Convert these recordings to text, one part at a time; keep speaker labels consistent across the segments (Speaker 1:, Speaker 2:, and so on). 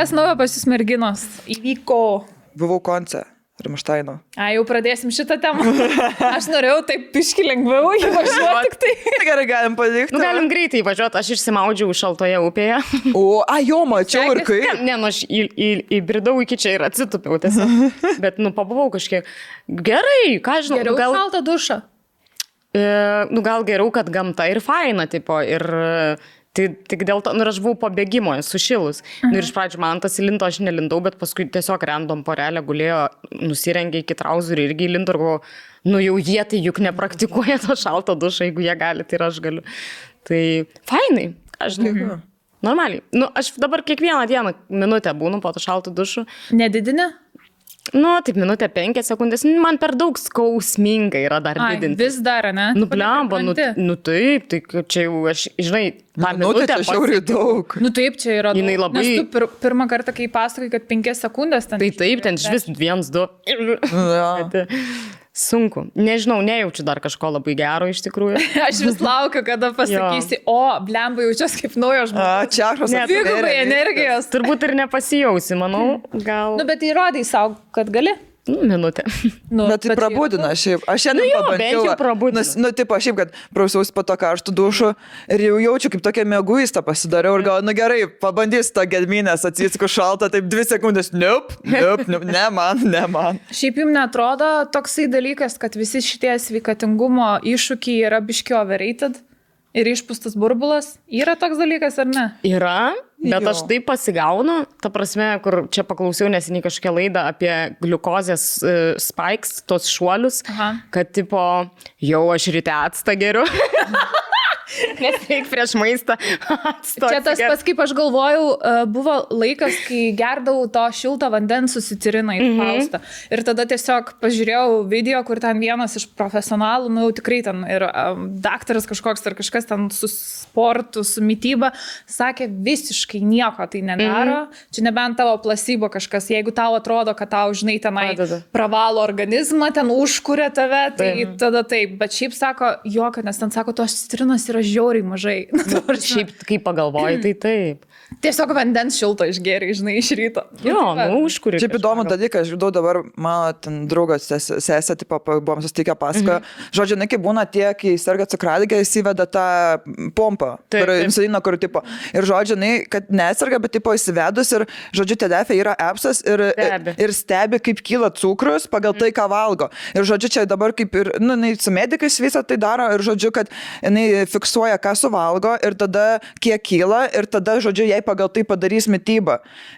Speaker 1: Kas naujo pas jūs merginos įvyko?
Speaker 2: Buvau konce. Ramštaino.
Speaker 1: Jau pradėsim šitą temą. Aš norėjau taip piški lengviau įvažiuoti tik tai.
Speaker 2: Gerai, galim padėkti.
Speaker 3: Galim greitai įvažiuoti, aš išsimaudžiau šaltoje upėje.
Speaker 2: Jo, mačiau ir kaip.
Speaker 3: Ne, aš įbridau iki čia ir atsitupiau tiesiog. Bet, pabuvau kažkiek. Gerai, ką žinau.
Speaker 1: Geriau šaltą dušą.
Speaker 3: Gal geriau, kad gamta ir faina, tipo, ir... Tai tik dėl to, ir aš buvau pabėgimo, sušilus. Ir iš pradžių man tas įlinto, aš nelindau, bet paskui tiesiog random porelė gulėjo, nusirengė iki trauzerių irgi įlinto ir galvoju, jau jie tai juk nepraktikuoja to šalto dušą, jeigu jie gali, tai ir aš galiu. Tai fainai, aš žinau. Normaliai. Aš dabar kiekvieną dieną minutę būnu po to šalto dušu.
Speaker 1: Nedidinė?
Speaker 3: Taip, minutę 5 sekundės. Man per daug skausminga yra dar didinti.
Speaker 1: Vis dar, ne?
Speaker 3: Blemba, taip, tai čia jau aš, žinai, tą minutę
Speaker 2: čia šiauriai daug.
Speaker 1: Taip, čia yra daug.
Speaker 3: Jinai labai...
Speaker 1: Nes tu pirmą kartą, kai pasakai, kad 5 sekundės ten...
Speaker 3: Tai taip, ten vis 1, 2. Sunku. Nežinau, nejaučiu dar kažko labai gero iš tikrųjų.
Speaker 1: Aš vis laukiu, kada pasakysi, blemba, jaučiuosi kaip naujo žmogus.
Speaker 2: Čiašos.
Speaker 1: Dvigubai energijos.
Speaker 3: Turbūt ir nepasijausi, manau, gal...
Speaker 1: Bet įrodai savo, kad gali.
Speaker 3: Minutę.
Speaker 2: Bet tai prabudina šiaip. Aš šiandien pabandžiau. Tipo, šiaip, kad prausiausi po to karštų dušų ir jau jaučiu, kaip tokia mėguista pasidariau ir gal, gerai, pabandysiu tą gedminės, atsisku šaltą, taip 2 sekundės. Nope, ne man.
Speaker 1: Šiaip jums netrodo toksai dalykas, kad visi šitie sveikatingumo iššūkiai yra biški overrated ir išpūstas burbulas? Yra toks dalykas ar ne?
Speaker 3: Yra. Bet aš taip pasigaunu, ta prasme, kur čia paklausiau neseniai kažkokią laidą apie gliukozės spikes, tos šuolius, kad tipo, jau aš ryte actą geriu. Nes reik prieš maistą acto.
Speaker 1: Čia tas pats, kaip aš galvojau, buvo laikas, kai gerdavau to šilto vandens susitiriną į paustą. Ir tada tiesiog pažiūrėjau video, kur ten vienas iš profesionalų, jau tikrai ten ir daktaras kažkoks ar kažkas ten su sportu, su mityba, sakė, visiškai nieko tai nedaro. Čia nebent tavo placebo kažkas, jeigu tau atrodo, kad tau, žinai, tenai pravalo organizmą, ten užkuria tave, tai tada taip. Bet šiaip sako, kad nes ten sako, tos citrinos yra žiauriai mažai.
Speaker 3: Šiaip, kai pagalvoji, tai taip.
Speaker 1: Tiesiog vandens šilto išgėrė, žinai, iš ryto.
Speaker 3: Užkuri.
Speaker 2: Šiaip įdomų dalyką, aš žinau dabar, mano ten draugas sesė, tipo, buvom susitikę pasakojo. Žodžiu, kai būna tie, kai serga cukraligė, įsiveda tą pompą, insulino, kur, tipo, ir žodžiu, kad neserga, bet, tipo, įsivedus ir, žodžiu, TDF yra appsas ir stebi, kaip kyla cukrus pagal tai, ką valgo. Ir, žodžiu, čia dabar kaip ir, su medikais visą tai daro ir, žodžiu, kad jinai fiksuoja, ką suvalgo ir tada kiek kyla ir tada, žodžiu, jai pagal tai padarys mitybą.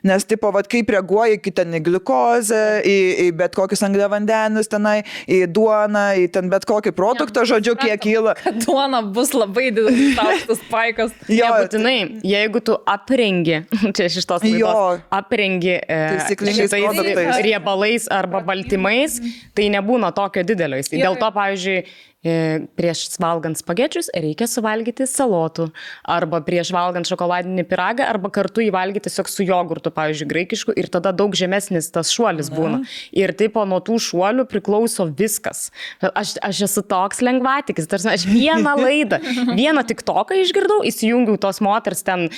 Speaker 2: Nes, tipo, kaip reaguoja iki ten į gliukozę, į bet kokius angliavandenius tenai, į duoną, į ten bet kokį produktą, žodžiu, kiek kyla.
Speaker 1: Kad duona bus labai didelis aukštas spaikas.
Speaker 3: Nebūtinai, jeigu tu aprengi, čia iš tos laidos, aprengi šitais riebalais arba baltymais, tai nebūna tokio didelio. Dėl to, pavyzdžiui, prieš valgant spagečius reikia suvalgyti salotų, arba prieš valgant šokoladinį pyragą, arba kartu įvalgyti tiesiog su jogurtu, pavyzdžiui, graikišku, ir tada daug žemesnis tas šuolis būna. Ir taip nuo tų šuolių priklauso viskas. Aš esu toks lengvatikis, tarsi aš vieną laidą, vieną TikToką išgirdau, įsijungiau tos moters ten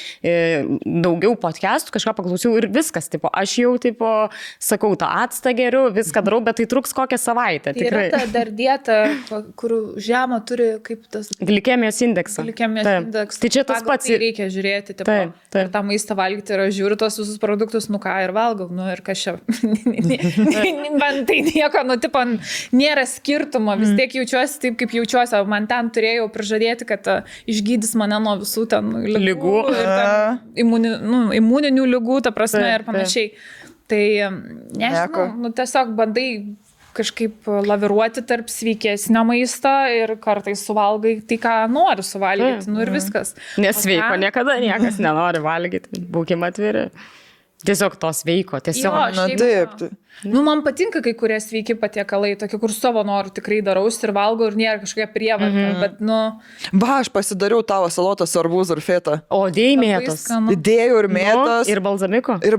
Speaker 3: daugiau podcastų, kažką paklausiau ir viskas, tipo, aš jau, tipo, sakau, tą actą geriu, viską darau, bet tai truks kokią savaitę.
Speaker 1: Tai tikrai. Yra ta dar dieta, kur žemą turi kaip tas...
Speaker 3: Glikemijos indeksą.
Speaker 1: Indeksą.
Speaker 3: Tai čia tas pats.
Speaker 1: Tai reikia žiūrėti, tipo, ir tą maistą valgyti, ir aš žiūriu tos visus produktus, ką ir valgau, ir kas čia. Man tai nieko, tipo, nėra skirtumo, vis tiek jaučiuosi taip, kaip jaučiuosi. Man ten turėjau prižadėti, kad išgydys mane nuo visų ten lygų. Imuninių lygų, ta prasme, ir panašiai. Tai, nežinau, tiesiog bandai kažkaip laviruoti tarp sveikesnio maisto ir kartais suvalgai tai, ką nori suvalgyti, ir viskas.
Speaker 3: Nesveiko niekada niekas nenori valgyti, būkime atviri. Tiesiog to sveiko, tiesiog.
Speaker 2: Taip.
Speaker 1: Nu, man patinka kai kurie sveiki patiekalai, tokie, kur savo norų tikrai darausi ir valgau ir nėra kažkokia prievarta, bet, nu...
Speaker 2: Va, aš pasidariau tavo salotą su arbūzu ir feta.
Speaker 3: O dėjai mėtos.
Speaker 2: Dėjau ir mėtos.
Speaker 3: Ir balzamiko.
Speaker 2: Ir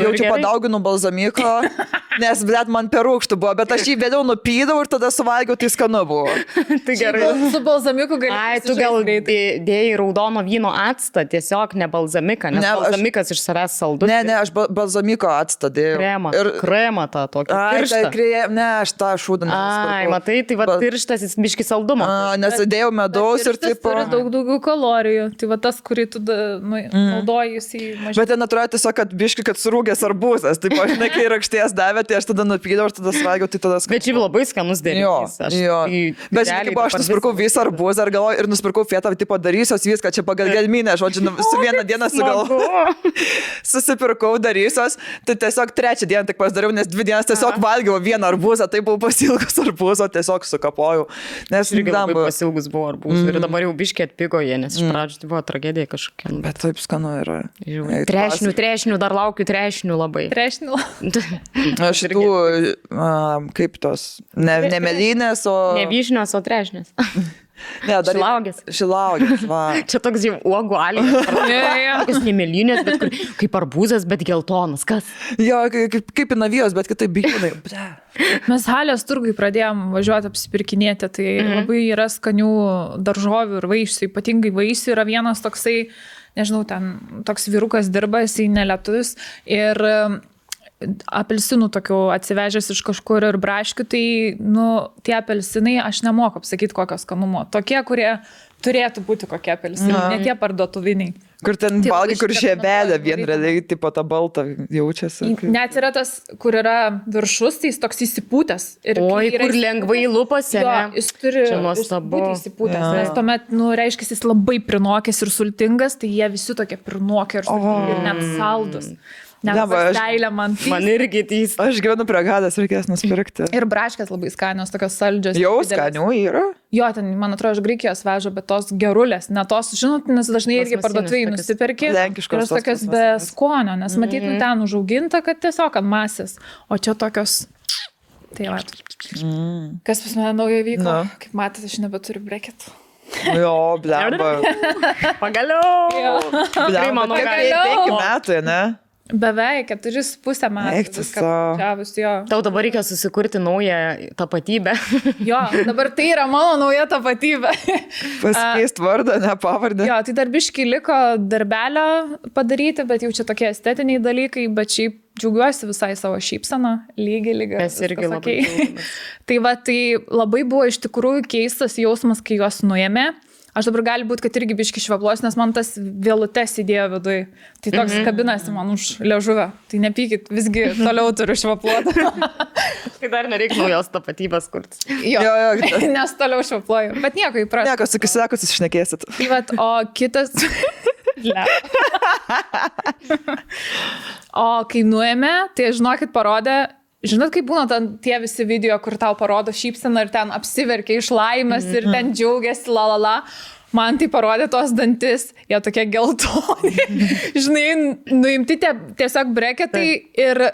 Speaker 2: jaučiu padauginu balzamiko, nes, blėt, man per rūgštų buvo, bet aš jį vėliau nupydau ir tada suvalgiau, tai skanu buvo.
Speaker 3: Tai gerai.
Speaker 1: Su balzamiku gali...
Speaker 3: Ai, tu gal dėjai raudono vyno actą, tiesiog ne balzamiką, nes balzamikas iš savęs saldus.
Speaker 2: Ne, aš balzamiko actą dėjau.
Speaker 3: Kremą tą tokį.
Speaker 2: Ne, aš tą šūdą nesupirkau.
Speaker 3: Ai, matai, tai va tirštas jis biški saldumo.
Speaker 2: Nes dėjau medaus ir taip.
Speaker 1: Turi daug daugiau kalorijų. Tai va tas, kurį tu naudoji, jis į mažiau.
Speaker 2: Bet ten atrodo tiesiog, kad biški, kad surūgęs arbūzas. Taip, aš ne, kai rakšties davė, tai aš tada nupydau ir tada svagiau, tai tada skanu.
Speaker 3: Bet šiaip labai skanus derinys.
Speaker 2: Jo. Bet šiaip aš nusipirkau visą arbūzą ir nusipirkau fetą, tipo darysios viską, čia pagal gelminę, žodžiu, su vieną dieną susipirkau darysios, tai tiesiog trečią dieną tik pasidariau, nes 2 dienas tiesiog valgiau vieną arbūzą, tai buvau pasilgus arbūzo, tiesiog sukapojau. Nes
Speaker 3: irgi labai pasilgus buvo arbūzų ir dabar jau biškiai atpigo jie, nes iš pradžių tai buvo tragedija kažkokia.
Speaker 2: Bet taip skanu yra.
Speaker 3: Trešnių, dar laukiu trešnių labai.
Speaker 1: Trešnių.
Speaker 2: Aš tų, kaip tos, ne melinės, o...
Speaker 3: Ne vyšnios, o trešnės.
Speaker 2: Ne, dar Šilaugės, va.
Speaker 3: Čia toks jau uogų alijas. Tokios nemelinės, bet kaip arbūzas, bet geltonas. Kas?
Speaker 2: Jo, kaip navijos, bet kitaip bijūnai.
Speaker 1: Mes Halės turgui pradėjom važiuoti apsipirkinėti, tai labai yra skanių daržovių ir vaisių, ypatingai vaisių yra vienas toksai, nežinau, ten toks vyrukas dirba, jisai nelietuvis ir apelsinų tokių atsivežęs iš kažkur ir braškių, tai, nu, tie apelsinai, aš nemoku apsakyti kokio skanumo. Tokie, kurie turėtų būti kokie apelsinai, ne tie parduotuviniai.
Speaker 2: Kur ten valgai, kur žiebelė vien realiai, tipo ta balta jaučiasi.
Speaker 1: Net yra tas, kur yra viršus, tai jis toks įsipūtęs.
Speaker 3: Oi, kur lengvai lupasi, ne?
Speaker 1: Jis turi būti įsipūtęs, nes tuomet, nu, reiškia, jis labai prinokęs ir sultingas, tai jie visi tokie prinokę ir sultingi ir net saldus.
Speaker 3: Man irgi tys.
Speaker 2: Aš gyvenu prie Gadas, reikės nusipirkti.
Speaker 1: Ir braškės labai skanios, tokios saldžios.
Speaker 2: Jau skanių yra?
Speaker 1: Jo, ten, man atrodo, iš Graikijos veža, bet tos gerulės, ne tos, žinot, nes dažnai irgi parduotuvėje nusipirki.
Speaker 2: Lenkiškos.
Speaker 1: Ir tokios be skonio, nes matyt, ten užauginta, kad tiesiog ant masės. O čia tokios... Tai va. Kas pas mane naujo vyko? Kaip matėte, aš nebeturiu breketų.
Speaker 2: Jo, blemba.
Speaker 3: Pagaliau.
Speaker 2: Blemba, nu, 5 metų, ne?
Speaker 1: Beveik 4,5 metų.
Speaker 3: Tau dabar reikia susikurti naują tapatybę.
Speaker 1: Jo, dabar tai yra mano nauja tapatybė.
Speaker 2: Pasikeist vardą, ne pavardę.
Speaker 1: Jo, tai dar biškai liko darbelio padaryti, bet jau čia tokie estetiniai dalykai, bet šiaip džiaugiuosi visai savo šypseną, lygiai.
Speaker 3: Mes irgi labai.
Speaker 1: Tai va, tai labai buvo iš tikrųjų keistas jausmas, kai juos nuėmė. Aš dabar gali būti, kad irgi biški švablos, nes man tas vėlutes įdėjo vidui. Tai toks kabinasi man už liežuvę. Tai nepykit, visgi toliau turiu švapluoti.
Speaker 3: Tai dar nereikia naujos tapatybės kurti.
Speaker 1: Jo, nes toliau švapluoju. Bet nieko įprasta.
Speaker 2: Nieko, sakus išnekėsit.
Speaker 1: Tai vat, o kitas... O kai nuėmė, tai žinokit parodė... Žinot, kaip būna tie visi video, kur tau parodo šypseną ir ten apsiverkia iš laimės ir ten džiaugiasi, lalala. Man tai parodė tos dantis, jie tokie geltoni. Žinai, nuimti tiesiog breketai ir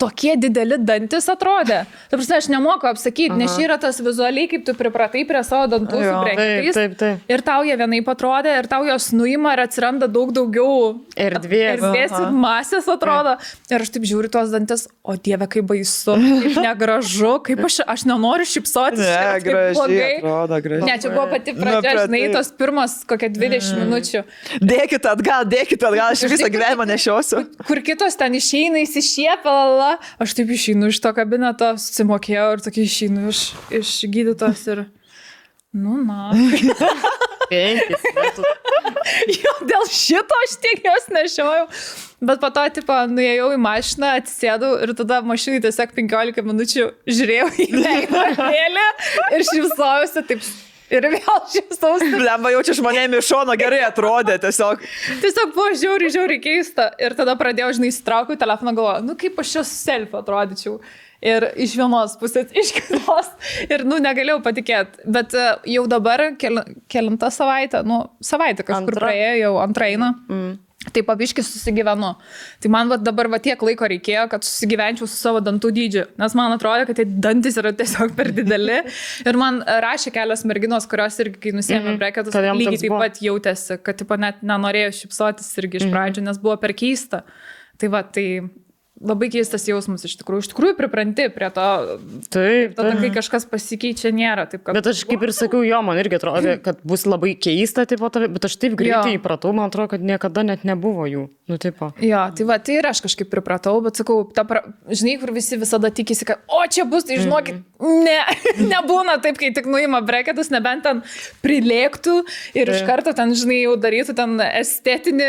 Speaker 1: tokie dideli dantis atrodė. Ta prasme, aš nemoku apsakyti, nes čia yra tas vizualiai, kaip tu pripratai prie savo dantų su breketais.
Speaker 3: Taip.
Speaker 1: Ir tau jie vienaip atrodė, ir tau jos nuima ir atsiranda daug daugiau
Speaker 3: erdvės
Speaker 1: ir masės atrodo. Ir aš taip žiūriu tuos dantis, o dieve, kaip baisu, kaip negražu, kaip aš nenoriu šypsotis.
Speaker 2: Ne, gražiai atrodo, gražiai.
Speaker 1: Ne, čia buvo pati pradžia, žinai, tos pirmas kokie 20 minučių.
Speaker 2: Dėkit atgal, aš visą gyvenimą nešiosiu.
Speaker 1: Kur kitos ten išeina, įsišiepia, aš taip išeinu iš to kabineto, susimokėjau ir tokia išeinu iš gydytos ir, nu, na.
Speaker 3: 5 metų.
Speaker 1: Jo, dėl šito aš tiek jos nešiojau. Bet po to, tipo, nuėjau į mašiną, atsisėdau ir tada mašinai tiesiog 15 minučių žiūrėjau į veidrodėlį ir šypsojausi taip. Ir vėl šypsausi.
Speaker 2: Blemba, jaučiu žmonėm iš šono gerai atrodė tiesiog.
Speaker 1: Tiesiog buvo žiauriai keista. Ir tada pradėjau, žinai, įsitraukiau telefoną, galvoju, nu kaip aš čia su selfie atrodyčiau. Ir iš vienos pusės, iš kitos. Ir, nu, negalėjau patikėti. Bet jau dabar, kelintą savaitę, nu, savaitę kažkur praėjo, jau antrą eina. Tai pabiškai susigyvenu. Tai man dabar tiek laiko reikėjo, kad susigyvenčiau su savo dantų dydžiu, nes man atrodo, kad tai dantis yra tiesiog per dideli. Ir man rašė kelios merginos, kurios irgi, kai nusėmė breketus, lygiai taip pat jautėsi, kad tipo, net nenorėjo šypsotis irgi iš pradžių, nes buvo per keista. Tai va, tai labai keistas jausmas iš tikrųjų pripranti prie to, tada kai kažkas pasikeičia, nėra taip, kad...
Speaker 3: Bet aš kaip ir sakiau, jo, man irgi atrodo, kad bus labai keista, tipo, bet aš taip greitai įpratau, man atrodo, kad niekada net nebuvo jų, nu, tipo.
Speaker 1: Jo, tai va, tai ir aš kažkaip pripratau, bet sakau, žinai, kur visi visada tikisi, kad, o čia bus, tai žinokit, nebūna taip, kai tik nuima breketus, nebent ten prilėktų ir iš karto ten, žinai, jau darytų ten estetinį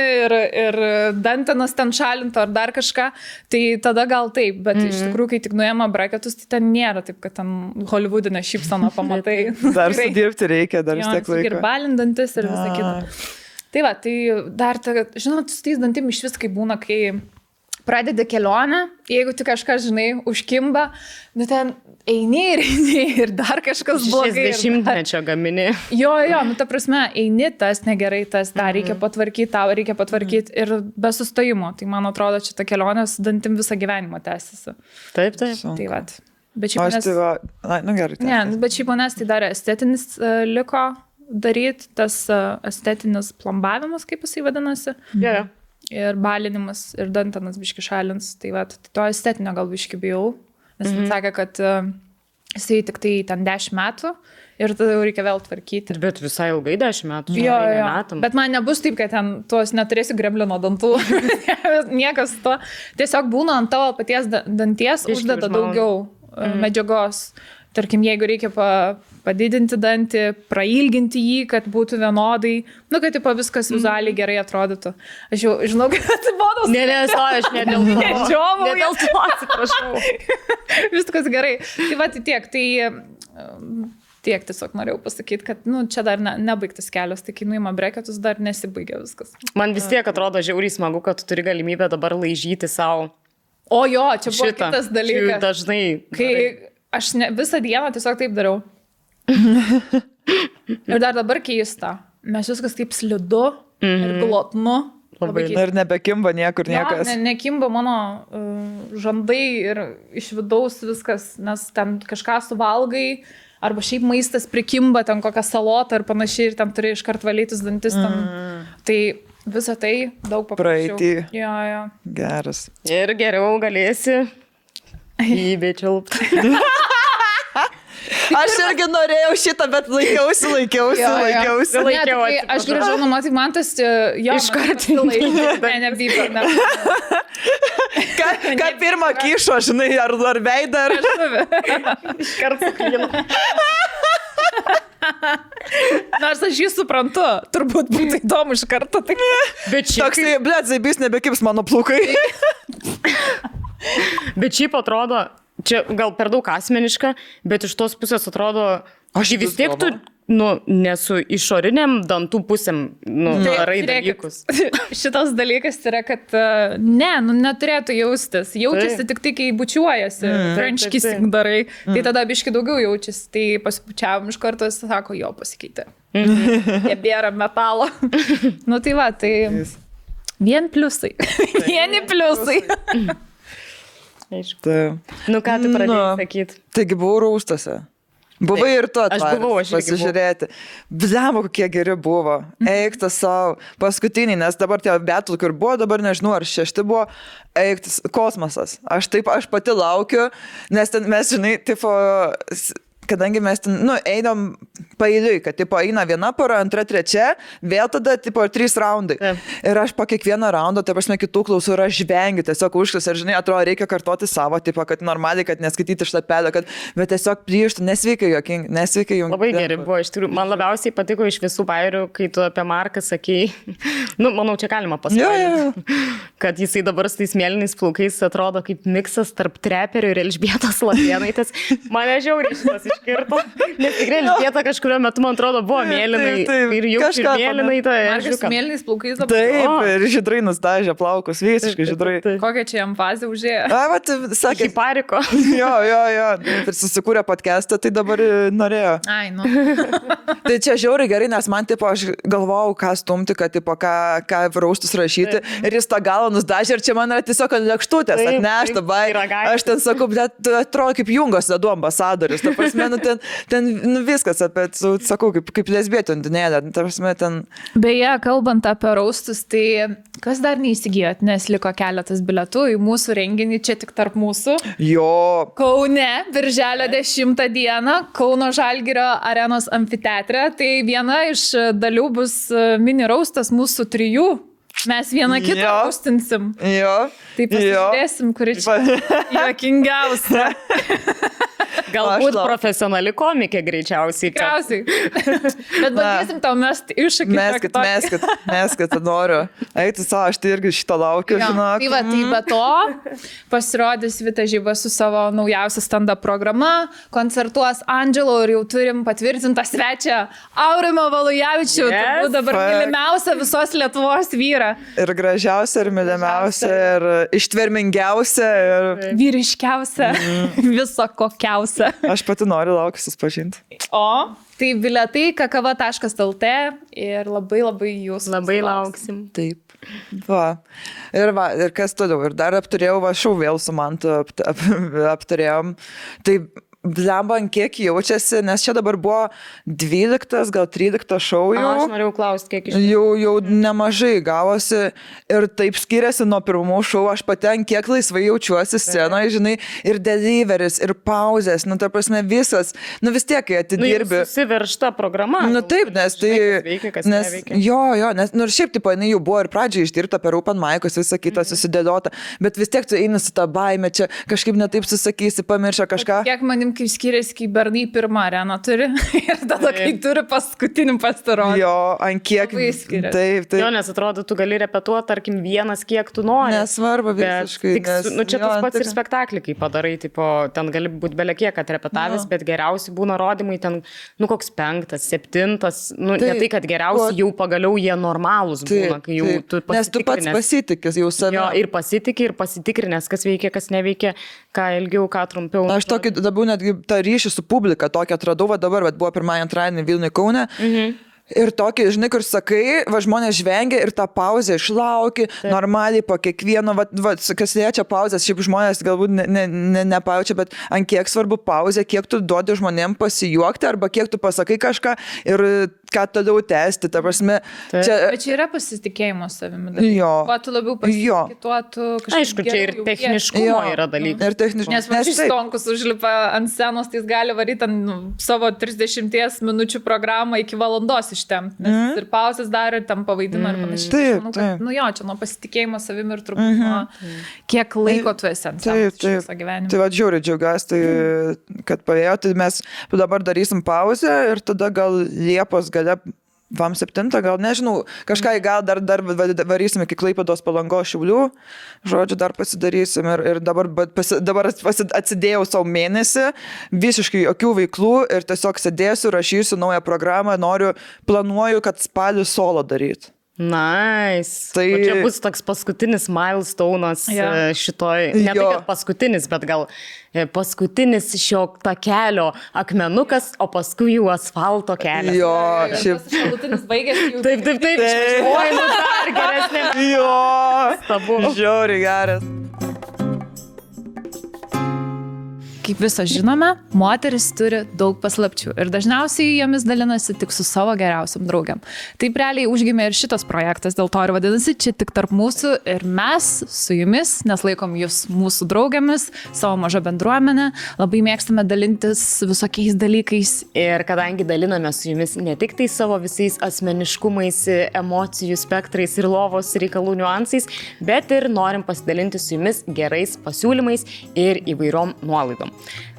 Speaker 1: ir dantenas ten šalintų ar dar kažką, tai tada gal taip, bet iš tikrųjų, kai tik nuėma breketus, tai ten nėra taip, kad ten hollywoodinę šypsaną pamatai.
Speaker 2: Dar sudirbti reikia, dar vis tiek laiko.
Speaker 1: Ir balindantis ir visą kitą. Tai va, tai dar, žinot, su tais dantim iš vis kaip būna, kai pradedi kelionę, jeigu tik kažkas, žinai, užkimba, nu ten eini ir dar kažkas blogai.
Speaker 3: 60-mečio gamini.
Speaker 1: Jo, nu ta prasme, eini, tas negerai, tas tą reikia patvarkyti, tau reikia patvarkyti ir be sustojimo. Tai man atrodo, čia ta kelionė su dantim visą gyvenimą tęsiasi.
Speaker 3: Taip.
Speaker 1: Tai va. Bet šiaip manęs...
Speaker 2: Nu gerai.
Speaker 1: Ne, bet šiaip manęs tai dar estetinis liko daryti, tas estetinis plombavimas, kaip jisai vadinasi.
Speaker 3: Yeah.
Speaker 1: Ir balinimas, ir dantenas biški šalins. Tai va, to estetinio gal biški bijau. Nes man sakė, kad jisai tik tai ten 10 metų ir tada jau reikia vėl tvarkyti.
Speaker 3: Bet visai ilgai 10 metų.
Speaker 1: Jo. Bet man nebus taip, kad ten tuos neturėsi greblino dantų. Niekas to. Tiesiog būna ant tavo paties danties uždeda daugiau medžiagos. Tarkim, jeigu reikia padidinti dantį, prailginti jį, kad būtų vienodai, nu, kad tipo, viskas vizualiai gerai atrodytų. Aš jau žinau, kad bodos...
Speaker 3: Ne, aš ne dėl to. Ne dėl to, atsiprašau.
Speaker 1: Viskas gerai. Tai va, tiek tiesiog norėjau pasakyti, kad nu, čia dar nebaigtas kelias, tai kai nuima breketus, dar nesibaigia viskas.
Speaker 3: Man vis tiek atrodo žiauriai smagu, kad tu turi galimybę dabar laižyti savo.
Speaker 1: O jo, čia buvo kitas dalykas.
Speaker 3: Dažnai.
Speaker 1: Kai aš visą dieną tiesiog taip dariau. Ir dar dabar keista. Mes viskas taip slidu ir glotnu.
Speaker 2: Ir nebekimba niekur niekas.
Speaker 1: Nekimba mano žandai ir iš vidaus viskas, nes ten kažką suvalgai, arba šiaip maistas prikimba, ten kokią salotą ir panašiai, ir ten turi iškart valytis dantis. Tai visą tai daug paprasčiau.
Speaker 2: Praeitį.
Speaker 1: Jo.
Speaker 2: Geras.
Speaker 3: Ir geriau galėsi įbečiulpti.
Speaker 2: Aš irgi norėjau šitą, bet laikiausi.
Speaker 1: Aš grįžau namo, tai man tas
Speaker 3: iškart
Speaker 1: nevyko.
Speaker 2: Ką pirmą kyšo, žinai, ar veidą, ar...
Speaker 3: Iškart suklino.
Speaker 1: Nors aš jį suprantu, turbūt būtų įdomu iš karto.
Speaker 2: Bet šiaip... Toksai, blėt, zaibys nebekips mano plaukai.
Speaker 3: Bet šiaip atrodo, čia gal per daug asmeniška, bet iš tos pusės atrodo, aš vis tiek tu, nesu išoriniam dantų pusėm, darai dalykus.
Speaker 1: Šitas dalykas yra, kad neturėtų jaustis. Jaučiasi tik tai, kai bučiuojasi, French kissing darai, tai tada biški daugiau jaučiasi. Tai pasibučiavom iš karto, jis sako, jo, pasikeitė. Nebėra metalo. Tai va, tai vien pliusai. Vieni pliusai.
Speaker 3: Nu ką tu pradėjai sakyti?
Speaker 2: Taigi buvau Rūstuose. Buvai ir tu atvaręs pasižiūrėti. Blemo, kokie geri buvo. Eiktas savo. Paskutiniai, nes dabar tie betul, kur buvo, dabar nežinau, ar 6 buvo, eiktas kosmosas. Aš pati laukiu, nes ten mes, žinai, tipo... Kadangi mes ten, einam paeiliui, kad, tipo, eina viena pora, antra, trečia, vėl tada, tipo, 3 raundai. Ir aš po kiekvieno raundo, tai prasme, kitų klausų ir aš žvengiu, tiesiog užklis, ir, žinai, atrodo, reikia kartoti savo, tipo, kad normaliai, kad neskaityti šlapelio, bet tiesiog plyštų, nesveikai jokingi, nesveikai jungi.
Speaker 3: Labai gerai buvo, iš tikrųjų, man labiausiai patiko iš visų bairių, kai tu apie Marką sakei, manau, čia galima pasakyti, kad jisai dabar su tais mėlynais plaukais atrodo kaip miksas tarp treperių ir Elžbietos Latėnaitės. Mane žiauriai šitas iškirto. Nes tikrai Elžbieta kažkurio metu, man atrodo, buvo mėlynai. Ir jau kažką mėlynai to
Speaker 1: Markas mėlynais plaukais dabar.
Speaker 2: Taip, ir žydrai nustažė plaukus, visiškai žydrai.
Speaker 1: Kokią čia jam fazę užėjo?
Speaker 2: Sakė,
Speaker 3: pariko.
Speaker 2: Jo. Ir susikūrė podcastą, tai dabar norėjo.
Speaker 1: Ai,
Speaker 2: Tai čia žiauriai gerai, nes man, tipo, aš galvojau, ką stumti, kad, tipo, ką raustus rašyti. Ir jis tą galą nusdažė ir čia man yra tiesiog lėkštutės atnešta. Aš ten sakau, bet atrodo kaip Jungos ledų ambasadorius. Ta prasme, ten viskas apie, sakau, kaip lesbietė undinėlė. Ta prasme, ten...
Speaker 1: Beje, kalbant apie raustus, tai kas dar neįsigijot, nes liko keletas bilietų į mūsų renginį, čia tik tarp mūsų.
Speaker 2: Jo.
Speaker 1: Kaune, birželio 10 dieną, Kauno Žalgirio arenos amfiteatre. Tai viena iš dalių bus mini raustas mūsų 3. Mes vieną kitą raustinsim.
Speaker 2: Jo.
Speaker 1: Tai pasižiūrėsim, kuri čia juokingiausia.
Speaker 3: Galbūt profesionali komikė greičiausiai.
Speaker 1: Tikriausiai. Bet bandysim tau mesti iššūkį.
Speaker 2: Meskit, noriu. Eiti savo, aš tai irgi šito laukiu, žinok.
Speaker 1: Tai va, tai be to pasirodys Vita Žiba su savo naujausia stand-up programa, koncertuos Angelo ir jau turim patvirtintą svečią Aurimą Valujavičių. Turbūt dabar mylimiausia visos Lietuvos vyrą.
Speaker 2: Ir gražiausia, ir mylimiausia, ir ištvermingiausia, ir
Speaker 1: vyriškiausia, viso kokiausia.
Speaker 2: Aš pati noriu laukiu susipažinti.
Speaker 1: Tai bilietai kakava.lt ir labai jūs.
Speaker 3: Labai lauksim.
Speaker 2: Taip. Ir kas toliau. Ir dar apturėjau, šau vėl su Mantu apturėjom. Tai blemba, kiek jaučiasi, nes čia dabar buvo 12, gal 13 šou jau.
Speaker 3: Aš norėjau klausti, kiek iš
Speaker 2: jau nemažai gavosi ir taip skiriasi nuo pirmų šou. Aš paten kiek laisvai jaučiuosi scenoje, žinai, ir deliveris, ir pauzės, ta prasme visas, vis tiek, kai atidirbi.
Speaker 3: Susiveršta programa.
Speaker 2: Taip, nes tai...
Speaker 3: Kas neveikia.
Speaker 2: Jo, nes, ir šiaip, tipo, jinai jau buvo ir pradžiai išdirbta per open mic'us, visą kitą susidėliota, bet vis tiek tu eini su tą baimę, čia kažkaip netaip susakysi, pamiršę kažką.
Speaker 1: Kiek manim kaip skiriasi, kai bernai pirmą areną turi ir tada, kai turi paskutinį pasirodymą.
Speaker 2: Jo, ant kiek. Taip.
Speaker 3: Jo, nes atrodo, tu gali repetuoti, tarkim, vienas, kiek tu nori.
Speaker 2: Nesvarbu visiškai.
Speaker 3: Čia tas pats ir spektaklį, kai padarai, tipo, ten gali būti belekiek atrepetavęs, bet geriausi būna rodymai ten, koks 5, 7, ne tai, kad geriausi jau pagaliau jie normalūs būna, kai jau tu pasitikrinęs.
Speaker 2: Nes tu pats pasitikęs jau savimi.
Speaker 3: Jo, ir pasitikrinęs, kas veikia, kas neveikia, ką ilgiau, ką trumpiau.
Speaker 2: Aš tokį dabar netgi tą ryšį su publika tokį atradau, dabar, bet buvo pirmąjį antradienį Vilniuje Kaune. Ir tokį, žinai, kur sakai, žmonės žvengia ir tą pauzę išlauki, normaliai po kiekvieno, kas liečia pauzės, šiaip žmonės galbūt nepajaučia, bet ant kiek svarbu pauzė, kiek tu duodi žmonėm pasijuokti, arba kiek tu pasakai kažką ir ką toliau tęsti, ta prasme.
Speaker 1: Bet čia yra pasitikėjimo savimi.
Speaker 2: Jo.
Speaker 1: Kuo tu labiau pasitikė, tuo tu kažkaip.
Speaker 3: Aišku, čia ir techniškumo yra dalykas.
Speaker 2: Ir techniškumo.
Speaker 1: Nes Stonkus užlipa ant scenos, tai jis gali varyti savo 30 minučių programą iki valandos ištemti. Nes ir pauzės dar ir tam pavaidina ir panašiai.
Speaker 2: Taip,
Speaker 1: taip. Čia nuo pasitikėjimo savimi ir turbūt nuo kiek laiko tu esi ant scenos visą gyvenimą.
Speaker 2: Tai žiūri, džiaugiuosi, kad pavėjo, tai mes dabar darysim pauzę ir tada gal Liepos gale vam 7, gal nežinau, kažką gal dar varysim iki Klaipėdos, Palangos, Šiaulių, žodžiu, dar pasidarysim ir dabar atsidėjau savo mėnesį, visiškai jokių veiklų ir tiesiog sėdėsiu, rašysiu naują programą, planuoju, kad spalį solo daryti.
Speaker 3: Nice. Tai čia bus toks paskutinis milestone'as šitoj, ne tai, kad paskutinis, bet gal paskutinis šio takelio akmenukas, o paskui jau asfalto kelias.
Speaker 2: Jo,
Speaker 1: šiaip. Šalutinis baigėsi jau.
Speaker 3: Taip. Oi, dar geresnė.
Speaker 2: Jo, žiauriai geras.
Speaker 1: Kaip visą žinome, moteris turi daug paslapčių ir dažniausiai jomis dalinasi tik su savo geriausiam draugiam. Taip realiai užgimė ir šitas projektas, dėl to ir vadinasi čia tik tarp mūsų ir mes su jumis, nes laikom jūs mūsų draugiamis, savo mažą bendruomenę, labai mėgstame dalintis visokiais dalykais.
Speaker 3: Ir kadangi daliname su jumis ne tik tai savo visais asmeniškumais, emocijų spektrais ir lovos reikalų niuansais, bet ir norim pasidalinti su jumis gerais pasiūlymais ir įvairiom nuolaidom.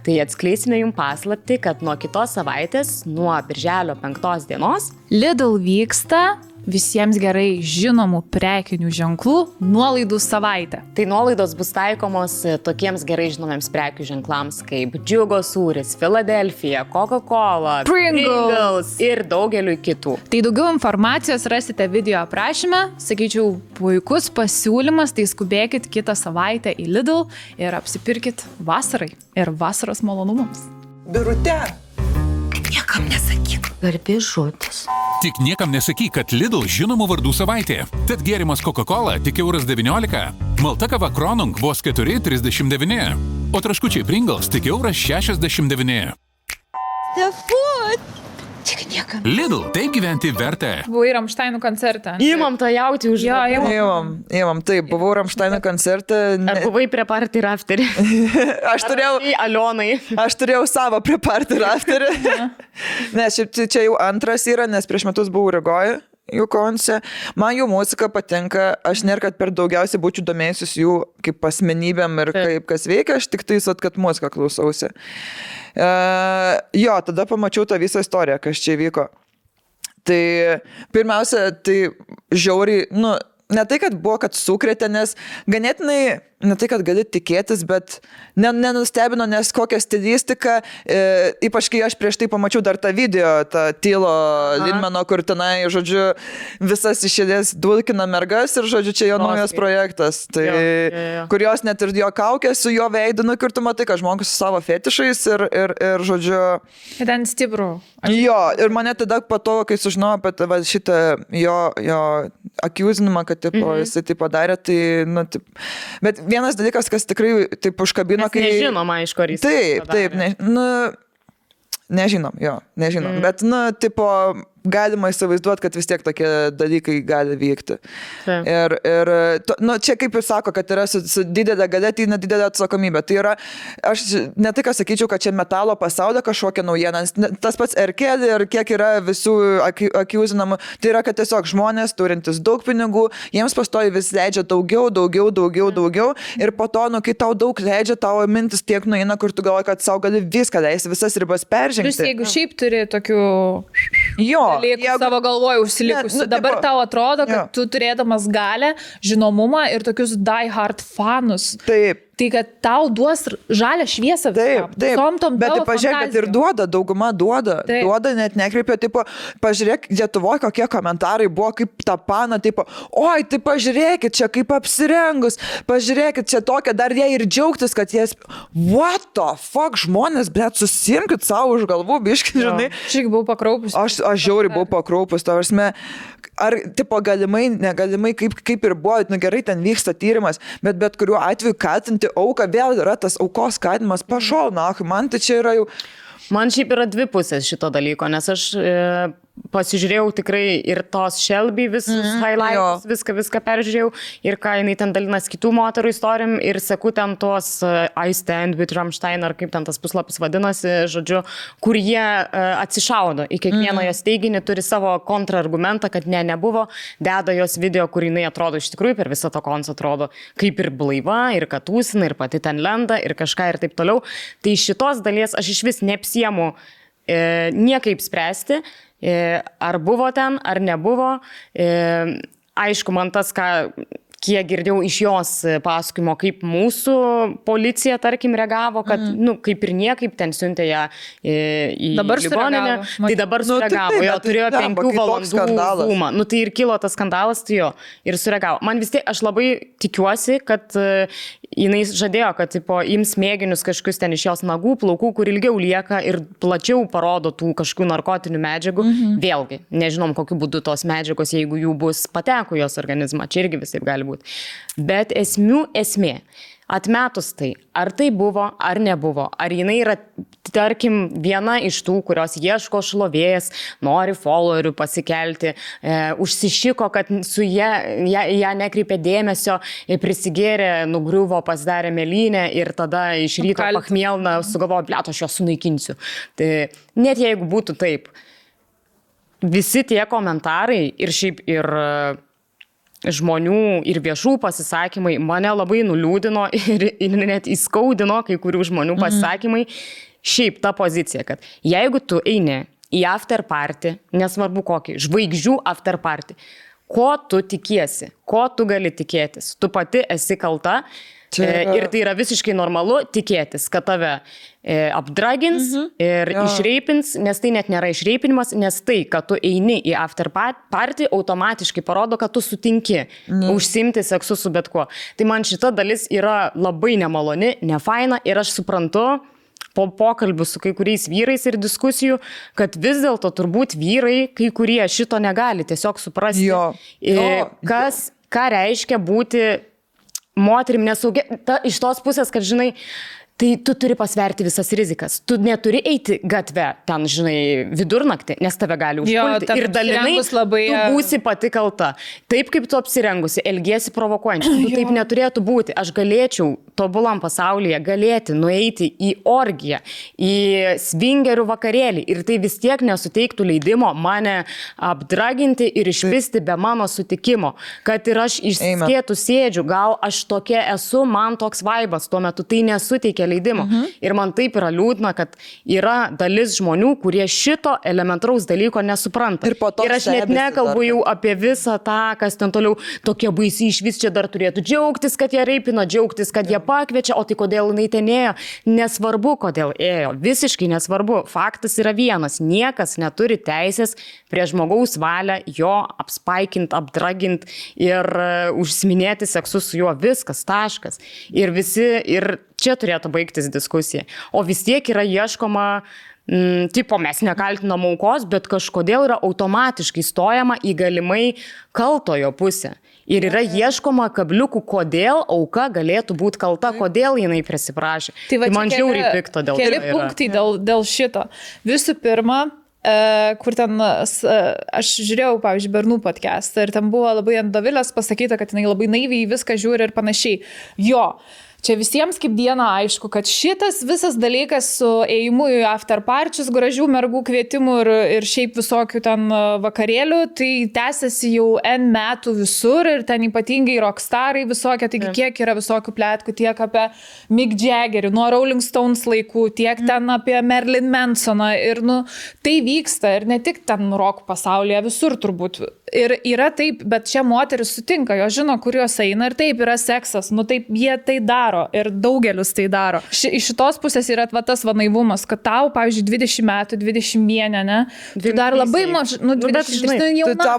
Speaker 3: Tai atskleisime jums paslaptį, kad nuo kitos savaitės, nuo birželio 5 dienos,
Speaker 1: Lidl vyksta visiems gerai žinomų prekinių ženklų nuolaidų savaitę.
Speaker 3: Tai nuolaidos bus taikomos tokiems gerai žinomiems prekių ženklams kaip Džiugo sūris, Philadelphia, Coca-Cola, Pringles ir daugeliu kitų.
Speaker 1: Tai daugiau informacijos rasite video aprašyme. Sakyčiau, puikus pasiūlymas, tai skubėkit kitą savaitę į Lidl ir apsipirkit vasarai ir vasaros malonumams.
Speaker 2: Birute.
Speaker 4: Niekam nesakyk. Garbės žodis.
Speaker 5: Tik niekam nesakyk, kad Lidl žinomų vardų savaitė. Tad gėrimas Coca-Cola tik €19. Malta kava Kronung vos 4,39. O traškučiai Pringles tik €69.
Speaker 4: Tik niekam.
Speaker 5: Lidl, taip gyventi verta.
Speaker 1: Buvai Rammsteinų koncerte.
Speaker 3: Įmam tą jauti už...
Speaker 1: Jo,
Speaker 2: Įmam, taip, buvau Rammsteino koncerte.
Speaker 3: Ar buvai prie party rafterį?
Speaker 2: Aš turėjau savo prie party rafterį. Nes čia jau antras yra, nes prieš metus buvau Rygoje. Jų konce. Man jų muzika patinka, aš nėra, kad per daugiausiai būčiau domėjusis jų kaip asmenybėm ir kaip kas veikia, aš tik tais, kad muziką klausausi. Jo, tada pamačiau tą visą istoriją, kas čia vyko. Tai pirmiausia, tai žiauriai, ne tai, kad buvo, kad sukrėtė, nes ganėtinai, ne tai, kad gali tikėtis, bet nenustebino, nes kokią stilistiką, ypač kai aš prieš tai pamačiau dar tą video, tą Tylo Lindmano, kur tenai, žodžiu, visas išėdės dulkina mergas ir, žodžiu, čia jo naujas projektas. Tai, kur jos net ir jo kaukė su jo veidu, kur tu matai, kad žmogus su savo fetišais ir žodžiu...
Speaker 1: Ten stiprų.
Speaker 2: Jo, ir mane tada po to, kai sužinojau apie šitą jo akiuzinimą, kad jisai tai padarė, tai, bet vienas dalykas, kas tikrai taip užkabino, kai...
Speaker 3: Nežinoma, iš kur jis.
Speaker 2: Taip, nežinom, bet, tipo, galima įsivaizduoti, kad vis tiek tokie dalykai gali vykti. Ir čia kaip ir sako, kad yra su didelė galia, tai nedidelė atsakomybė. Tai yra, aš ne tai, ką sakyčiau, kad čia metalo pasaulio kažkokia naujiena, tas pats R-Kelly ir kiek yra visų akiuzinamų, tai yra, kad tiesiog žmonės turintis daug pinigų, jiems pastoji vis leidžia daugiau ir po to, kai tau daug leidžia, tavo mintis tiek nueina, kur tu galvoji, kad savo gali viską leisti, visas ribas peržengti.
Speaker 1: Vis jeigu šiaip turi tokių...
Speaker 2: Jo.
Speaker 1: Savo galvoje užsilikusi. Dabar tau atrodo, kad tu turėdamas galę, žinomumą ir tokius die hard fanus.
Speaker 2: Taip.
Speaker 1: Tai kad tau duos žalią šviesą.
Speaker 2: Taip. Bet pažiūrėk, kad ir dauguma duoda, net nekreipia, tipo, pažiūrėk, Lietuvoje kokie komentarai buvo, kaip tą paną, tipo, oi, tai pažiūrėkit, čia kaip apsirengus, pažiūrėkit, čia tokia, dar jie ir džiaugtis, kad jie, what the fuck, žmonės, bet susimkit savo už galvų, biškai, žinai.
Speaker 1: Aš irgi buvau pakraupus.
Speaker 2: Aš žiauriai buvau pakraupus, to prasme, ar, tipo, galimai, negalimai, kaip ir buvo, gerai, ten vyksta tyrimas, bet kuriuo atveju kaltinti auką, vėl yra tas aukos skatinimas, pašol, man tai čia yra jau...
Speaker 3: Man šiaip yra dvi pusės šito dalyko, nes aš pasižiūrėjau tikrai ir tos Shelby visus highlights, viską peržiūrėjau ir ką jinai ten dalinas kitų moterų istorijom ir seku ten tos I Stand with Rammstein ar kaip ten tas puslapis vadinasi, žodžiu, kur jie atsišaudo į kiekvieną jos teiginį, turi savo kontrargumentą, kad nebuvo, deda jos video, kur jinai atrodo iš tikrųjų per visą to koncą atrodo kaip ir blaiva, ir katūsina, ir pati ten lenda, ir kažką ir taip toliau. Tai šitos dalies aš iš vis neapsiemu niekaip spręsti, ar buvo ten, ar nebuvo. Aišku, man tas, kiek girdėjau iš jos pasakojimo, kaip mūsų policija, tarkim, reagavo, kad, kaip ir niekaip ten siuntė ją į ligoninę. Tai dabar sureagavo, jo turėjo 5 valandų zoomą. Tai ir kilo tas skandalas, tai jo, ir sureagavo. Man vis tiek, aš labai tikiuosi, kad jinai žadėjo, kad ims mėginius kažkokius ten iš jos nagų, plaukų, kur ilgiau lieka ir plačiau parodo tų kažkokių narkotinių medžiagų. Vėlgi, nežinom, kokiu būdu tos medžiagos, jeigu jų bus pateko jos organizmą, čia irgi visaip gali būti. Bet esmė, atmetus tai, ar tai buvo, ar nebuvo, ar jinai yra, tarkim, viena iš tų, kurios ieško šlovės, nori followerių pasikelti, užsišiko, kad su ją nekreipė dėmesio, prisigėrė, nugriuvo, pasidarė mėlynę ir tada iš ryto pachmielna sugalvojo, blet, aš jos sunaikinsiu. Tai net jeigu būtų taip, visi tie komentarai ir šiaip ir žmonių ir viešų pasisakymai mane labai nuliūdino ir net įskaudino kai kurių žmonių pasisakymai. Šiaip ta pozicija, kad jeigu tu eini į after party, nesvarbu kokį, žvaigždžių after party, ko tu tikiesi, ko tu gali tikėtis. Tu pati esi kalta ir tai yra visiškai normalu tikėtis, kad tave apdragins ir išreipins, nes tai net nėra išreipinimas, nes tai, kad tu eini į after party, automatiškai parodo, kad tu sutinki užsimti seksu su bet kuo. Tai man šita dalis yra labai nemaloni, nefaina ir aš suprantu, po pokalbių su kai kuriais vyrais ir diskusijų, kad vis dėlto turbūt vyrai, kai kurie šito negali tiesiog suprasti, ką reiškia būti moterim nesaugia. Iš tos pusės, kad žinai, tai tu turi pasverti visas rizikas. Tu neturi eiti gatve ten, žinai, vidurnaktį, nes tave gali užpulti. Ir dalinai tu būsi pati kalta. Taip, kaip tu apsirengusi, elgiesi provokuojančiai. Tu taip neturėtų būti. Aš galėčiau tobulam pasaulyje nueiti į orgiją, į svingerių vakarėlį. Ir tai vis tiek nesuteiktų leidimo mane apdraginti ir išpisti be mano sutikimo. Kad ir aš išskėtų sėdžiu, gal aš tokia esu, man toks vaibas, tuo metu tai nesuteikia leidimo. Ir man taip yra liūdna, kad yra dalis žmonių, kurie šito elementaraus dalyko nesupranta. Ir aš net nekalbu jau apie visą tą, kas ten toliau tokie baisiai išvis čia dar turėtų džiaugtis, kad jie reipino, džiaugtis, kad jie pakviečia, o tai kodėl jinai ten ėjo. Nesvarbu, kodėl ėjo. Visiškai nesvarbu. Faktas yra vienas. Niekas neturi teisės prie žmogaus valią jo apspaikint, apdragint ir užsiminėti seksu su juo. Viskas, taškas. Ir čia turėtų baigtis diskusija. O vis tiek yra ieškoma, mes nekaltinam aukos, bet kažkodėl yra automatiškai stojama į galimai kaltojo pusę. Ir yra ieškoma kabliukų, kodėl auka galėtų būti kalta, kodėl jinai prisiprašė. Tai man žiauriai pikta dėl to.
Speaker 1: Keli punktai dėl šito. Visų pirma, kur ten, aš žiūrėjau, pavyzdžiui, Bernų podcastą ir ten buvo labai ant Dovilės pasakyta, kad jinai labai naiviai viską žiūri ir panašiai. Čia visiems kaip diena aišku, kad šitas visas dalykas su ėjimu į after parčius, gražių mergų kvietimų ir šiaip visokių ten vakarėlių, tai tęsiasi jau N metų visur ir ten ypatingai rockstarai visokie, taigi kiek yra visokių pletkų, tiek apie Mick Jaggerį, nuo Rolling Stones laikų, tiek ten apie Marilyn Mansoną ir tai vyksta ir ne tik ten rock pasaulyje, visur turbūt. Ir yra taip, bet čia moteris sutinka, jo žino, kur jos eina ir taip yra seksas, taip jie tai daro ir daugelis tai daro. Iš šitos pusės yra tas naivumas, kad tau, pavyzdžiui, 20 metų, 21, ne? Tu dar labai mažai, 20 jauna.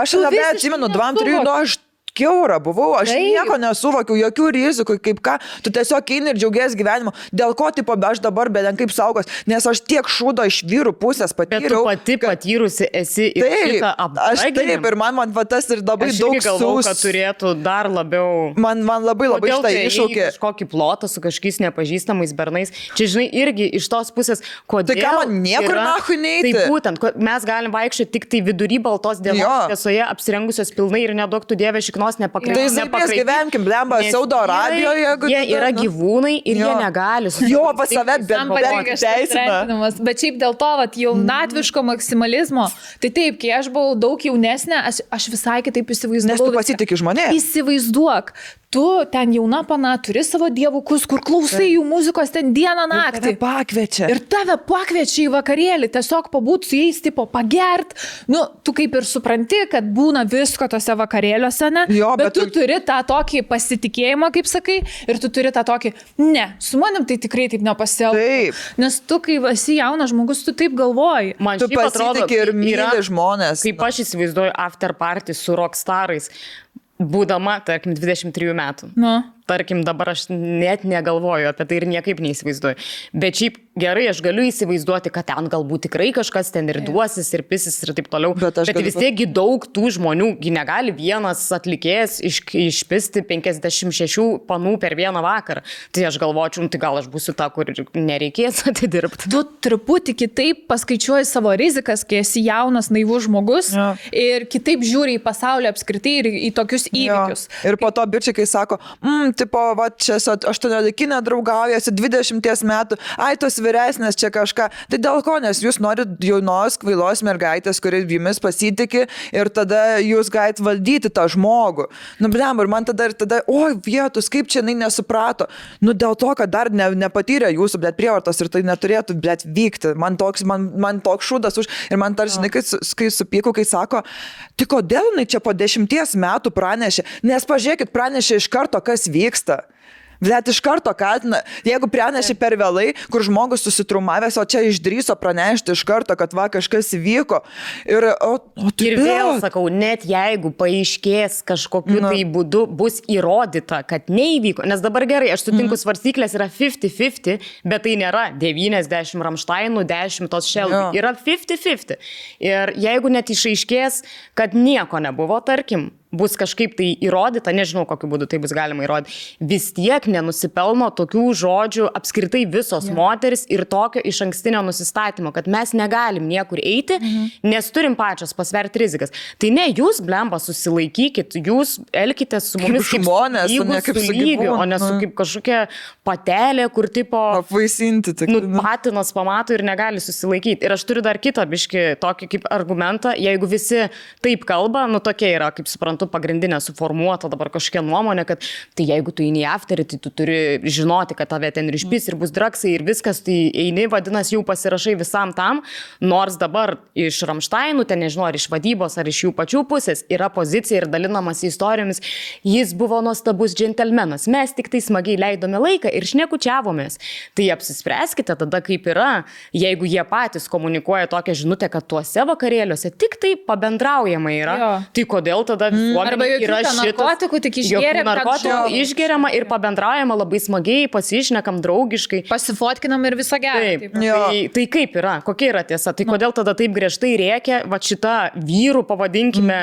Speaker 2: Aš labai atsimenu, 2-3, aš kiaura buvau, aš nieko nesuvokiau, jokių rizikų, kaip ką, tu tiesiog eini ir džiaugies gyvenimu. Dėl ko, aš dabar beden kaip saugos, nes aš tiek šūdo iš vyrų pusės patyriau.
Speaker 3: Bet tu pati patyrusi esi ir šitą apdraginimą.
Speaker 2: Aš taip, ir man tas ir labai daug
Speaker 3: galvau, kad turėtų dar labiau...
Speaker 2: Man labai šitą iššaukė.
Speaker 3: Kažkokį plotą su kažkokiais nepažįstamais bernais. Čia, žinai, irgi iš tos pusės, kodėl...
Speaker 2: Tai ką man niekur nahui neiti?
Speaker 3: Tai būtent, mes galim vaikščioti tik tai vidury baltos dienos šviesoje, apsirengusios pilnai ir neduoktų Dieve šiknos nepakreipti.
Speaker 2: Tai mes gyvenkim, blemba, Saudo Arabijoje.
Speaker 3: Jie yra gyvūnai ir jie negali.
Speaker 2: Jo, pas save bent teisina.
Speaker 1: Bet šiaip dėl to, jaunatviško maksimalizmo, tai taip, kai aš buvau daug jaunesnė, aš visai kitaip įsivaizdavau.
Speaker 2: Nes tu pasitikė žmonės.
Speaker 1: Įsivaizduok. Tu ten jauna pana, turi savo dievukus, kur klausai jų muzikos ten dieną naktį. Ir tave pakviečia į vakarėlį, tiesiog pabūt su jais, tipo, pagert. Tu kaip ir supranti, kad būna visko tose vakarėliuose, ne? Bet tu turi tą tokį pasitikėjimą, kaip sakai, ir tu turi tą tokį, ne, su manim tai tikrai taip nepasielgtų. Nes tu, kai esi jaunas žmogus, tu taip galvoji.
Speaker 3: Man
Speaker 2: tu pasitikė ir myli žmonės.
Speaker 3: Kaip aš įsivaizduoju after party su rockstarais, būdama, tarkim, 23 metų. Tarkim, dabar aš net negalvoju apie tai ir niekaip neįsivaizduoju. Bet šiaip gerai, aš galiu įsivaizduoti, kad ten galbūt tikrai kažkas ten ir duosis, ir pisis, ir taip toliau. Bet vis tiekgi daug tų žmonių, negali vienas atlikėjas išpisti 56 panų per vieną vakarą. Tai aš galvočiau, tai gal aš būsiu ta, kur nereikės atidirbti.
Speaker 1: Tu truputį kitaip paskaičiuoji savo rizikas, kai esi jaunas, naivus žmogus ir kitaip žiūri į pasaulį apskritai ir į tokius įvykius.
Speaker 2: Ir po to bičiai, kai sako, tipo, va, čia 18 draugaujasi, 20 metų, ai, tos vyresnės čia kažką. Tai dėl ko, nes jūs norit jaunos, kvailos mergaitės, kuri jumis pasitikė ir tada jūs galite valdyti tą žmogų. Nu, blem, ir man tada, oi, vietus, kaip čia jinai nesuprato. Nu, dėl to, kad dar nepatyrė jūsų, blėt, prievartos ir tai neturėtų, blėt, vykti. Man toks šūdas už... Ir man tarsi, kai supyku, kai sako, tai kodėl jinai čia po 10 metų pranešė? Nes pažiūrėkit, pranešė iš karto, kas vyksta. Blet, iš karto kaltina, jeigu pranešė per vėlai, kur žmogus susitrumavęs, o čia išdryso pranešti iš karto, kad va kažkas vyko. Ir
Speaker 3: vėl sakau, net jeigu paaiškės kažkokiu tai būdu bus įrodyta, kad neįvyko, nes dabar gerai, aš sutinku, svarstyklės yra 50-50, bet tai nėra 90 Rammsteinų, 10 tos Shelby, yra 50-50. Ir jeigu net išaiškės, kad nieko nebuvo, tarkim, bus kažkaip tai įrodyta, nežinau, kokiu būdu tai bus galima įrodyti, vis tiek nenusipelno tokių žodžių apskritai visos moteris ir tokio iš ankstinio nusistatymo, kad mes negalim niekur eiti, nes turim pačios pasverti rizikas. Tai ne, jūs, blemba, susilaikykit, jūs elkitės su mumis
Speaker 2: kaip žmonės,
Speaker 3: su lygiu, o ne su kaip kažkokia patelė, kur tipo
Speaker 2: apvaisinti,
Speaker 3: patinas pamato ir negali susilaikyti. Ir aš turiu dar kitą biškį tokį kaip argumentą, jeigu visi taip kalba, nu tokia yra, kaip suprantu, pagrindinė suformuota dabar kažkokia nuomonė, kad tai jeigu tu eini į afterį, tai tu turi žinoti, kad tave ten ir išpys, ir bus draksai, ir viskas, tai eini, vadinasi, jau pasirašai visam tam, nors dabar iš Rammsteinų, ten nežinau, ar iš vadybos, ar iš jų pačių pusės yra pozicija ir dalinamas istorijomis, jis buvo nuostabus džentelmenas, mes tik tai smagiai leidome laiką ir šnekučiavomės. Tai apsispręskite tada, kaip yra, jeigu jie patys komunikuoja tokią žinutę, kad tuose vakarėliuose tik tai pabendraujama yra, tai kodėl tada
Speaker 1: arba jokių narkotikų, tik
Speaker 3: išgeriama ir pabendraujama labai smagiai, pasišnekam draugiškai.
Speaker 1: Pasifotkinam ir visą gerą.
Speaker 3: Tai kaip yra? Kokia yra tiesa? Tai kodėl tada taip griežtai rėkia, va šita vyrų, pavadinkime,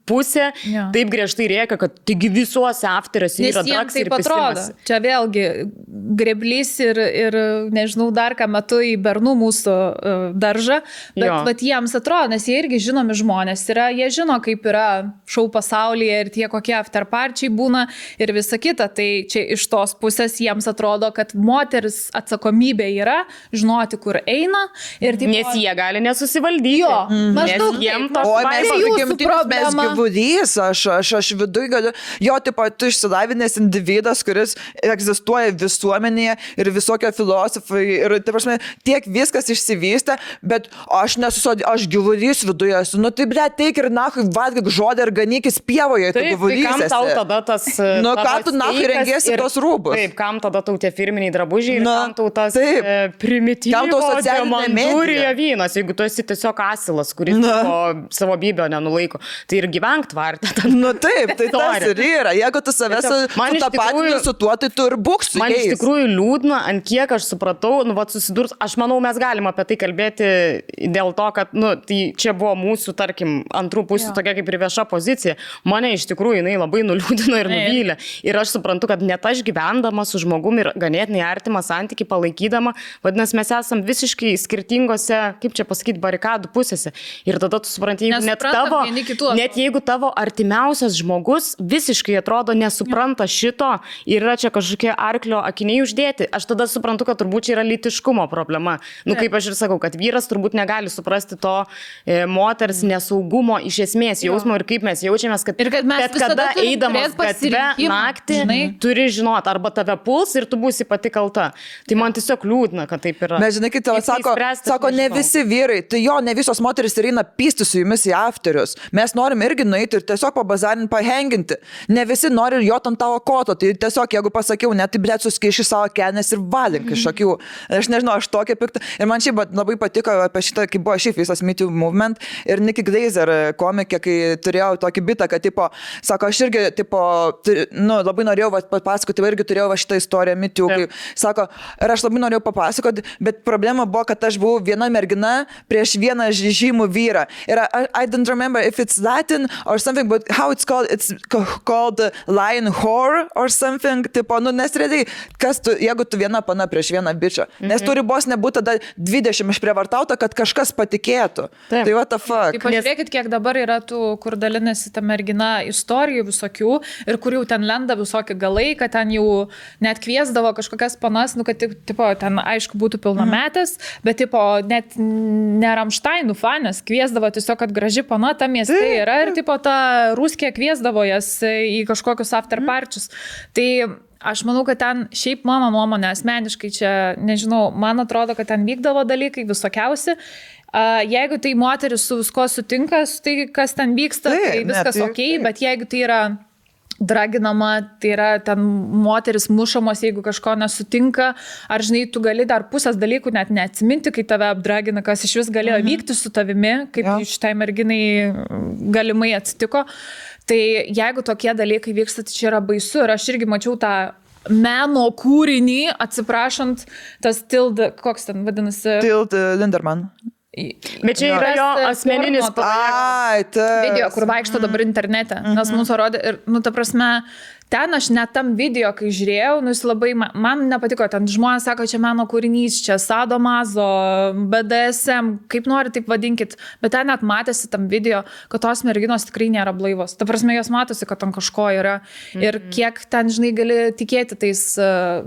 Speaker 3: pusė, taip griežtai rėkia, kad taigi visuose afteriuose yra draks ir pistimas.
Speaker 1: Čia vėlgi greblys ir nežinau dar ką metu į bernų mūsų daržą, bet jiems atrodo, nes jie irgi žinomi žmonės yra, jie žino, kaip yra šou pasaulyje ir tie kokie afterparčiai būna ir visa kita. Tai čia iš tos pusės jiems atrodo, kad moteris atsakomybė yra žinoti, kur eina. Ir taip,
Speaker 3: nes jie gali nesusivaldyti.
Speaker 1: Maždaug
Speaker 3: jiems
Speaker 1: to
Speaker 2: mes gyvulys, aš viduj galiu. Tipo, tu išsilavinęs individas, kuris egzistuoja visuomenėje ir visokio filosofai ir, tai prasme, tiek viskas išsivystė, bet aš gyvulys viduje esu. Nu tai, ble, teik ir nahui valgyk žodį ir ganykis pievoje, tu gyvulys esi.
Speaker 3: Kam tau tada tas...
Speaker 2: Nu, ką tu nahui rengiesi tos rūbus?
Speaker 3: Taip, kam tada tau tie firminiai drabužiai ir kam tau tas primityvo diamantūrija vynas, jeigu tu esi tiesiog asilas, kuris savo bybio nenulaiko. Tai ir gyvenk tvartę.
Speaker 2: Nu taip, tai tas ir yra. Jeigu tu savęs sutapatini su tuo, tai tu ir būk su jais.
Speaker 3: Man iš tikrųjų liūdna, ant kiek aš supratau, susidurs, aš manau, mes galim apie tai kalbėti dėl to, kad, tai čia buvo mūsų, tarkim, antrų pusių tokia kaip ir vieša pozicija. Mane iš tikrųjų jinai labai nuliūdino ir nuvylė. Ir aš suprantu, kad net aš gyvendama su žmogumi ir ganėtinai artimą santykį palaikydama, vadinasi, mes esam visiškai skirtingose, kaip čia pasakyti, barikadų pusėse. Ir tada tu supranti, net jeigu tavo artimiausias žmogus visiškai atrodo nesupranta šito ir yra čia kažkokie arklio akiniai uždėti, aš tada suprantu, kad turbūt čia yra lytiškumo problema. Kaip aš ir sakau, kad vyras turbūt negali suprasti to moters nesaugumo iš esmės jausmo ir kaip mes jaučiamės, kad bet kada eidamas gatve naktį turi žinoti, arba tave puls ir tu būsi pati kalta. Tai man tiesiog liūdna, kad taip yra.
Speaker 2: Bet žinai, kai tavo sako, ne visi vyrai, tai ne visos moteris ir eina pysti su jumis į afterius. Mes norim irgi nueiti ir tiesiog pabazarinti, pahenginti. Ne visi nori jot ant tavo koto, tai tiesiog, jeigu pasakiau, net tai blėt suskaiši savo kelnes ir valink iš akių. Aš nežinau, aš tokia pikta. Ir man šiaip labai patiko apie šitą, kai buvo šiaip visas Me Too movement ir Nikki Glazer komikė, kai turėjau tokį bitą, kad, sako, aš irgi, labai norėjau papasakoti, irgi turėjau šitą istoriją Me Too, kai, sako, ir aš labai norėjau papasakoti, bet problema buvo, kad aš buvau viena mergina prieš vieną žymų vyrą. Ir I don't remember if it's Latin or something, but how it's called lion whore or something, nes realiai, jeigu tu viena pana prieš vieną bičą, nes turi bos nebūti tada 20 išprievartauta, kad kažkas patikėtų. Tai what the fuck.
Speaker 1: Pažiūrėkit, kiek dabar yra tų, kur dalinasi tam mergina istorijų visokių ir kur jau ten lenda visokie galai, kad ten jau net kviesdavo kažkokias panas, nu, kad tipo, ten aišku būtų pilnametės, bet tipo, net ne Rammsteinų fanės kviesdavo tiesiog, kad graži pana ta mieste yra ir tipo, ta Ruskė kviesdavo jas į kažkokius after parčius. Tai aš manau, kad ten šiaip mano nuomonė asmeniškai čia, nežinau, man atrodo, kad ten vykdavo dalykai visokiausi. Jeigu tai moteris su visko sutinka, tai kas ten vyksta, tai viskas okei, bet jeigu tai yra draginama, tai yra ten moteris mušamos, jeigu kažko nesutinka, ar žinai, tu gali dar pusės dalykų net neatsiminti, kai tave apdragina, kas iš vis galėjo vykti su tavimi, kaip šitai merginai galimai atsitiko. Tai jeigu tokie dalykai vyksta, tai čia yra baisu ir aš irgi mačiau tą meno kūrinį, atsiprašant, tas Tilda, koks ten vadinasi?
Speaker 2: Tilda Linderman.
Speaker 3: Bet čia yra jo asmeninis
Speaker 1: video, kur vaikšto dabar internete, nes mums rodė ir, nu, ta prasme, ten aš net tam video, kai žiūrėjau, nu, jis labai, man nepatiko, ten žmonės sako, čia meno kūrinys, čia sadomazo, BDSM, kaip nori, taip vadinkit, bet ten net matėsi tam video, kad tos merginos tikrai nėra blaivos. Ta prasme, jos matosi, kad ten kažko yra ir kiek ten, žinai, gali tikėti tais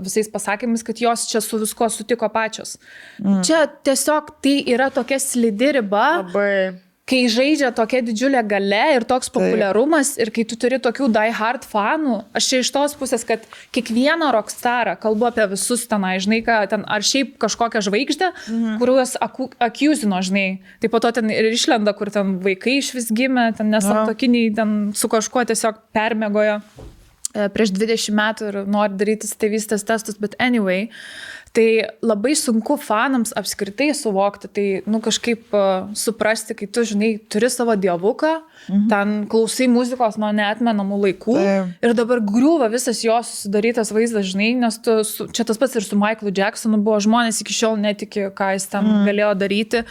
Speaker 1: visais pasakymais, kad jos čia su visko sutiko pačios. Čia tiesiog tai yra tokia slidi riba.
Speaker 3: Labai.
Speaker 1: Kai žaidžia tokia didžiulė galia ir toks populiarumas ir kai tu turi tokių die hard fanų, aš čia iš tos pusės, kad kiekvieną rockstarą, kalbu apie visus tenai, žinai, ten, ar šiaip kažkokią žvaigždę, kuriuos akiuzino, žinai, tai po to ten ir išlenda, kur ten vaikai iš vis gimė, ten nesantuokiniai, ten su kažkuo tiesiog permiegojo prieš 20 metų ir nori daryti tėvystės testus, bet anyway, tai labai sunku fanams apskritai suvokti, tai, nu, kažkaip suprasti, kai tu, žinai, turi savo dievuką, ten klausai muzikos nuo neatmenamų laikų ir dabar griūva visas jo susidarytas vaizdas, žinai, nes tu, čia tas pats ir su Michaelu Jacksonu buvo, žmonės iki šiol netiki, ką jis ten galėjo daryti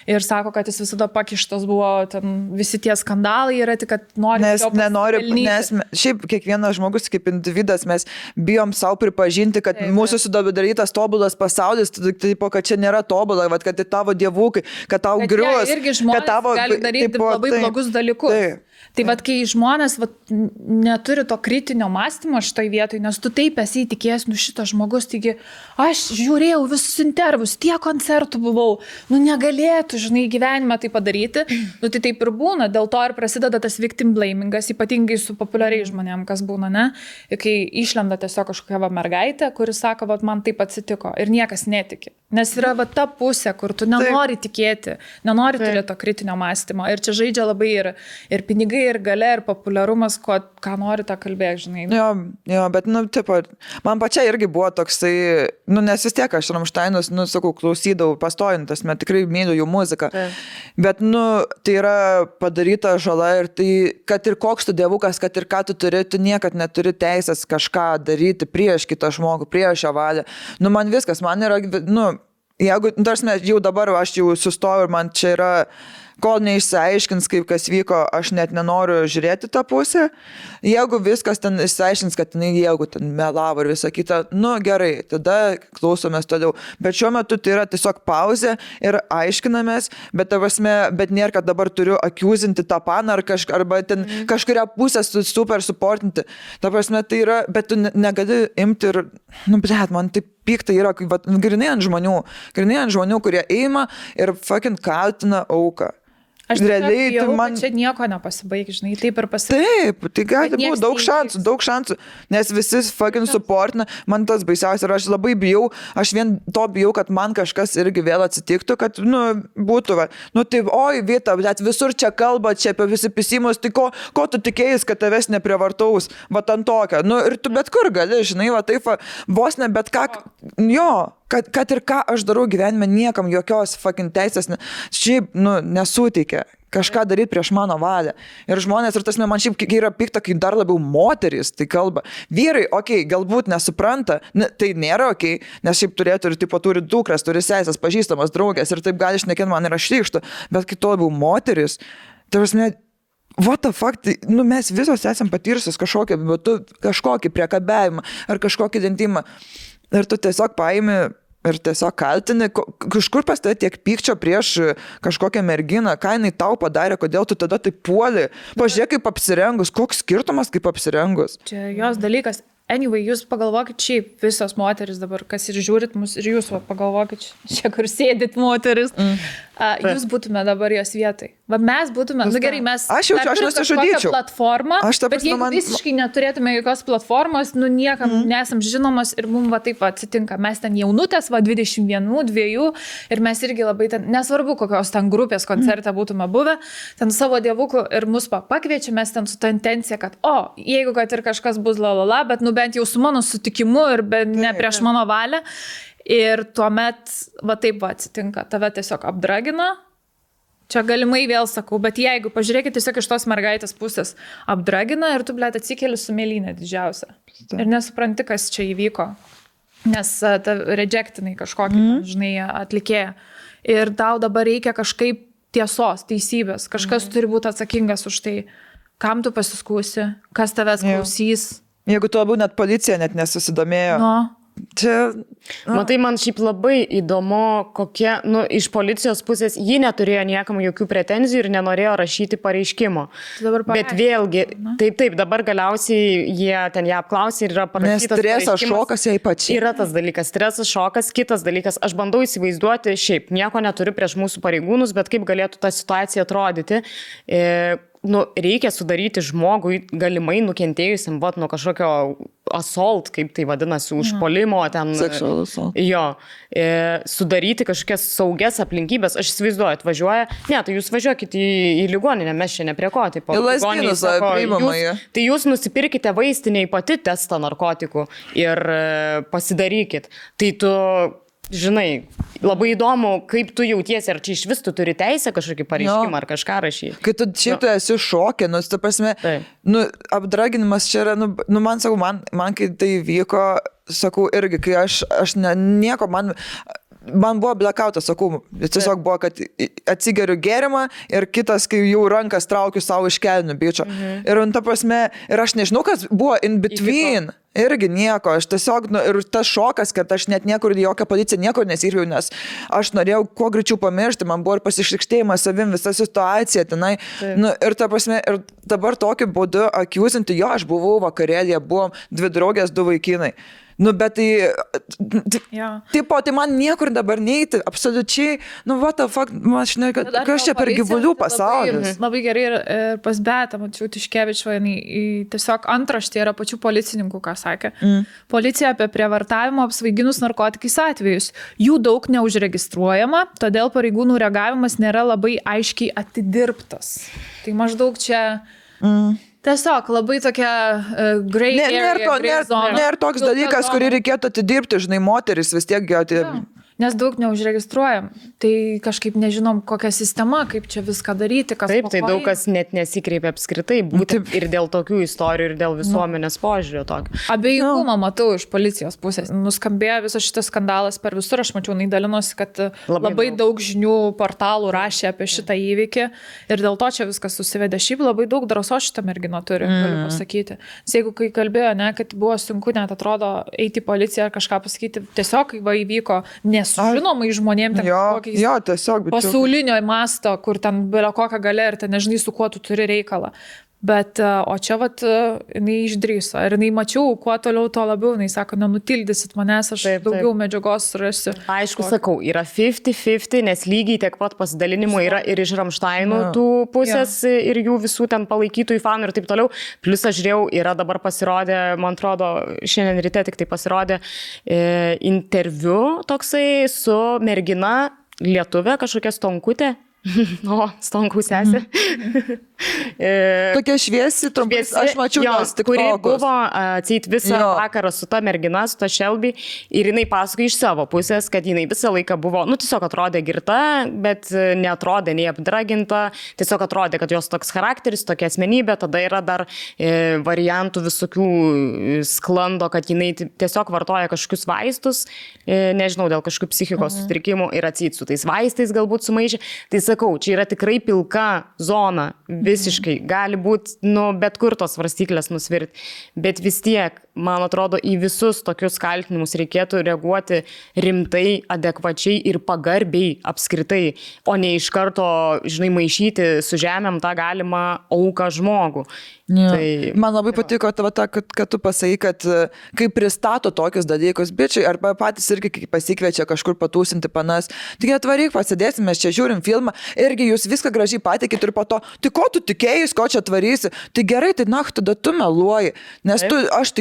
Speaker 1: ir sako, kad jis visada pakištas buvo, ten visi tie skandalai yra, tik kad nori jo pasipelnyti.
Speaker 2: Nes šiaip kiekvienas žmogus kaip individas, mes bijom savo pripažinti, kad mūsų sudarytas tobulas pasaulis, taip, kad čia nėra tobula, kad tai tavo dievukai, kad tau grius,
Speaker 1: kad tavo gali daryti labai blogus dalykus. Tai vat, kai žmonės neturi to kritinio mąstymo šitoj vietoj, nes tu taip esi įtikėjęs, nu šitas žmogus, taigi aš žiūrėjau visus intervus, tiek koncertų buvau, nu negalėtų, žinai, gyvenime tai padaryti, nu tai taip ir būna, dėl to ir prasideda tas victim blamingas, ypatingai su populiariais žmonėm, kas būna, ne? Ir kai išlenda tiesiog kažkokia mergaitė, kuris sako, vat, man taip atsitiko ir niekas netiki. Nes yra va ta pusė, kur tu nenori tikėti, nenori turėti to kritinio mąstymo. Ir čia žaidžia labai ir pinigai, ir galia, ir populiarumas, ką nori tą kalbėti, žinai.
Speaker 2: Jo, bet, nu, tipo, man pačia irgi buvo toksai, nu, nes vis tiek aš Rammsteinus, nu, sakau, klausydavau pastojintas, man tikrai myliu jų muziką. Bet, nu, tai yra padaryta žala ir tai, kad ir koks tu dievukas, kad ir ką tu turi, tu niekad neturi teisės kažką daryti prieš kitą žmogų, prieš jo valią. Nu, man viskas, man yra, nu, jeigu, tarsi, jau dabar aš jau sustoju ir man čia yra, kol neišsiaiškins, kaip kas vyko, aš net nenoriu žiūrėti tą pusę. Jeigu viskas ten išsiaiškins, kad jeigu ten melavo ir visą kitą, nu gerai, tada klausomės toliau. Bet šiuo metu tai yra tiesiog pauzė ir aiškinamės, bet nėra, kad dabar turiu akiuzinti tą paną arba ten kažkuria pusę super suportinti. Ta prasme, tai yra, bet tu negali imti ir, nu, blet, man taip pikta yra, grinai ant žmonių, kurie eina ir fucking kaltina auką.
Speaker 1: Aš realiai jau, man čia nieko nepasibaig, žinai, taip ir pasibaig.
Speaker 2: Taip, tai gali būti daug šansų, nes visi fucking supportina, man tas baisiausia ir aš labai bijau, aš vien to bijau, kad man kažkas irgi vėl atsitiktų, kad, nu, būtų, nu, tai, oi, Vita, bet visur čia kalba, čia apie visi pisimus, tai ko tu tikėjais, kad tavęs neprievartaus, va, ant tokio, nu, ir tu bet kur gali, žinai, va, taip, vos ne, bet ką, jo. Kad ir ką aš darau gyvenime, niekam jokios fucking teisės šiaip, nu, nesuteikia kažką daryti prieš mano valią. Ir žmonės, ir tas man šiaip yra pikta, kai dar labiau moterys tai kalba. Vyrai, okei, galbūt nesupranta, tai nėra okei, nes šiaip turėtų ir tipo turi dukras, turi sesės, pažįstamas, draugės ir taip gali šnekėti man yra šlykštu, bet kai to labiau moterys, tai prasme, what the fuck, tai, nu, mes visos esam patyrusios kažkokį priekabiavimą ar kažkokį dentimą. Ir tu tiesiog paimi ir tiesiog kaltini, kažkur pas tai tiek pykčio prieš kažkokią merginą, ką jinai tau padarė, kodėl tu tada taip puoli. Pažiūrėk kaip apsirengus, koks skirtumas kaip apsirengus.
Speaker 1: Čia jos dalykas. Anyway, jūs pagalvokit šiaip, visos moteris dabar, kas ir žiūrit mus, ir jūs pagalvokit, čia kur sėdit moteris, jūs būtume dabar jos vietai. Va mes būtume, gerai, mes
Speaker 2: aš nesižudyčiau.
Speaker 1: Platformą, bet jeigu visiškai neturėtume jokios platformos, niekam nesam žinomos ir mums va taip atsitinka. Mes ten jaunutės, 21, 2 ir mes irgi labai ten, nesvarbu kokios ten grupės koncerte būtume buvę, ten savo dievukų ir mus pakviečia, mes ten su ta intencija, kad jeigu kad ir kažkas bus lalala, bet bent jau su mano sutikimu ir ne prieš mano valią. Ir tuomet, va taip atsitinka, tave tiesiog apdragina. Čia galimai vėl sakau, bet jeigu pažiūrėkit tiesiog iš tos mergaitės pusės, apdragina ir tu, blėt, atsikeli su mėlynė didžiausia. Ir nesupranti, kas čia įvyko. Nes ta rejectinai kažkokį, žinai, atlikėja. Ir tau dabar reikia kažkaip tiesos, teisybės. Kažkas turi būti atsakingas už tai, kam tu pasiskūsi, kas tavęs klausys.
Speaker 2: Jeigu tu labiau net policija net nesusidomėjo. Čia...
Speaker 3: Matai, man šiaip labai įdomu, kokie, iš policijos pusės ji neturėjo niekam jokių pretenzijų ir nenorėjo rašyti pareiškimo. Bet vėlgi, taip, dabar galiausiai jie ten ją apklausė ir yra parašytas pareiškimas.
Speaker 2: Nes stresas, šokas jai pačiai.
Speaker 3: Yra tas dalykas, stresas, šokas, kitas dalykas. Aš bandau įsivaizduoti, šiaip nieko neturiu prieš mūsų pareigūnus, bet kaip galėtų ta situacija atrodyti. Reikia sudaryti žmogui galimai nukentėjusiam nuo kažkokio assault, kaip tai vadinasi, užpuolimo ten.
Speaker 2: Sexual assault.
Speaker 3: Jo. Sudaryti kažkokias saugias aplinkybės. Aš įsivaizduoju, atvažiuoja. Ne, tai jūs važiuokit į ligoninę, mes čia neprie ko. Tai tai jūs nusipirkite vaistinėje pati testą narkotikų ir pasidarykit. Tai tu... Žinai, labai įdomu, kaip tu jautiesi, ar čia iš vis tu turi teisę kažkokį pareiškimą ar kažką rašyti.
Speaker 2: Kai tu šiaip tu esi šokė, ta prasme, apdraginimas čia yra, man sakau, man kai tai vyko, sakau, irgi, kai aš nieko, man buvo blackoutas, sakau, tiesiog buvo, kad atsigeriu gėrimą ir kitas, kai jau rankas traukiu savo iš kelnių bičio. Ir ta prasme, ir aš nežinau, kas buvo in between. Irgi nieko, aš tiesiog, ir tas šokas, kad aš net niekur, jokią policiją niekur nesirviau, nes aš norėjau kuo greičiau pamiršti, man buvo ir pasišlikštėjimas savim, visa situacija tenai. Ir ta prasme, ir dabar tokiu būdu akiusinti, aš buvau vakarėlėje, buvom 2 draugės, 2 vaikinai. Bet tai man niekur dabar neiti, absoliučiai, what the fuck, aš žinai, kas čia per gyvulių pasaulis.
Speaker 1: Labai gerai ir pas Betą, mačiau Tiškevičio, tiesiog antraštė yra pačių policininkų, ką sakė. Policija apie prievartavimo apsvaiginus narkotikais atvejus. Jų daug neužregistruojama, todėl pareigūnų reagavimas nėra labai aiškiai atidirbtas. Tai maždaug čia... Tiesiog labai tokia grey area.
Speaker 2: Nėra toks dalykas, kurį reikėtų atidirbti, žinai, moteris vis tiek
Speaker 1: Nes daug neužregistruojam. Tai kažkaip nežinom, kokia sistema, kaip čia viską daryti, kas
Speaker 3: taip, tai daug kas net nesikreipia apskritai, būtent ir dėl tokių istorijų, ir dėl visuomenės požiūrio tokio.
Speaker 1: Abejingumą matau iš policijos pusės. Nuskambėjo visas šitas skandalas per visur, aš mačiau, dalinosi, kad labai daug žinių portalų rašė apie šitą įvykį ir dėl to čia viskas susivedė. Šiaip labai daug drąsos šitą merginą turi, galiu pasakyti. Nes jeigu kai kalbėjo, kad buvo sunku net atrodo eiti į policiją ar kažką pasakyti, tiesiog kai įvyko nesužinomai žmonėm ten pasaulinio masto, kur ten belio kokią galę ir ten nežinai, su kuo tu turi reikalą. Bet, o čia jinai išdrįso. Ir jinai mačiau, kuo toliau, to labiau. Jinai sako, nenutildysit manęs, aš daugiau medžiagos surasiu.
Speaker 3: Aišku, sakau, yra 50-50, nes lygiai tiek pat pasidalinimų yra ir iš Ramšteinų tų pusės ir jų visų ten palaikytojų fanų ir taip toliau. Plus aš žiūrėjau, yra dabar pasirodė, man atrodo, šiandien ryte tik tai pasirodė interviu toksai su mergina lietuvė, kažkokia Stonkutė. Stonkų sesė.
Speaker 2: Tokia šviesi, trumpai, aš mačiau jos tik
Speaker 3: kuri buvo atseit visą vakarą su ta mergina, su ta Shelby, ir jinai pasakoja iš savo pusės, kad jinai visą laiką buvo, tiesiog atrodė girta, bet neatrodė nei apdraginta, tiesiog atrodė, kad jos toks charakteris, tokia asmenybė, tada yra dar variantų visokių sklando, kad jinai tiesiog vartoja kažkokius vaistus, nežinau, dėl kažkokių psichikos sutrikimų ir atseit su tais vaistais galbūt sumaišė. Tai sakau, čia yra tikrai pilka zona, visiškai, gali būti, bet kur tos svarstyklės nusvirti, bet vis tiek, man atrodo, į visus tokius kaltinimus reikėtų reaguoti rimtai, adekvačiai ir pagarbiai apskritai, o ne iš karto, žinai, maišyti su žemėm tą galimą auką žmogų.
Speaker 2: Ja. Tai, man labai patiko tavo tą, kad tu pasakai, kad kai pristato tokius dalykus bičiai, arba patys irgi kai pasikviečia kažkur patūsinti panas, tik atvaryk, pasidėsim, mes čia žiūrim filmą, irgi jūs viską gražiai patikit ir po to, tai ko tu tikėjus, ko čia atvarysi, tai gerai, tai tada tu meluoji, nes aš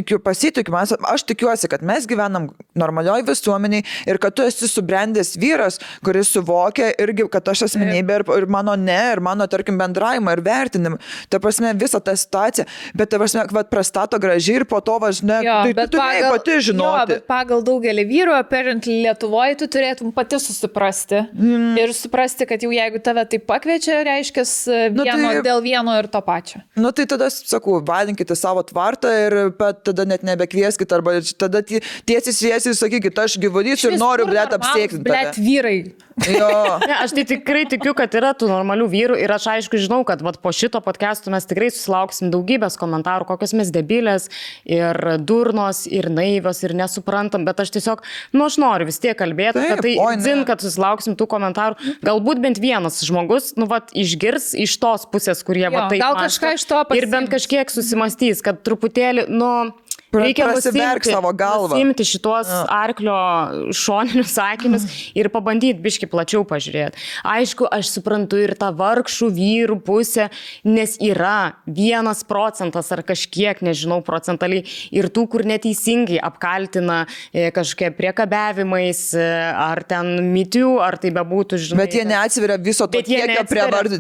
Speaker 2: tikiuosi, kad mes gyvenam normalioj visuomeniai ir kad tu esi subrendęs vyras, kuris suvokia irgi, kad aš asmenybė ir mano ir mano, tarkim, bendravimą ir vertinimą. Ta prasme, visą tą situaciją, bet ta prasme, prastato gražiai ir po to važinė, tai tu turėjai pati žinoti.
Speaker 1: Jo, bet pagal daugelį vyrų, apparently Lietuvoje, tu turėtum pati susiprasti ir suprasti, kad jau jeigu tave tai pakviečia, reiškia dėl vieno ir to pačio.
Speaker 2: Tai tada, sakau, valinkite savo tvartą ir tada net nebekvieskite, arba tada tiesiai sakykite, aš gyvulys ir noriu, apsėkti.
Speaker 1: Vyrai.
Speaker 3: Ne, aš tai tikrai tikiu, kad yra tų normalių vyrų ir aš aišku žinau, kad po šito podcast'o mes tikrai susilauksim daugybės komentarų, kokios mes debilės ir durnos ir naivios ir nesuprantam, bet aš tiesiog, aš noriu vis tiek kalbėti, kad susilauksim tų komentarų. Galbūt bent vienas žmogus, išgirs iš tos pusės, kurie taip mąsto ir bent kažkiek susimastys, kad truputėlį, reikia nusimti šitos arklio šoninius sakinius ir pabandyti biški plačiau pažiūrėti. Aišku, aš suprantu ir tą vargšų vyrų pusę, nes yra 1% ar kažkiek, nežinau, procentaliai ir tų, kur neteisingai apkaltina kažkokie priekabiavimais ar ten mitių, ar tai bebūtų, žinai.
Speaker 2: Bet jie neatsiveria viso to kiekio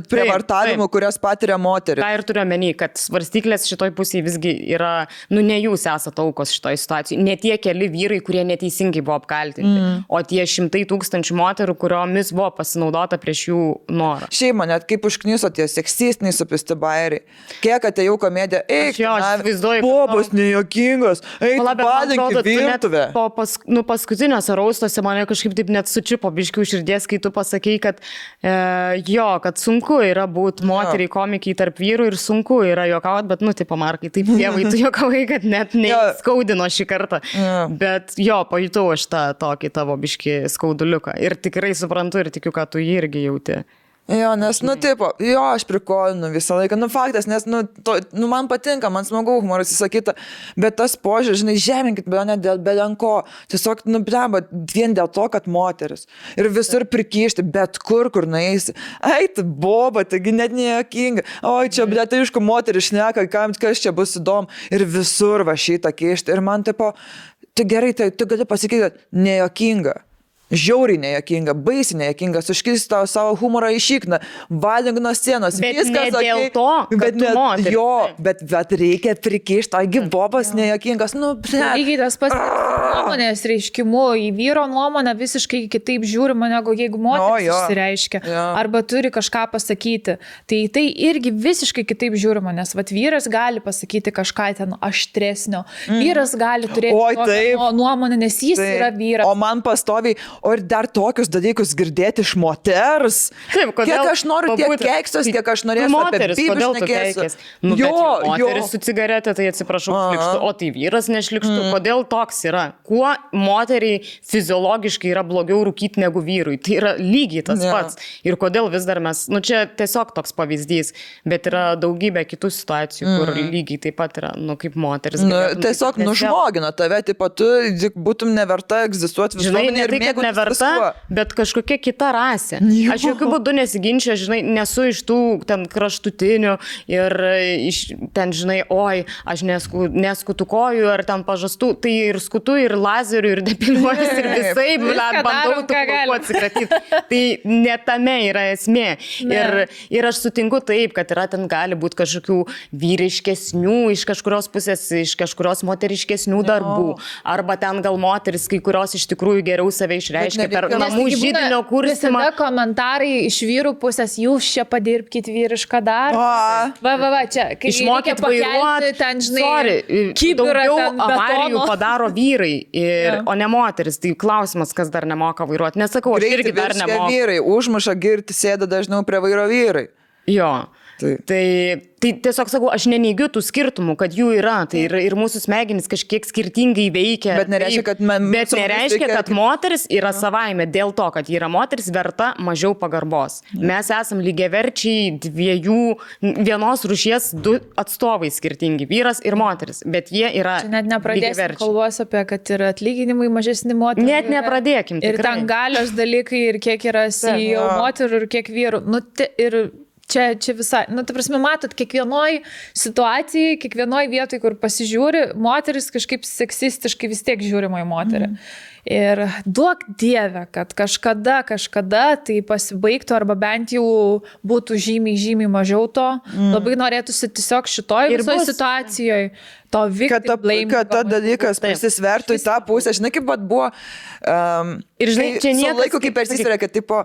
Speaker 2: prievartavimų, kurias patiria moteris.
Speaker 3: Tai ir turiu omeny, kad svarstyklės šitoj pusėje visgi yra, ne jūs esate aukos šitoje situacijoje. Ne tie keli vyrai, kurie neteisingai buvo apkaltinti, o tie 100,000 moterų, kuriomis buvo pasinaudota prieš jų norą.
Speaker 2: Šiaip man net kaip užkniso tie seksistiniai supisti bairiai. Kiek atėjau komediją, bobos nejuokingos, palinki virtuvę.
Speaker 3: Paskutinėse raustuose mane kažkaip taip net sučipo biškių širdies, kai tu pasakei, kad kad sunku yra būti moteriai komikiai tarp vyrų ir sunku yra juokauti, bet taip Markai, taip dievai, tu juokavai, kad net skaudino šį kartą. Bet pajutau aš tą tokį tavo biškį skauduliuką. Ir tikrai suprantu ir tikiu, kad tu jį irgi jauti.
Speaker 2: Nes, aš prikolinu visą laiką. Faktas, nes, man patinka, man smagu humoras įsakyta, bet tas požiūris, žinai, žeminkit, bet ne dėl belenko. Tiesiog, vien dėl to, kad moteris. Ir visur prikišti, bet kur nueisi. Eit, boba, taigi net nejuokinga. Oi, čia, tai aišku, moteris šneka, kas čia bus įdomu. Ir visur va šitą kišti. Ir man, tai gerai, tai tu gali pasakyti, kad nejuokinga. Žiauriai nejuokinga, baisiai nejuokinga, suškisti tavo savo humorą į šikną, valink nuo scenos.
Speaker 3: Bet viskas ne dėl to, kad tu moteris.
Speaker 2: Bet reikia prikišti, taigi bobas nejuokingas.
Speaker 1: Lygiai tas pats nuomonės reiškimu, į vyro nuomonę visiškai kitaip žiūrima, negu jeigu moteris išsireiškia, arba turi kažką pasakyti. Tai irgi visiškai kitaip žiūrima, nes vyras gali pasakyti kažką ten aštresnio, vyras gali turėti nuomonę, nes jis yra vyras.
Speaker 2: O man pastoviai, o ir dar tokius dalykus girdėti iš moters.
Speaker 3: Taip,
Speaker 2: kiek aš noriu tiek keiksos, kiek aš norėsiu
Speaker 3: moteris, apie kodėl tu keikės? Moteris su cigaretė, tai atsiprašau, šlikštų, o tai vyras nešlikštų. Kodėl toks yra? Kuo moteriai fiziologiškai yra blogiau rūkyti negu vyrui? Tai yra lygiai tas pats. Ir kodėl vis dar mes, čia tiesiog toks pavyzdys, bet yra daugybė kitų situacijų, kur lygiai taip pat yra, kaip moteris.
Speaker 2: Tiesiog nužmogina tave, tu būtum neverta egzistuoti visuomenėje ir mėgautis.
Speaker 3: Neverta, bet kažkokia kita rasė. Aš jokių būdų nesiginčiu, žinai, nesu iš tų ten kraštutinių ir ten, žinai, aš neskutu kojų ar ten pažastų, tai ir skutu, ir lazerių, ir depiliuotis, ir visai, bandau tų plaukų atsikratyti. Tai ne tame yra esmė. Ir aš sutinku taip, kad yra ten gali būti kažkokių vyriškesnių, iš kažkurios pusės, iš kažkurios moteriškesnių darbų. Arba ten gal moteris, kai kurios iš tikrųjų geriau save išreiškia reiškia per namų židinio kursimą.
Speaker 1: Visada komentarai iš vyrų pusės, jūs čia padirbkit vyrišką darbą. Va, čia.
Speaker 3: Išmokit vairuoti,
Speaker 1: ten, žinai,
Speaker 3: daugiau avarijų padaro vyrai, o ne moteris. Tai klausimas, kas dar nemoka vairuoti. Nesakau, aš irgi dar nemoku.
Speaker 2: Vyrai, užmuša girti, sėda dažniau prie vairo vyrai.
Speaker 3: Jo. Tai tiesiog sakau, aš neneigiu tų skirtumų, kad jų yra, tai ir mūsų smegenys kažkiek skirtingai veikia.
Speaker 2: Bet nereiškia,
Speaker 3: kad moteris yra savaime dėl to, kad yra moteris verta mažiau pagarbos. Mes esam lygiaverčiai vienos rūšies du atstovai skirtingi, vyras ir moteris, bet jie yra lygiaverčiai.
Speaker 1: Net nepradėsim kalbos apie, kad yra atlyginimai mažesni moterų.
Speaker 3: Net nepradėkim.
Speaker 1: Ir ten galios dalykai, ir kiek yra CEO moterų, ir kiek vyrų. Ir čia visai, ta prasme, matot, kiekvienoj situacijai, kiekvienoj vietoj, kur pasižiūri, moteris kažkaip seksistiškai vis tiek žiūrima į moterį. Ir duok Dieve, kad kažkada tai pasibaigtų, arba bent jau būtų žymiai mažiau to. Labai norėtųsi tiesiog šitoj visoje situacijoje to victim blame.
Speaker 2: Kad ta dalykas persisvertų į tą pusę. Žinai, kaip buvo...
Speaker 3: Ir žinai, čia niekas...
Speaker 2: Su laiku, kaip persisveria, kad tipo...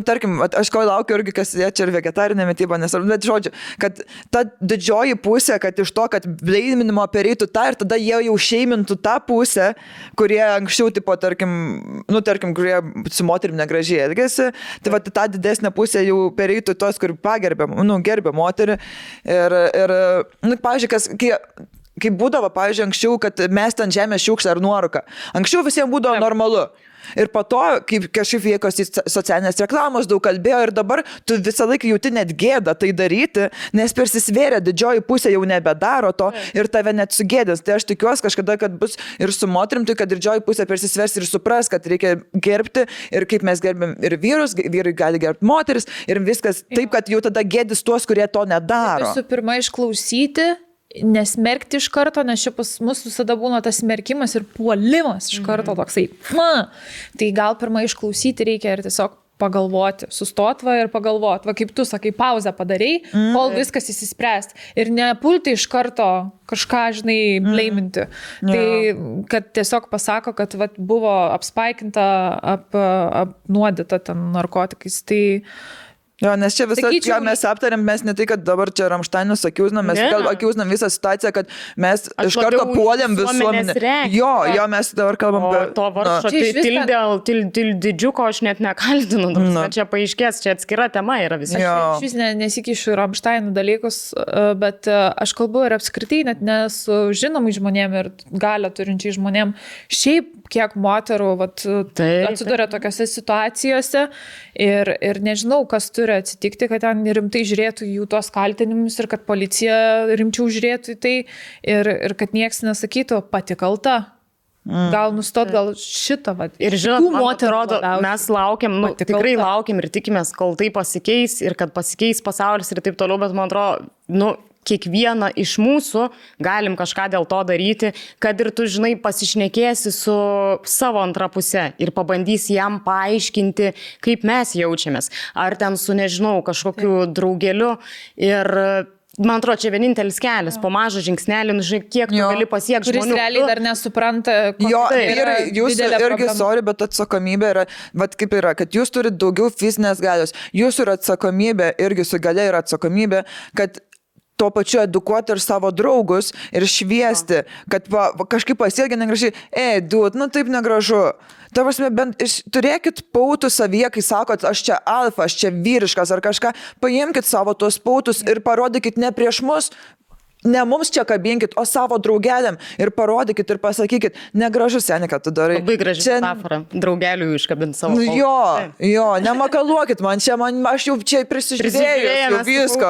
Speaker 2: tarkim, aš ko laukiu irgi, kas jie čia ir vegetarinė mityba, bet žodžiu, kad ta didžioji pusė, kad iš to, kad bleiminimo pereitų tą ir tada jie jau šeimintų tą pusę, kurie anksčiau, tipo, tarkim, kurie su moterim negražiai elgėsi, tai va, ta didesnė pusė jau pereitų tos, kur gerbė moterį. Ir pavyzdžiui, kai būdavo, pavyzdžiui, anksčiau, kad mes ten žemės šiukšlę ar nuorūką. Anksčiau visiems būdavo normalu. Ir po to, kaip kažkaip vėkosi socialinės reklamos, daug kalbėjo ir dabar tu visą laiką jauti net gėdą tai daryti, nes persisvėrė, didžioji pusė jau nebedaro to ir tave net sugėdės. Tai aš tikiuosi kažkada, kad bus ir su moterim, tai kad didžioji pusė persisvers ir supras, kad reikia gerbti ir kaip mes gerbėm ir vyrus, vyrai gali gerbti moteris ir viskas taip, kad jau tada gėdys tuos, kurie to nedaro.
Speaker 1: Visų pirma, išklausyti, nesmerkti iš karto, nes čia pas mus visada būna tas smerkimas ir puolimas iš karto toksai. Tai gal pirmą išklausyti reikia ir tiesiog pagalvoti, sustotva ir pagalvoti, va kaip tu sakai, pauzę padarai, kol viskas įsispręs. Ir nepulti iš karto kažką, žinai, blaiminti. Tai, kad tiesiog pasako, kad va, buvo apspaikinta, apnuodyta ten narkotikais. Tai
Speaker 2: Jo, nes čia visą, ką mes aptarėm, mes ne tai, kad dabar čia Ramšteinus akiuznam, mes akiuznam visą situaciją, kad mes iš karto puolėm visuomenę. Jo, mes dabar kalbam apie...
Speaker 3: To varšo, tai didžiuko aš net nekaltinu, čia paaiškės, čia atskira tema yra visiškai.
Speaker 1: Aš vis nesikišiu Ramšteinų dalykus, bet aš kalbu ir apskritai net ne su žinomai žmonėm ir galią turinčiai žmonėm. Šiaip kiek moterų atsiduria tokiose situacijose ir nežinau, kas turi atsitikti, kad ten rimtai žiūrėtų jų tos kaltinimus ir kad policija rimčiau žiūrėtų į tai ir kad nieks nesakytų pati kalta. Gal nustot, gal šitą.
Speaker 3: Ir žinot, man atrodo, mes laukiam, tikrai laukiam ir tikimės, kol tai pasikeis ir kad pasikeis pasaulis ir taip toliau, bet man atrodo, kiekvieną iš mūsų galim kažką dėl to daryti, kad ir tu, žinai, pasišnekėsi su savo antra pusė ir pabandysi jam paaiškinti, kaip mes jaučiamės. Ar ten su, nežinau, kažkokiu draugeliu ir... Man atrodo, čia vienintelis kelias, po mažą žingsnelį, žinai, kiek tu gali pasiekti žmonių.
Speaker 1: Kuris realiai dar nesupranta,
Speaker 2: jūs irgi, sorry, bet atsakomybė yra, vat kaip yra, kad jūs turite daugiau fizinės galios, jūsų yra atsakomybė, irgi su galia yra atsakomybė, kad tuo pačiu edukuoti ir savo draugus ir šviesti, kad kažkaip pasielgia negražiai, taip negražu. Ta prasme, bent turėkit pautų savyje, kai sakot, aš čia alfa, aš čia vyriškas ar kažką, paimkit savo tuos pautus ir parodykit ne prieš mus, ne mums čia kabinkit, o savo draugeliam ir parodykit ir pasakykit, negražu, seni, kad tu darai.
Speaker 3: Labai graži metafora, draugelių iškabint savo pautus.
Speaker 2: Jo, nemakaluokit man, aš jau čia prisižiūrėjau visko.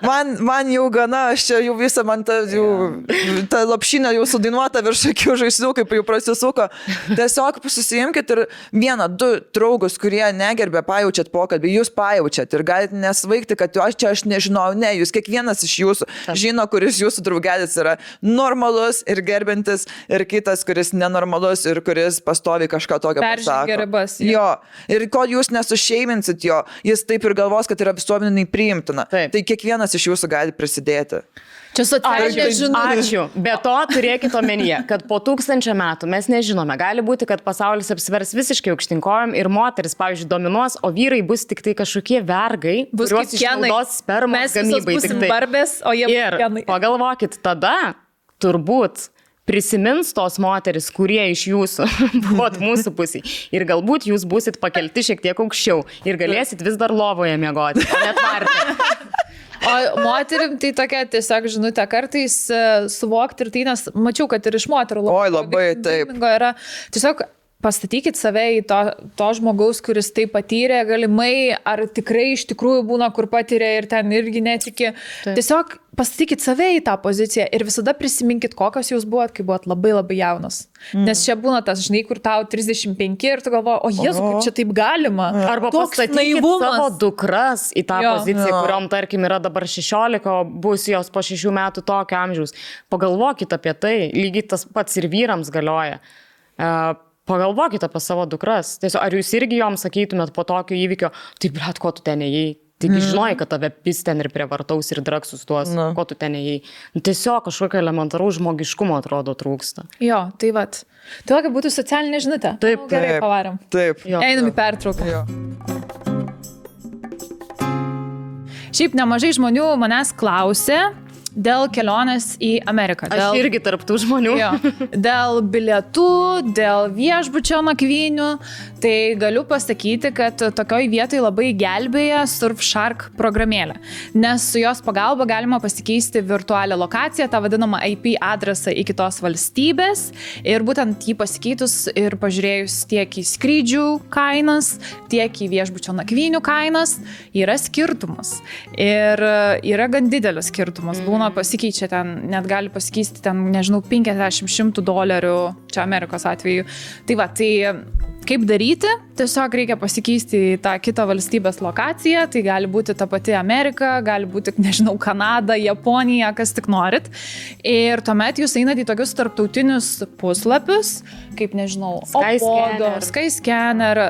Speaker 2: Man jau gana, aš čia jau visą, man ta lopšinė jau sudainuota virš akių žaislių, kaip jau prasisuko. Tiesiog susijimkit ir 1-2 draugus, kurie negerbė, pajaučiat pokalbį, jūs pajaučiat ir galite nesvaigti, kad aš nežinau, jūs kiekvienas iš jūsų žino, kuris jūsų draugelis yra normalus ir gerbintis ir kitas, kuris nenormalus ir kuris pastovi kažką tokio pasako.
Speaker 1: Peržengė ribas.
Speaker 2: Jo. Ir kol jūs nesušeiminsit jo, jis taip ir galvos, kad yra visuomeniai priimtina. Tai kiekvienas iš jūsų gali prisidėti.
Speaker 1: Čia socialinė žinutė.
Speaker 3: Ačiū. Be to turėkite omenyje, kad po 1000 metų mes nežinome. Gali būti, kad pasaulis apsivers visiškai aukštinkojom ir moteris, pavyzdžiui, dominuos, o vyrai bus tik tai kažkokie vergai, kuriuos išnaudos spermos gamybai.
Speaker 1: Mes busim barbės, o jie
Speaker 3: ir pagalvokit, tada turbūt prisimins tos moteris, kurie iš jūsų buvot mūsų pusėj. Ir galbūt jūs busit pakelti šiek tiek aukščiau ir galėsit vis dar lovoje miegoti, o net varti.
Speaker 1: O moterim tai tokia tiesiog žinutė kartais suvokti ir tai, nes mačiau, kad ir iš moterų
Speaker 2: labai taip.
Speaker 1: Yra tiesiog pastatykit save į to žmogaus, kuris tai patyrė, galimai, ar tikrai iš tikrųjų būna, kur patyrė ir ten irgi netiki. Taip. Tiesiog pastatykit save į tą poziciją ir visada prisiminkit, kokios jūs buvot, kai buvot labai labai jaunas. Nes čia būna tas, žinai, kur tau 35 ir tu galvoji, o Jėzu, kaip čia taip galima.
Speaker 3: Arba pastatykit savo dukras į tą poziciją, kuriom, tarkim, yra dabar 16, o bus jos po 6 metų tokio amžiaus. Pagalvokit apie tai, lygiai tas pats ir vyrams galioja. Pagalvokite apie savo dukras. Tiesiog, ar jūs irgi joms sakytumėt po tokio įvykio, tai blet, ko tu ten ėjai? Tik žinojai, kad tave pis ten ir prievartaus ir draksus tuos, ko tu ten ėjai. Tiesiog kažkokio elementaraus žmogiškumo atrodo trūksta.
Speaker 1: Jo, tai vat. Tai kad būtų socialinė žinutė.
Speaker 3: Taip,
Speaker 1: gerai, pavarėm.
Speaker 2: Taip.
Speaker 1: Einam į pertrauką. Šiaip nemažai žmonių manęs klausė dėl kelionės į Ameriką.
Speaker 3: Aš irgi tarptų žmonių.
Speaker 1: Jo, dėl bilietų, dėl viešbučio nakvynių. Tai galiu pasakyti, kad tokioj vietoj labai gelbėja Surfshark programėlė. Nes su jos pagalba galima pasikeisti virtualią lokaciją, tą vadinamą IP adresą į kitos valstybės. Ir būtent jį pasikeitus ir pažiūrėjus tiek į skrydžių kainas, tiek į viešbučio nakvynių kainas, yra skirtumas. Ir yra gan didelis skirtumas. Būna pasikeičia ten, net gali pasikeisti ten, nežinau, $50-100, čia Amerikos atveju. Tai va, tai kaip daryti? Tiesiog reikia pasikeisti į tą kitą valstybės lokaciją, tai gali būti ta pati Amerika, gali būti, nežinau, Kanada, Japonija, kas tik norit. Ir tuomet jūs einat į tokius tarptautinius puslapius, kaip, nežinau, Skyscanner,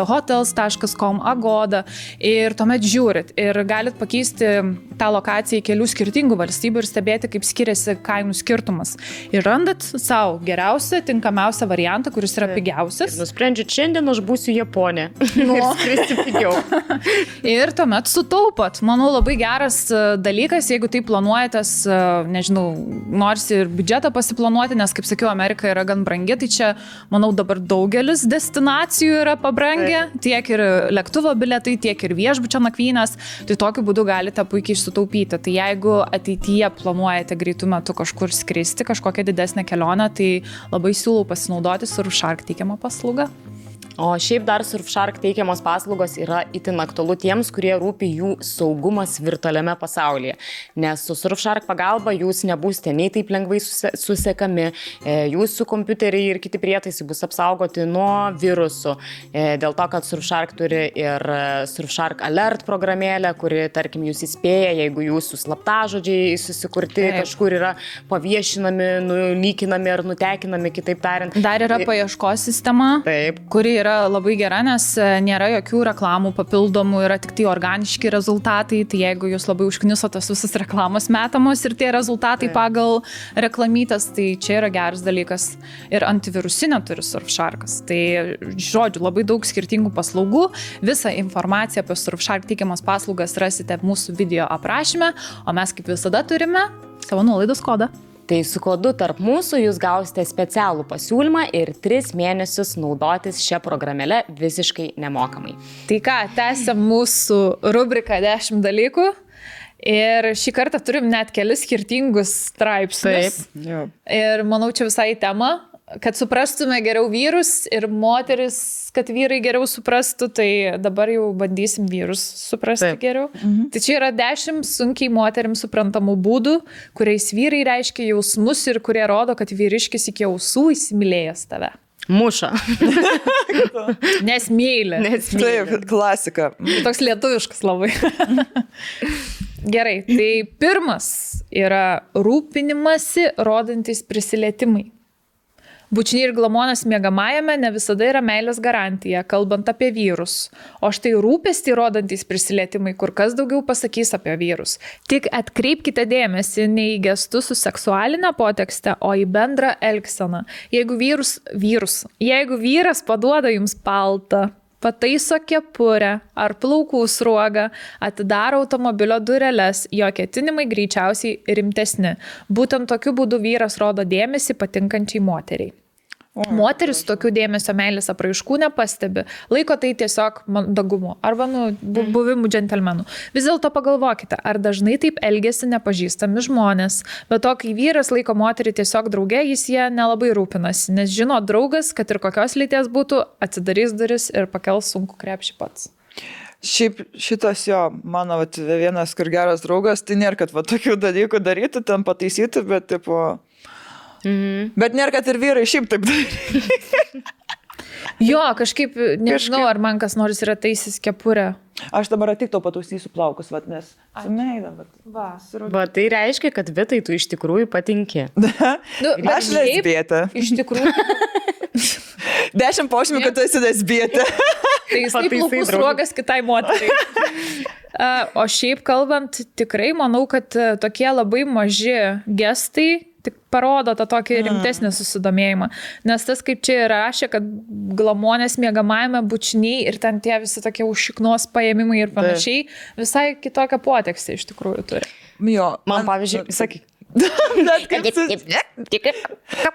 Speaker 1: hotels.com, Agoda. Ir tuomet žiūrit ir galit pakeisti tą lokaciją į kelių skirtingų valstybių ir stebėti, kaip skiriasi kainų skirtumas. Ir randat savo geriausią, tinkamiausią variantą, kuris yra pigiausias.
Speaker 3: Ir nusprendžiat, šiandien aš būsiu Japonė. Ir skristi pigiau.
Speaker 1: Ir tuomet sutaupot. Manau, labai geras dalykas, jeigu tai planuojatės, nežinau, nors ir biudžetą pasiplanuoti, nes, kaip sakiau, Amerika yra gan brangi, tai čia, manau, dabar daugelis destinacijų yra pabrangę, tiek ir lėktuvo bilietai, tiek ir viešbučio nakvynės, tai tokiu būdu galite puikiai sutaupyti. Tai jeigu ateityje planuojate greitų metų kažkur skristi, kažkokią didesnę kelionę, tai labai siūlau pasinaudoti Surfshark teikiamą paslaugą.
Speaker 3: O šiaip dar Surfshark teikiamos paslaugos yra itin aktualu tiems, kurie rūpi jų saugumas virtualiame pasaulyje. Nes su Surfshark pagalba jūs nebūsite nei taip lengvai susekami, jūsų kompiuteriai ir kiti prietaisai bus apsaugoti nuo virusų. Dėl to, kad Surfshark turi ir Surfshark Alert programėlę, kuri, tarkim, jūs įspėja, jeigu jūsų slaptažodžiai susikurti kažkur yra paviešinami, nulykinami ar nutekinami, kitaip tariant.
Speaker 1: Dar yra paieškos sistema, kuri yra labai gera, nes nėra jokių reklamų papildomų, yra tik tai organiški rezultatai, tai jeigu jūs labai užknisotas visas reklamos metamos ir tie rezultatai pagal reklamytas, tai čia yra geras dalykas. Ir antivirusinę turi Surfsharkas. Tai, žodžiu, labai daug skirtingų paslaugų. Visą informaciją apie Surfshark teikiamas paslaugas rasite mūsų video aprašyme, o mes kaip visada turime savo nuolaidos kodą.
Speaker 3: Tai su kodu tarp mūsų jūs gausite specialų pasiūlymą ir 3 mėnesius naudotis šią programėlę visiškai nemokamai.
Speaker 1: Tai ką, tęsiam mūsų rubriką 10 dalykų. Ir šį kartą turim net kelis skirtingus straipsnius.
Speaker 2: Taip.
Speaker 1: Ir manau, čia visai tema, kad suprastume geriau vyrus ir moteris, kad vyrai geriau suprastų, tai dabar jau bandysim vyrus suprasti geriau. Tai čia yra 10 sunkiai moterims suprantamų būdų, kuriais vyrai reiškia jausmus ir kurie rodo, kad vyriškis iki ausų įsimylėjęs tave.
Speaker 3: Muša.
Speaker 1: Nes myli.
Speaker 2: Taip, klasika.
Speaker 1: Toks lietuviškas labai. Gerai, tai pirmas yra rūpinimasi rodantis prisilietimai. Bučiniai ir glamonės miegamajame ne visada yra meilės garantija, kalbant apie vyrus. O štai rūpestį rodantys prisilietimai kur kas daugiau pasakys apie vyrus. Tik atkreipkite dėmesį ne į gestus su seksualinė potekste, o į bendrą elgseną. Jeigu vyras paduoda jums paltą, pataiso kepurę ar plaukų sruogą, atidaro automobilio dureles, jo ketinimai greičiausiai rimtesni. Būtent tokiu būdu vyras rodo dėmesį patinkančiai moteriai. Moteris tokių dėmesio meilės apraiškų nepastebi, laiko tai tiesiog mandagumu arba buvimu džentelmenų. Vis dėlto pagalvokite, ar dažnai taip elgesi nepažįstami žmonės. Bet to, kai vyras laiko moterį tiesiog drauge, jis jie nelabai rūpinasi, nes žino draugas, kad ir kokios lyties būtų, atsidarys duris ir pakels sunku krepšį pats.
Speaker 2: Šiaip šitas jo, mano vienas kur geras draugas, tai nėra, kad tokių dalykų daryti, ten pataisyti, bet tipo... Bet nėra, kad ir vyrai šiaip taip daryti.
Speaker 1: Jo, kažkaip, nežinau, ar man kas nors yra taisis kepurę.
Speaker 2: Aš dabar tik to patausysiu plaukus, nes sumeida,
Speaker 3: bet tai reiškia, kad Vitai tu iš tikrųjų patinki.
Speaker 2: Aš lesbietė.
Speaker 1: Iš tikrųjų.
Speaker 2: 10 požymių, kad tu esi lesbietė.
Speaker 1: Tai jis taip plaukų sruogas kitai moteriai. O šiaip kalbant, tikrai manau, kad tokie labai maži gestai tik parodo tą tokį rimtesnį susidomėjimą. Nes tas, kaip čia rašė, kad glamonės miegamajame bučiniai ir ten tie visi tokie užšiknos paėmimai ir panašiai, visai kitokią potekstę iš tikrųjų turi.
Speaker 2: Jo,
Speaker 3: man pavyzdžiui, sakyk.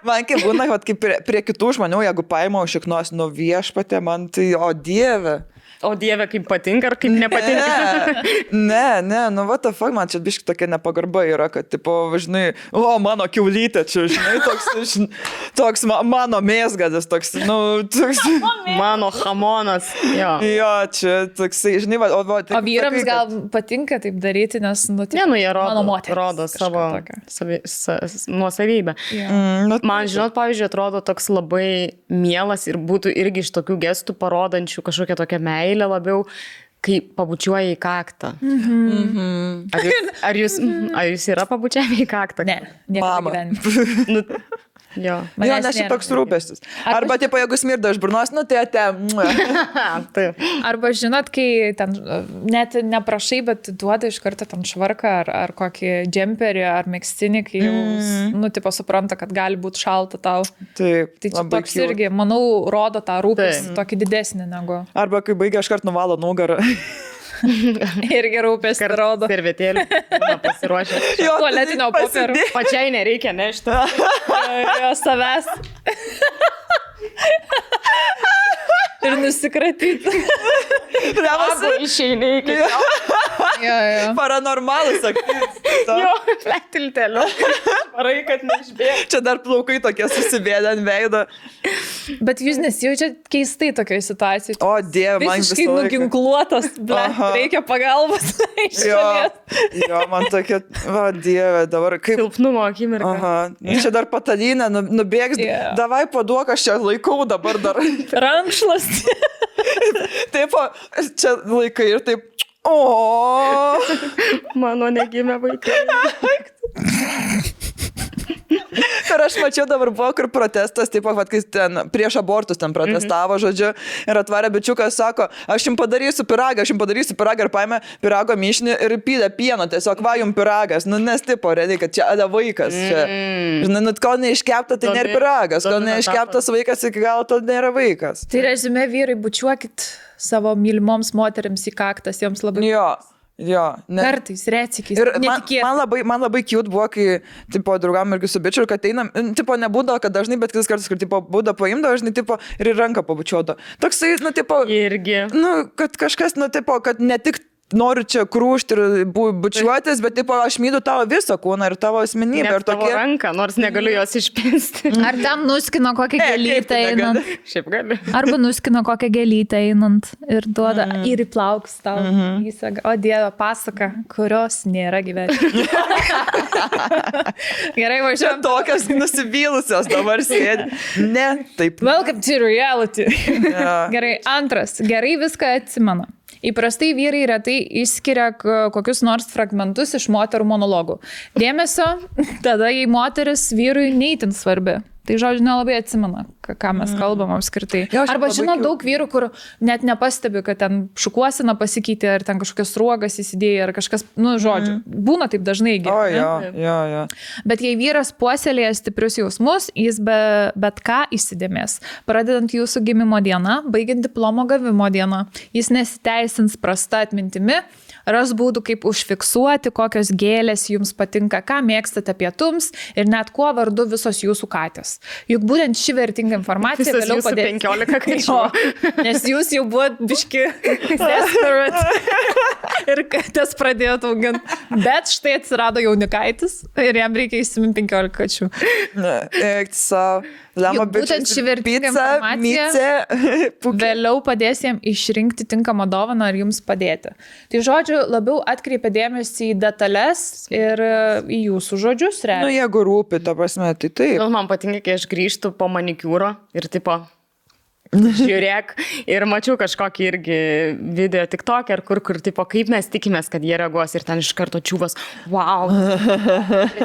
Speaker 2: Man kaip būna, kaip prie kitų žmonių, jeigu paima užšiknos nuo viešpatė, man tai, o Dieve.
Speaker 3: O Dieve, kaip patinka ar kaip nepatinka?
Speaker 2: Ne, nu what the fuck, man čia biški tokia nepagarba yra, kad, tipo, žinai, mano kiaulytė čia, žinai, toks mano mėsgadis, toks,
Speaker 3: mano hamonas, jo.
Speaker 2: Jo, čia toksai, žinai,
Speaker 1: o vyrams gal patinka taip daryti, nes,
Speaker 3: jie rodo savo nuosavybę. Man, žinot, pavyzdžiui, atrodo toks labai mielas ir būtų irgi iš tokių gestų parodančių kažkokią tokią meilę labiau, kai pabučiuoja į kaktą. Ar jūs yra pabučiavę į kaktą?
Speaker 1: Ne, niekada gyvenime.
Speaker 3: Jo,
Speaker 2: nes čia toks rūpestis. Arba, tipo, jeigu smirda iš burnos, tai
Speaker 1: Arba, žinot, kai ten net neprašai, bet duoda iš karto ten švarką ar kokį džemperį ar megztinį, kai jau, tipo, supranta, kad gali būti šalta tau.
Speaker 2: Taip,
Speaker 1: tai čia toks irgi, manau, rodo tą rūpestį tokį didesnį negu.
Speaker 2: Arba, kai baigia, aš kart nuvalo nugarą.
Speaker 1: Irgi rūpestį rodo.
Speaker 3: Servetėlį pasiruošę.
Speaker 1: Tualetinio popierio.
Speaker 3: Pačiai nereikia nešti.
Speaker 1: Jo savęs. Ir nusikratyti.
Speaker 3: Abu išeini iki
Speaker 1: jo.
Speaker 2: Paranormalus,
Speaker 3: jo, plektilteliu. Varai, kad neišbėg.
Speaker 2: Čia dar plaukai tokie susibėdę ant veido.
Speaker 1: Bet jūs nesijaučiat keistai tokioje situacijoje.
Speaker 2: O Dieve, man
Speaker 1: visiškai nuginkluotas, reikia pagalbos.
Speaker 2: Jo, man tokia, o Dieve, dabar kaip...
Speaker 3: Silpnumo akimirka.
Speaker 2: Čia dar patalinę, nubėgs, davai paduok, aš čia laikau dabar dar.
Speaker 1: Rankšlas.
Speaker 2: Taip, čia laikai ir taip,
Speaker 3: mano negimė vaikai.
Speaker 2: Ir aš mačiau dabar buvo, kur protestas, taip, kai ten prieš abortus ten protestavo, žodžiu, ir atvarė bičiukas, sako, aš jums padarysiu piragą ir paėmė pirago mišinį ir pylė pieno, tiesiog va jums piragas, nes tipo, realiai, kad čia vaikas, čia, žinai, kol neiškepta, tai nėra piragas, kol neiškeptas vaikas, iki galo to nėra vaikas.
Speaker 1: Tai rezume, vyrai, bučiuokit savo mylimoms moteriams į kaktas, joms labai...
Speaker 2: Jo,
Speaker 1: kartais, retsykiais.
Speaker 2: Ir man labai cute buvo, kai, tipo, draugam irgi su bičiu, kad einam, tipo, nebūdavo, kad dažnai, bet kitas kartas, kur, tipo, būda paimdavo, žinai, tipo, ir ranką pabučiuodo. Toksai, tipo,
Speaker 3: irgi.
Speaker 2: Kad kažkas, tipo, kad ne tik noriu čia krūšti ir bučiuotis, bet, tipo, aš myliu tavo visą kūną ir tavo asmenybę.
Speaker 3: Ir tavo ranką, nors negaliu jos išpinsti.
Speaker 1: Ar ten nuskino kokią gėlytę einant?
Speaker 3: Šiaip gali.
Speaker 1: Arba nuskino kokią gėlytę einant ir duoda ir į plaukus tau. O Dieve, pasaka, kurios nėra gyvenime. Gerai, važiuojam.
Speaker 2: Tokios nusivylusios dabar sėdi. Ne, taip.
Speaker 1: Welcome to reality. Gerai, antras. Gerai viską atsimena. Įprastai vyrai retai išskiria kokius nors fragmentus iš moterų monologų. Dėmesio, tada jei moteris vyrui neįtin svarbi. Tai žodžiu, nelabai atsimena, ką mes kalbam apskritai. Arba žinau daug vyrų, kur net nepastebi, kad ten šukuosina pasikeitė, ar ten kažkokios ruogas įsidėjo, ar kažkas, žodžiu, būna taip dažnai
Speaker 2: gyvena. Jo.
Speaker 1: Bet jei vyras puoselėja stiprius jausmus, jis bet ką įsidėmės. Pradedant jūsų gimimo dieną, baigiant diplomo gavimo dieną, jis nesiteisins prasta atmintimi, ras būdų, kaip užfiksuoti, kokios gėlės jums patinka, ką mėgstate pietums ir net kuo vardu visos jūsų katės. Juk būtent ši vertinga informacija vėliau padės.
Speaker 3: 15 kačių.
Speaker 1: Nes jūs jau buvot biški desperate ir katės pradėjot auginti. Bet štai atsirado jaunikaitis ir jam reikia įsiminti 15 kačių.
Speaker 2: Eik savo.
Speaker 1: Būtent ši vertinga informacija vėliau padės jam išrinkti tinkamą dovaną ar jums padėti. Tai žodžiu, labiau atkreipia dėmesį į detalės ir į jūsų žodžius.
Speaker 2: Jeigu rūpi, ta prasme, tai taip.
Speaker 3: Man patinka, kai aš grįžtu po manikiūro ir tipo... Žiūrėk, ir mačiau kažkokį irgi video TikTok, kur tipo, kaip mes tikimės, kad jie reaguos ir ten iš karto čiūvas, wow,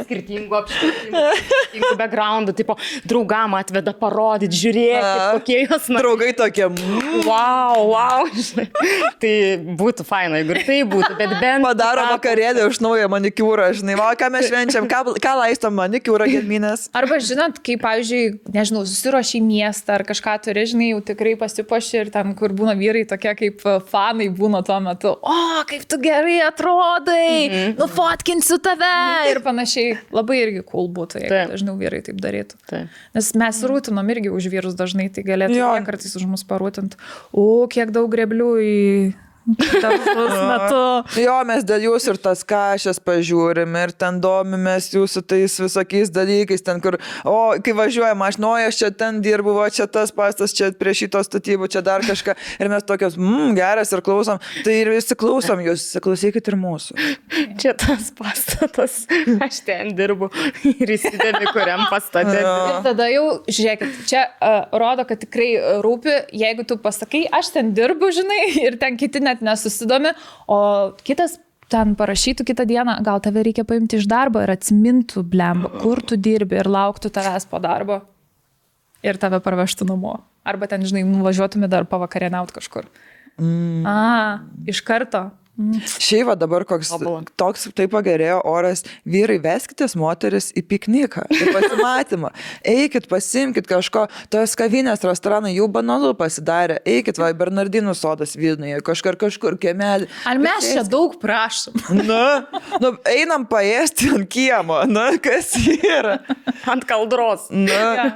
Speaker 3: skirtingų apšvietimų, skirtingų backgroundų, tipo, draugam atveda parodyti, žiūrėkit, kokie jos
Speaker 2: draugai tokie,
Speaker 3: wow, tai būtų faina, jeigu ir tai būtų, bet bent...
Speaker 2: Padaro vakarėlį už naują manikiūrą, žinai, ką mes švenčiam, ką laistom manikiūrą gedminės.
Speaker 1: Arba žinot, kai, pavyzdžiui, nežinau, susiruoši į miestą ar kažką turi, žinai, jau tikrai pasipuoši ir ten, kur būna vyrai tokie kaip fanai būna tuo metu. O, kaip tu gerai atrodai, nufotkinsiu tave ir panašiai. Labai irgi cool būtų, jeigu dažniau vyrai taip darytų. Nes mes rūtinom irgi už vyrus dažnai, tai galėtų jie kartais už mus parūtinti. O, kiek daug greblių į...
Speaker 2: Jo, mes dėl jūsų ir tas kašės pažiūrim ir ten domimės jūsų tais visokiais dalykais, ten kur, kai važiuojam, aš čia ten dirbu, čia tas pastas, čia prie šito statybų, čia dar kažką ir mes tokios, geras ir klausom, tai ir visi klausom jūs, klausykit ir mūsų.
Speaker 3: Čia tas pastatas, aš ten dirbu ir įsidėmi, kuriam pastate.
Speaker 1: Ir tada jau, žiūrėkit, čia rodo, kad tikrai rūpi, jeigu tu pasakai, aš ten dirbu, žinai, ir ten kiti net nesusidomi, o kitas ten parašytų kitą dieną, gal tave reikia paimti iš darbo ir atsimintų, blemba, kur tu dirbi ir lauktų tavęs po darbo ir tave parvežtų namo. Arba ten, žinai, nuvažiuotumė dar pavakarieniaut kažkur. Iš karto.
Speaker 2: Šiaip dabar toks taip pagerėjo oras, vyrai, veskitės moteris į pikniką, į pasimatymą, eikit, pasimkit kažko, tos kavinės, restoranai jau banalu pasidarė, eikit, Bernardinų sodas Vilniuje, kažkur kiemelį.
Speaker 1: Ar mes čia daug prašom?
Speaker 2: Einam paėsti ant kiemo, kas yra?
Speaker 3: Ant kaldros.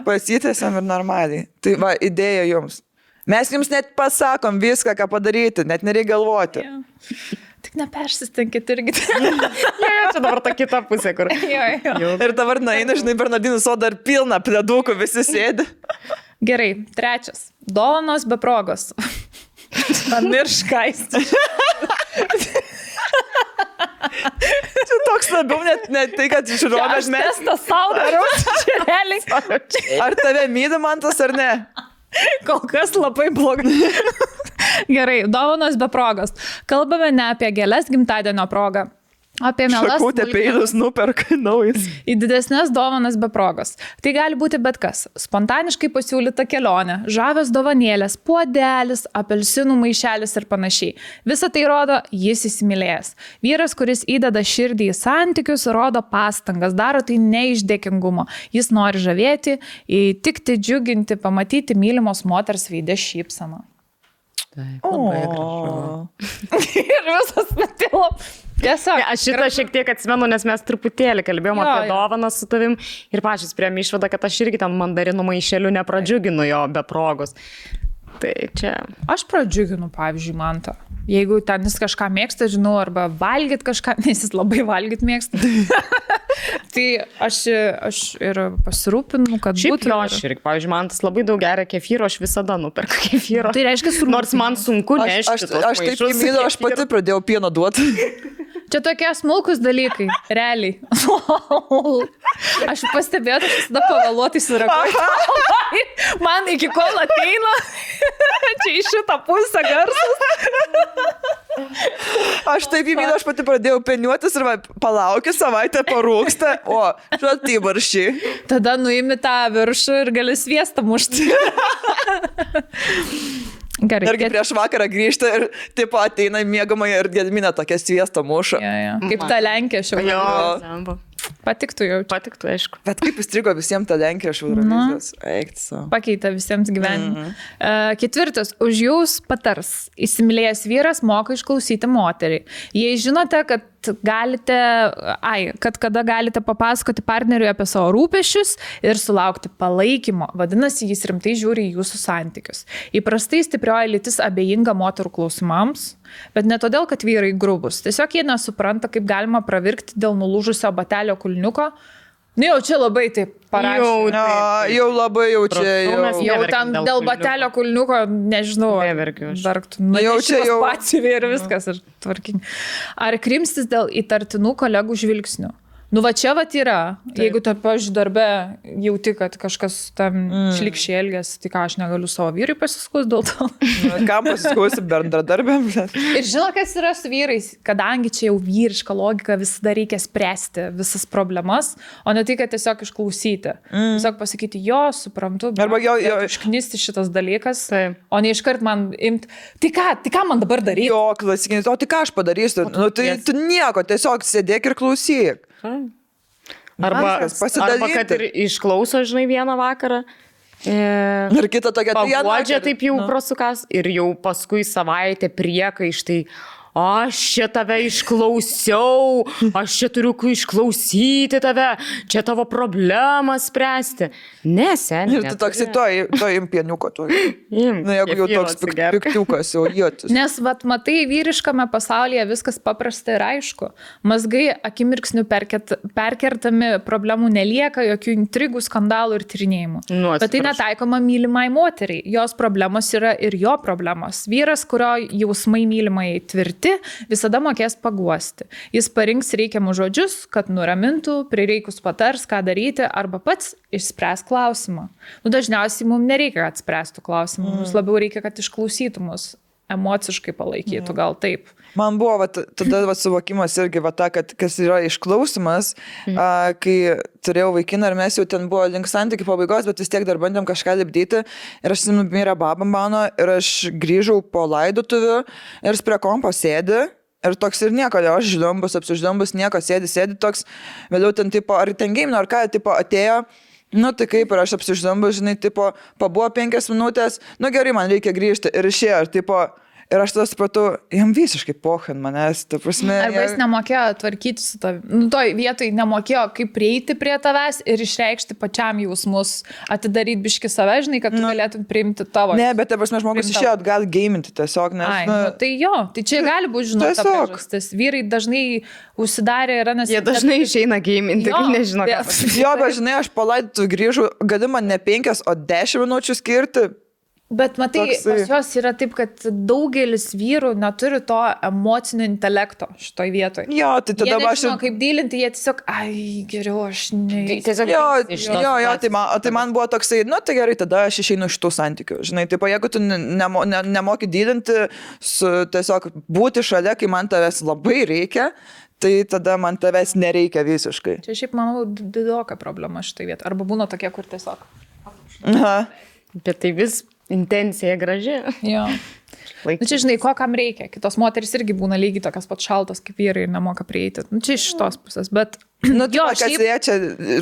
Speaker 2: Pasitėsiam ir normaliai. Tai idėja jums. Mes jums net pasakom viską, ką padaryti, net nereikia galvoti.
Speaker 1: Tik nepersistenkit irgi.
Speaker 3: Čia dabar ta kita pusė, kur.
Speaker 2: Ir dabar eina, žinai, Bernardinų sodą ir pilna pledukų, visi sėdi.
Speaker 1: Gerai, 3. Dovanos be progos. Pamirškaisti.
Speaker 2: Čia toks labiau net tai, kad žiūrovės mes...
Speaker 1: Aš testą sau darau.
Speaker 2: Ar tave myli Mantas ar ne?
Speaker 1: Kol kas labai blogai. Gerai, dovanos be progos. Kalbame ne apie gėles gimtadienio progą. Apie mielas
Speaker 2: šakutę peilius nuperka naujas.
Speaker 1: Į didesnės dovanas be progos. Tai gali būti bet kas. Spontaniškai pasiūlyta kelionė, žavios dovanėlės, puodelis, apelsinų maišelis ir panašiai. Visą tai rodo, jis įsimylėjęs. Vyras, kuris įdeda širdį į santykius, rodo pastangas, daro tai ne iš dėkingumo. Jis nori žavėti, įtikti, džiuginti, pamatyti mylimos moters veidę šypseną.
Speaker 3: Taip, labai gražu.
Speaker 1: Ir visas metilo. Tiesiog.
Speaker 3: Aš šitą šiek tiek atsimenu, nes mes truputėlį kalbėjom apie dovaną su tavim ir pačios priėmė išvadą, kad aš irgi ten mandarinų maišelių nepradžiuginu jo be progos. Tai čia.
Speaker 1: Aš pradžiuginu, pavyzdžiui, Mantą. Jeigu ten jis kažką mėgsta, žinau, arba valgyt kažką, nes jis labai valgyt mėgsta. Tai aš ir pasirūpinu, kad
Speaker 3: šiaip
Speaker 1: būtų.
Speaker 3: Aš irgi, pavyzdžiui, Mantas labai daug geria kefyro, aš visada nuperku kefyro.
Speaker 1: Tai reiškia,
Speaker 3: nors man sunku nešti.
Speaker 2: Aš taip įmyliu, aš pati pradėjau pieno duoti.
Speaker 1: Čia tokie smulkus dalykai, realiai. Aš pastebėjau, aš visada pavėluotai sureaguoju. Man iki kol ateina, čia iš šitą pusę garsas.
Speaker 2: Aš taip įvydu, aš pati pradėjau peniuotis ir palaukiu, savaitę parūksta, o šaltai barščiai.
Speaker 1: Tada nuimi tą viršų ir gali sviestą mušti. Gerai.
Speaker 2: Irgi prieš vakarą grįžta ir tipo ateina į miegamąją ir Gedminė tokia sviestą muša.
Speaker 1: Ja. Kaip ta Lenkija šiandien. Patiktų jau.
Speaker 3: Patiktų, aišku.
Speaker 2: Bet kaip įstrigo visiems ta Lenkija iš Eurovizijos?
Speaker 1: Pakeitė visiems gyvenimą. Ketvirtas. Už jūs patars. Įsimylėjęs vyras moka išklausyti moterį. Jei žinote, kad kada galite papasakoti partneriui apie savo rūpesčius ir sulaukti palaikymo, vadinasi, jis rimtai žiūri į jūsų santykius. Įprastai stiprioji lytis abejinga moterų klausimams, bet ne todėl, kad vyrai grubus. Tiesiog jie nesupranta, kaip galima pravirkti dėl nulūžusio batelio kulniuko. Nu jau čia labai taip parašė.
Speaker 2: Jau labai jau čia.
Speaker 1: Jau ten dėl batelio kulniuko, nežinau.
Speaker 3: Neverkiu aš.
Speaker 1: Nu jau čia jau. Patsivi ir viskas. Tvarkingai. Ar krimstis dėl įtartinų kolegų žvilgsnių? Nu va čia vat yra. Taip. Jeigu tu, pavyzdžiui, darbe jauti, kad kažkas tam šlikščiai elgiasi, tai ką aš negaliu savo vyrui pasiskus dėl to.
Speaker 2: Kam pasiskusi bendradarbėm?
Speaker 1: Ir žino, kas yra su vyrais, kadangi čia jau vyriška logika, visada reikia spręsti visas problemas, o ne tai, kad tiesiog išklausyti. Tiesiog pasakyti, jo, suprantu,
Speaker 2: arba jo
Speaker 1: išknisti šitas dalykas, o ne iškart man imti, tai ką man dabar daryti?
Speaker 2: Jo, klasikinis, o tai ką aš padarysiu? Nu, tai tu nieko, tiesiog sėdėk ir klausyk.
Speaker 3: Arba kad ir išklauso, žinai, vieną vakarą.
Speaker 2: Ir kita tokia
Speaker 3: paguodžia taip jau prasukas ir jau paskui savaitę priekaištai. Aš čia tave išklausiau, aš čia turiu išklausyti tave, čia tavo problemą spręsti. Ne, seniai.
Speaker 2: Ir tu toks to impieniuko. Na, jeigu jau toks piktiukas, jau jėtis.
Speaker 1: Nes, matai, vyriškame pasaulyje viskas paprasta ir aišku. Mazgai akimirksnių perkertami, problemų nelieka, jokių intrigų, skandalų ir tyrinėjimų. Bet tai netaikoma mylimai moteriai. Jos problemos yra ir jo problemos. Vyras, kurio jausmai mylimai tvirti, visada mokės paguosti. Jis parinks reikiamus žodžius, kad nuramintų, prireikus patars, ką daryti, arba pats išspręs klausimą. Nu, dažniausiai mums nereikia, kad spręstų klausimą, mums labiau reikia, kad išklausytų mus, emociškai palaikytų, gal taip.
Speaker 2: Man buvo tada suvokimas irgi, kad kas yra išklausimas, kai turėjau vaikiną ir mes jau ten buvo link santykių pabaigos, bet vis tiek dar bandėm kažką lipdyti ir aš mirė baba mano ir aš grįžau po laidotuvių ir jis prie kompo sėdi ir toks ir nieko, aš apsiždambus, nieko sėdi toks, vėliau ten tipo, ar ten game, ar ką, tipo atėjo. Nu, tai kaip ir aš apsiždambus, žinai, tipo, pabuvo 5 minutės, nu gerai, man reikia grįžti ir išėjo, ir tipo, ir aš tada supratau, jam visiškai pohin manęs, ta prasme.
Speaker 1: Arba jis nemokėjo tvarkyti su tavimi. Nu, toj vietoj nemokėjo, kaip prieiti prie tavęs ir išreikšti pačiam jausmus, atidaryti biški save, žinai, kad tu galėtum priimti tavo.
Speaker 2: Ne, bet ta prasme, žmogus išėjo atgal gaiminti tiesiog, nes...
Speaker 1: Tai jo, tai čia gali būti, žinau, ta priežastis. Vyrai dažnai užsidarė yra, nes...
Speaker 3: Jie dažnai išeina gaiminti, kai nežino, ką pasakyti.
Speaker 2: Jo, bet žinai, aš palaidotu grįžau, gali man ne 5, o 10 minučių skirti.
Speaker 1: Bet matai, pas juos yra taip, kad daugelis vyrų neturi to emocinio intelekto šitoj vietoj.
Speaker 2: Jo, tai tada
Speaker 1: aš... Jie nežino, kaip dylinti, jie tiesiog, geriau aš ne...
Speaker 2: Tai man buvo toksai, nu tai gerai, tada aš išeinu iš tų santykių. Žinai, taip, jeigu tu nemoki dylinti, tiesiog būti šalia, kai man tavęs labai reikia, tai tada man tavęs nereikia visiškai.
Speaker 1: Čia šiaip, manau, didoka problema šitoj vietoj. Arba būna tokie, kur tiesiog...
Speaker 2: Aha.
Speaker 3: Bet tai vis... Intencija graži.
Speaker 1: Jo. Nu, čia žinai, ko kam reikia. Kitos moteris irgi būna lygiai tokias pat šaltos kaip vyrai ir nemoka prieiti. Nu, čia iš tos pusės, bet...
Speaker 2: Nu, kas liečia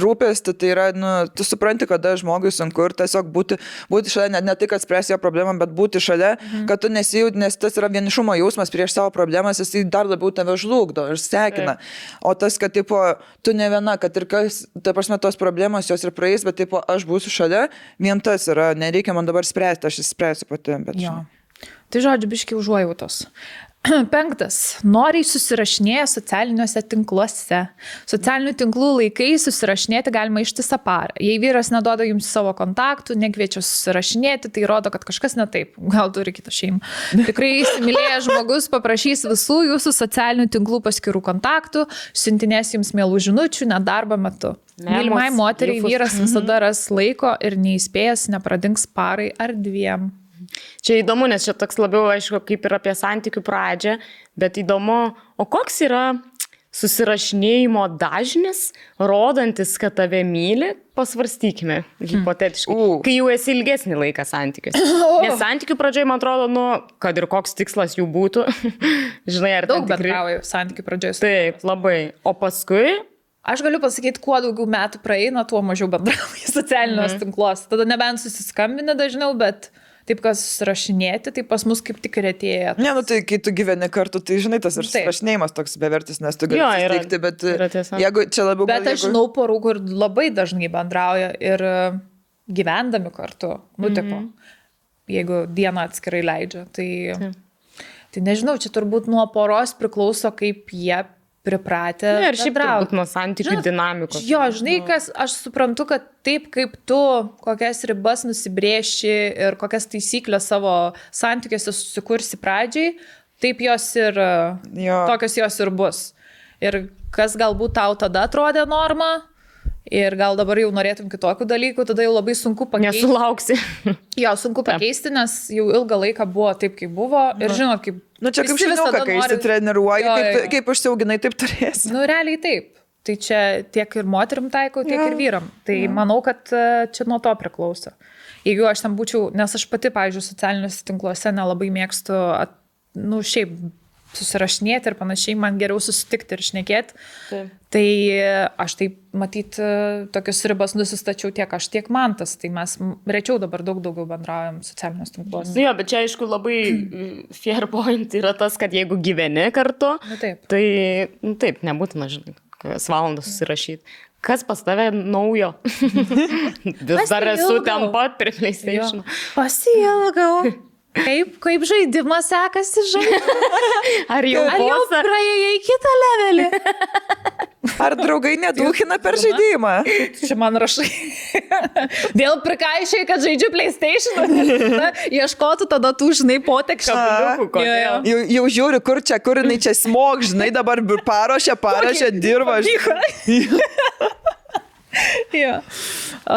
Speaker 2: rūpestį, tai yra, nu, tu supranti, kada žmogui sunku ir tiesiog būti šalia, ne tik atspręsti jo problemą, bet būti šalia, kad tu nesijūt, nes tas yra vienišumo jausmas prieš savo problemas, jis dar labiau tave žlugdo ir sekina. O tas, kad, tipo, tu ne viena, kad ir kas, ta prasme, tos problemos jos ir praeis, bet, tipo, aš būsiu šalia, vien tas yra, nereikia man dabar spręsti, aš išspręsiu pati. Bet,
Speaker 1: jo. Tai žodžiu, biški užuojautos. 5. Noriai susirašinėja socialiniuose tinkluose. Socialinių tinklų laikai susirašinėti galima ištisą parą. Jei vyras neduoda jums savo kontaktų, nekviečia susirašinėti, tai rodo, kad kažkas ne taip. Gal turi kitą šeimą. Tikrai įsimylėjęs žmogus paprašys visų jūsų socialinių tinklų paskirų kontaktų, siuntinės jums mielų žinučių, net darbo metu. Mylimai moteriai vyras visada ras laiko ir neįspėjęs nepradings parai ar 2.
Speaker 3: Čia įdomu, nes čia toks labiau, aišku, kaip ir apie santykių pradžią, bet įdomu, o koks yra susirašinėjimo dažnis, rodantis, kad tave myli, pasvarstykime, hipotetiškai, kai jau esi ilgesnį laiką santykiuose. Nes santykių pradžioje, man atrodo, kad ir koks tikslas jų būtų, žinai, ar
Speaker 1: daug bendrauju santykių pradžioje.
Speaker 3: Taip, labai. O paskui...
Speaker 1: Aš galiu pasakyti, kuo daugiau metų praeina, tuo mažiau bendrauju socialiniuose tinkluose. Tada nebent susiskambinę dažniau, bet taip, kas susirašinėti, tai pas mus kaip tik retėja.
Speaker 2: Ne, nu tai kai tu gyveni kartu, tai žinai, tas ir susirašinėjimas toks bevertis, nes tu gali susitikti, bet jeigu čia labiau...
Speaker 1: Bet aš žinau porų, kur labai dažnai bendrauja ir gyvendami kartu, tipo, jeigu dieną atskirai leidžia, tai nežinau, čia turbūt nuo poros priklauso, kaip jie pripratę.
Speaker 3: Ne, ir šiaip turbūt nuo santykių dinamikos.
Speaker 1: Jo, žinai, kas, aš suprantu, kad taip kaip tu kokias ribas nusibrėši ir kokias taisyklės savo santykiuose susikursi pradžiai, taip jos ir, tokios jos ir bus. Ir kas galbūt tau tada atrodė norma, ir gal dabar jau norėtum kitokių dalykų, tada jau labai sunku pakeisti.
Speaker 3: Nesulauksi.
Speaker 1: Jo, sunku pakeisti, nes jau ilgą laiką buvo taip, kaip buvo. Ir žinot, kaip...
Speaker 2: Nu čia kaip šuniuką, kai išsitreniruoji, kaip užsiauginai, taip turėsi.
Speaker 1: Nu realiai taip. Tai čia tiek ir moterim taikau, tiek ir vyram. Tai manau, kad čia nuo to priklauso. Jeigu aš ten būčiau, nes aš pati, pavyzdžiui, socialiniuose tinkluose nelabai mėgstu, šiaip susirašinėti ir panašiai, man geriau susitikti ir šnekėti. Taip. Tai aš taip, matyt, tokius ribas nusistačiau tiek aš, tiek mantas. Tai mes rečiau dabar daugiau bendraujam socialinius tinklus.
Speaker 3: Jo, bet čia aišku labai fair point yra tas, kad jeigu gyveni kartu, tai taip, nebūtina, žinai, kokias valandas susirašyti. Kas pas tave naujo? Vis dar esu ten pat prie PlayStation.
Speaker 1: Pasiilgau. Kaip žaidimas sekasi žaidimas?
Speaker 3: Ar jau
Speaker 1: praėjai į kitą levelį?
Speaker 2: Ar draugai nedūkina per žaidimą?
Speaker 1: Čia man rašai. Vėl prikaišiai, kad žaidžiu PlayStation. Ieškotų tada tų, žinai, potekščių.
Speaker 2: Jau žiūri, kur jinai čia smog, žinai, dabar paruošia, dirba.
Speaker 1: Jo.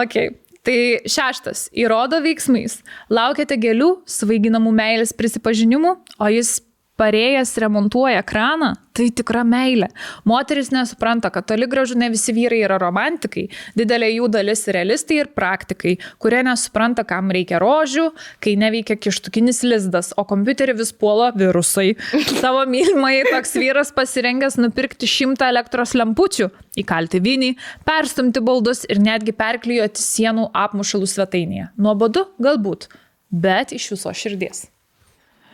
Speaker 1: Okay. Tai 6. Įrodo veiksmais. Laukiate gėlių, svaiginamų meilės prisipažinimų, o jis parėjęs remontuoja kraną, tai tikra meilė. Moteris nesupranta, kad toli gražu ne visi vyrai yra romantikai, didelė jų dalis realistai ir praktikai, kurie nesupranta, kam reikia rožių, kai neveikia kištukinis lizdas, o kompiuterį vis puola virusai. Savo mylimai toks vyras pasirengęs nupirkti 100 elektros lempučių, įkalti vinį, perstumti baldus ir netgi perklijuoti sienų apmušalų svetainėje. Nuobodu? Galbūt, bet iš viso širdies.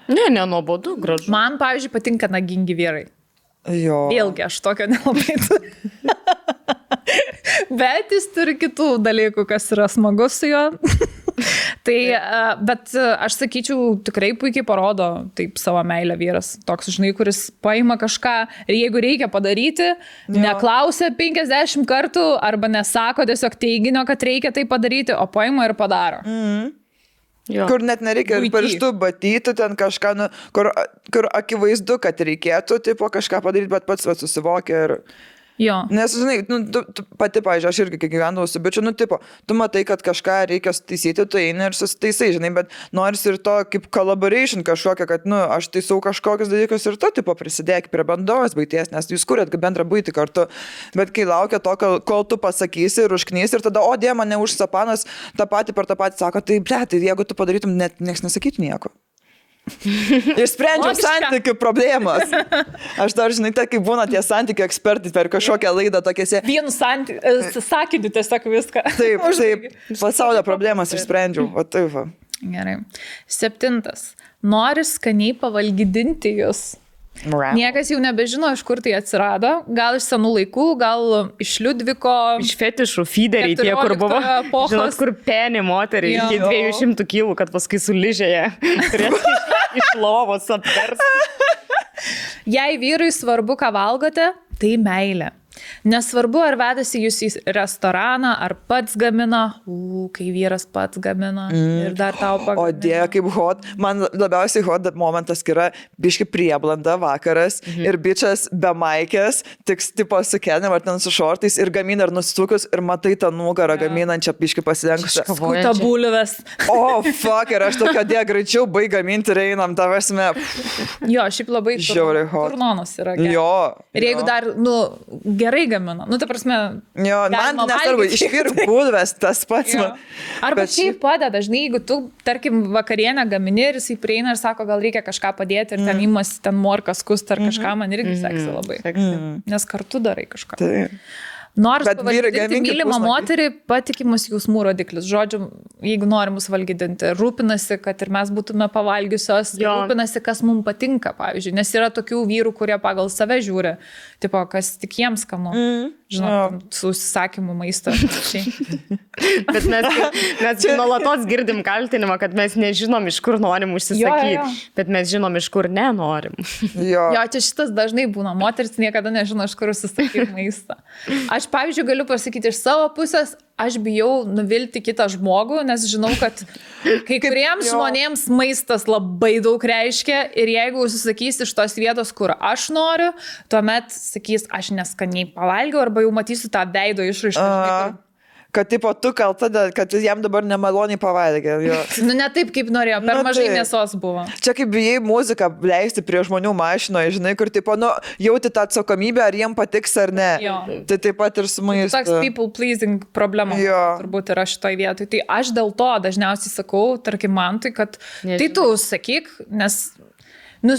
Speaker 3: Ne, nuobodu, gražu.
Speaker 1: Man, pavyzdžiui, patinka nagingi vyrai.
Speaker 2: Jo.
Speaker 1: Vėlgi, aš tokio nelabai turiu. Bet jis turi kitų dalykų, kas yra smagus su juo. Tai, bet aš sakyčiau, tikrai puikiai parodo taip savo meilę vyras. Toks, žinai, kuris paima kažką ir jeigu reikia padaryti, neklausia 50 kartų arba nesako tiesiog teiginio, kad reikia tai padaryti, o paima ir padaro.
Speaker 2: Jo. Kur net nereikia pirštų batyti, ten kažką, kur akivaizdu, kad reikėtų tipo, kažką padaryti, bet pats susivokia ir...
Speaker 1: Jo.
Speaker 2: Nes, žinai, tu pati, pavyzdžiui, aš irgi, kai gyvendavau su bičiu, tipo, tu matai, kad kažką reikia taisyti, tu eini ir susitaisai, žinai, bet noris ir to kaip collaboration kažkokia, kad, aš taisau kažkokius dalykus ir tu, tipo, prisidėk prie bendros buities, nes jūs kuriat bendrą buitį kartu, bet kai laukia to, kol tu pasakysi ir užknysi ir tada, o dė, mane užsapanas, tą patį per tą patį sako, tai, ble, tai jeigu tu padarytum, net nieks nesakytų nieko. Išsprendžiau santykių problemas. Aš dar, žinai, tai kaip būna tie santykių ekspertai per kažkokią laidą tokiese.
Speaker 1: Vienu sakiniu tiesiog viską.
Speaker 2: Taip, pasaulio problemas išsprendžiau. O taip va.
Speaker 1: Gerai. 7. Nori skaniai pavalgydinti jūs. Niekas jau nebežino, iš kur tai atsirado. Gal iš senų laikų, gal iš Liudviko.
Speaker 3: Iš fetišų feederiai tie, kur buvo. Žinot, kur penį moteriai iki 200 kilų, kad paskui suližėje. Turėtų iš lovos apvers.
Speaker 1: Jei vyrui svarbu, ką valgote, tai meilė. Nesvarbu, ar vedasi jūs į restoraną, ar pats gamina, kai vyras pats gamina ir dar tau pagamina.
Speaker 2: O Dieve, kaip hot. Man labiausiai hot momentas yra biški prieblanda vakaras ir bičias be maikės, tik tipo su kelnėm ar ten su šortais ir gamina ir nustukus ir matai tą nugarą gaminančią biški pasidengusią.
Speaker 1: Skuta bulves.
Speaker 2: O, fuck, ir aš tokia Dieve greičiau baig gaminti ir einam, tavasme.
Speaker 1: Jo, šiaip labai turnonas yra gerai.
Speaker 2: Jo.
Speaker 1: Ir jeigu dar, gerai gamina. Ta prasme.
Speaker 2: Jo, man nesvarbu, išvirk bulves tas pats.
Speaker 1: Arba šiaip padeda, dažnai, jeigu tu, tarkim, vakarienę gamini ir jisai prieina ir sako, gal reikia kažką padėti ir ten imasi ten morkas kust ar kažką, man irgi seksi labai. Nes kartu darai kažką.
Speaker 2: Taip.
Speaker 1: Nors pavaldyti mylimą moterį patikimus jausmų rodiklis. Žodžiu, jeigu nori mus valgydinti, rūpinasi, kad ir mes būtume pavalgiusios, rūpinasi, kas mums patinka, pavyzdžiui. Nes yra tokių vyrų, kurie pagal save žiūri, tipo, kas tik jiems skanu. Žinot, su užsisakymu maisto.
Speaker 3: Bet mes nuolatos girdim kaltinimą, kad mes nežinom, iš kur norim užsisakyti, bet mes žinom, iš kur nenorim.
Speaker 1: Jo, čia šitas dažnai būna. Moteris niekada nežino, iš kur užsisakyti maistą. Aš, pavyzdžiui, galiu pasakyti iš savo pusės, aš bijau nuvilti kitą žmogų, nes žinau, kad kai kuriems žmonėms maistas labai daug reiškia ir jeigu užsisakys iš tos vietos, kur aš noriu, tuomet sakys, aš neskaniai pavalgiau arba jau matysiu tą veido išraišką.
Speaker 2: Kad tipo tu kalta, kad jam dabar nemaloniai pavalgė.
Speaker 1: Ne taip, kaip norėjo, per mažai mėsos buvo.
Speaker 2: Čia kaip bijai muziką leisti prie žmonių mašinoje, žinai, kur tipo, jauti tą atsakomybę, ar jiem patiks ar ne. Tai taip pat ir su maistu.
Speaker 1: Toks people pleasing problema turbūt yra šitoj vietoj. Tai aš dėl to dažniausiai sakau, tarkim, Mantui, kad tai tu sakyk, nes...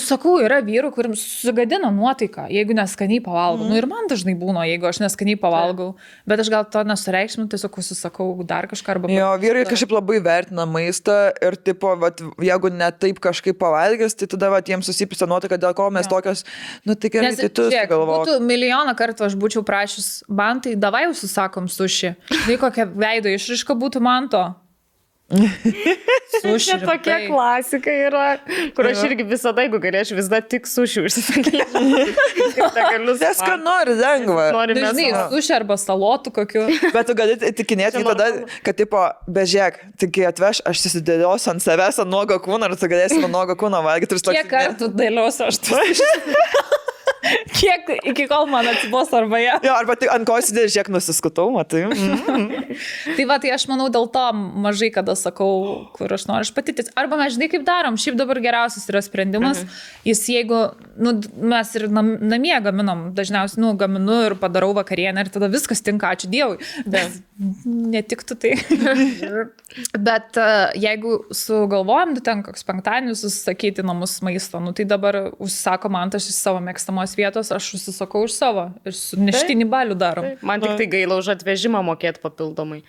Speaker 1: sakau, yra vyrų, kuriems sugadina nuotaiką, jeigu neskaniai pavalgau. Ir man dažnai būna, jeigu aš neskaniai pavalgau. Bet aš gal to nesureikšminu, tiesiog užsisakau dar kažką arba...
Speaker 2: Jo, vyrai kažkaip labai vertina maistą ir, tipo, jeigu ne taip kažkaip pavalgęs, tai tada jiems susipisa nuotaika, dėl ko mes tokios, tai gerai, tai tu sugalvok.
Speaker 1: Būtų milijoną kartų aš būčiau prašys, Mantai, davai užsisakom suši. Tai kokia veido išraiška būtų man to.
Speaker 3: Suši tokia klasika yra, kur aš irgi visada, jeigu galėčiau, visada tik suši užsisakyti.
Speaker 2: Nes ką nori, lengva.
Speaker 1: Dažnai suši arba salotų kokiu.
Speaker 2: Bet tu gali tikinėti tada, kad tipo, bežiek, tik atveš, aš susidėliosiu ant savęs ant nuogo kūno ir tu galėsi ant nuogo kūno valgyti.
Speaker 1: Kiek kartų dėliosiu aš tu? Kiek iki kol man atsibos arba ją.
Speaker 2: Jo, arba tai ant ko įsidėlė, žiek nusiskutau, matai.
Speaker 1: Tai aš manau, dėl to mažai kada sakau, kur aš noriu patitis. Arba mes žinai, kaip darom. Šiaip dabar geriausias yra sprendimas. Jis jeigu, mes ir namie gaminam, dažniausiai, gaminu ir padarau vakarienę ir tada viskas tinka, ačiū Dievui. Bet netiktų tai. Bet jeigu sugalvojam, ten koks penktadienis susisakyti namus maisto, tai dabar užsisako man tas iš savo mėgstamos vietos, aš užsisakau iš savo ir su neštinį balių darom.
Speaker 3: Man tik tai gaila už atvežimą mokėti papildomai.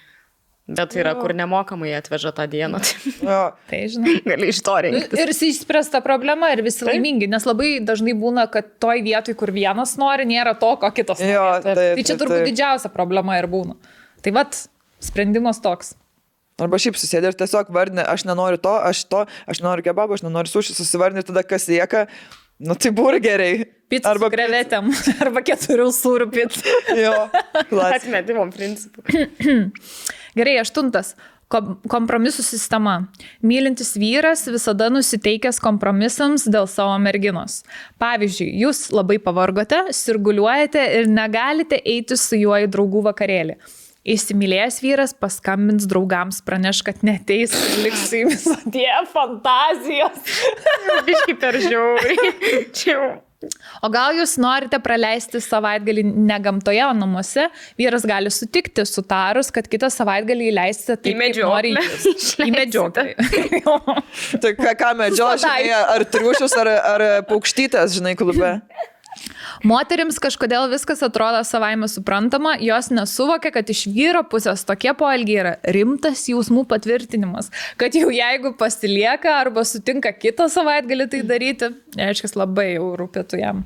Speaker 3: Bet yra, kur nemokamai atveža tą dieną.
Speaker 1: Tai žinai.
Speaker 3: Gali iš to rinktis.
Speaker 1: Ir išspręsta problema ir visi laimingi, nes labai dažnai būna, kad toj vietoj, kur vienas nori, nėra to, ko kitas nori. Tai čia turbūt didžiausia problema ir būna. Tai vat, sprendimas toks.
Speaker 2: Arba šiaip susėdė ir tiesiog vardinė, aš nenoriu to, aš nenoriu kebabo, aš nenoriu suši, susivardinė ir tada kas lieka, tai burgeriai.
Speaker 1: Pizza arba krevetėm, arba 4 sūrių pizza.
Speaker 2: Jo,
Speaker 3: atmetimo principų.
Speaker 1: Gerai, 8. Kompromisų sistema. Mylintis vyras visada nusiteikęs kompromisams dėl savo merginos. Pavyzdžiui, jūs labai pavargote, sirguliuojate ir negalite eiti su juo į draugų vakarėlį. Įsimylėjęs vyras paskambins draugams, praneš, kad neteis ir liks su jumis. Dieve, fantazijos.
Speaker 3: Biški per žiauriai.
Speaker 1: O gal jūs norite praleisti savaitgalį ne gamtoje, o namuose? Vyras gali sutikti sutarus, kad kitą savaitgalį įleisite taip, kaip nori jūs. Į medžioklę.
Speaker 2: Tai ką medžio, žinai, ar triušius, ar paukštytės, žinai, klube?
Speaker 1: Moterims kažkodėl viskas atrodo savaime suprantama, jos nesuvokia, kad iš vyro pusės tokie poelgiai yra rimtas jausmų patvirtinimas, kad jau jeigu pasilieka arba sutinka kitą savaitgalį tai daryti, reiškia, labai jau rūpėtų jam.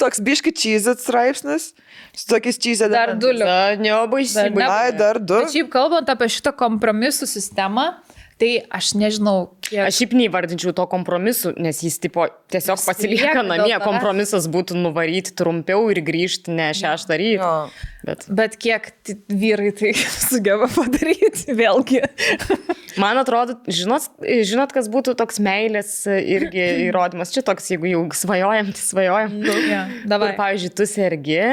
Speaker 2: Toks biški čyzit straipsnis, su tokiais čyzit.
Speaker 1: Dar 2.
Speaker 2: Dar 2.
Speaker 1: Bet šiaip kalbant apie šitą kompromisų sistemą, Tai aš nežinau, kiek...
Speaker 3: Aš šiaip neįvardinčiau to kompromisu, nes jis tipo tiesiog pasilieka namie, kompromisas būtų nuvaryti trumpiau ir grįžti ne 6 ryto.
Speaker 1: Bet kiek vyrai tai sugeba padaryti, vėlgi.
Speaker 3: Man atrodo, žinot, kas būtų toks meilės irgi įrodymas. Čia toks, jeigu jau svajojam, tai svajojam.
Speaker 1: Dabar,
Speaker 3: pavyzdžiui, tu sergi,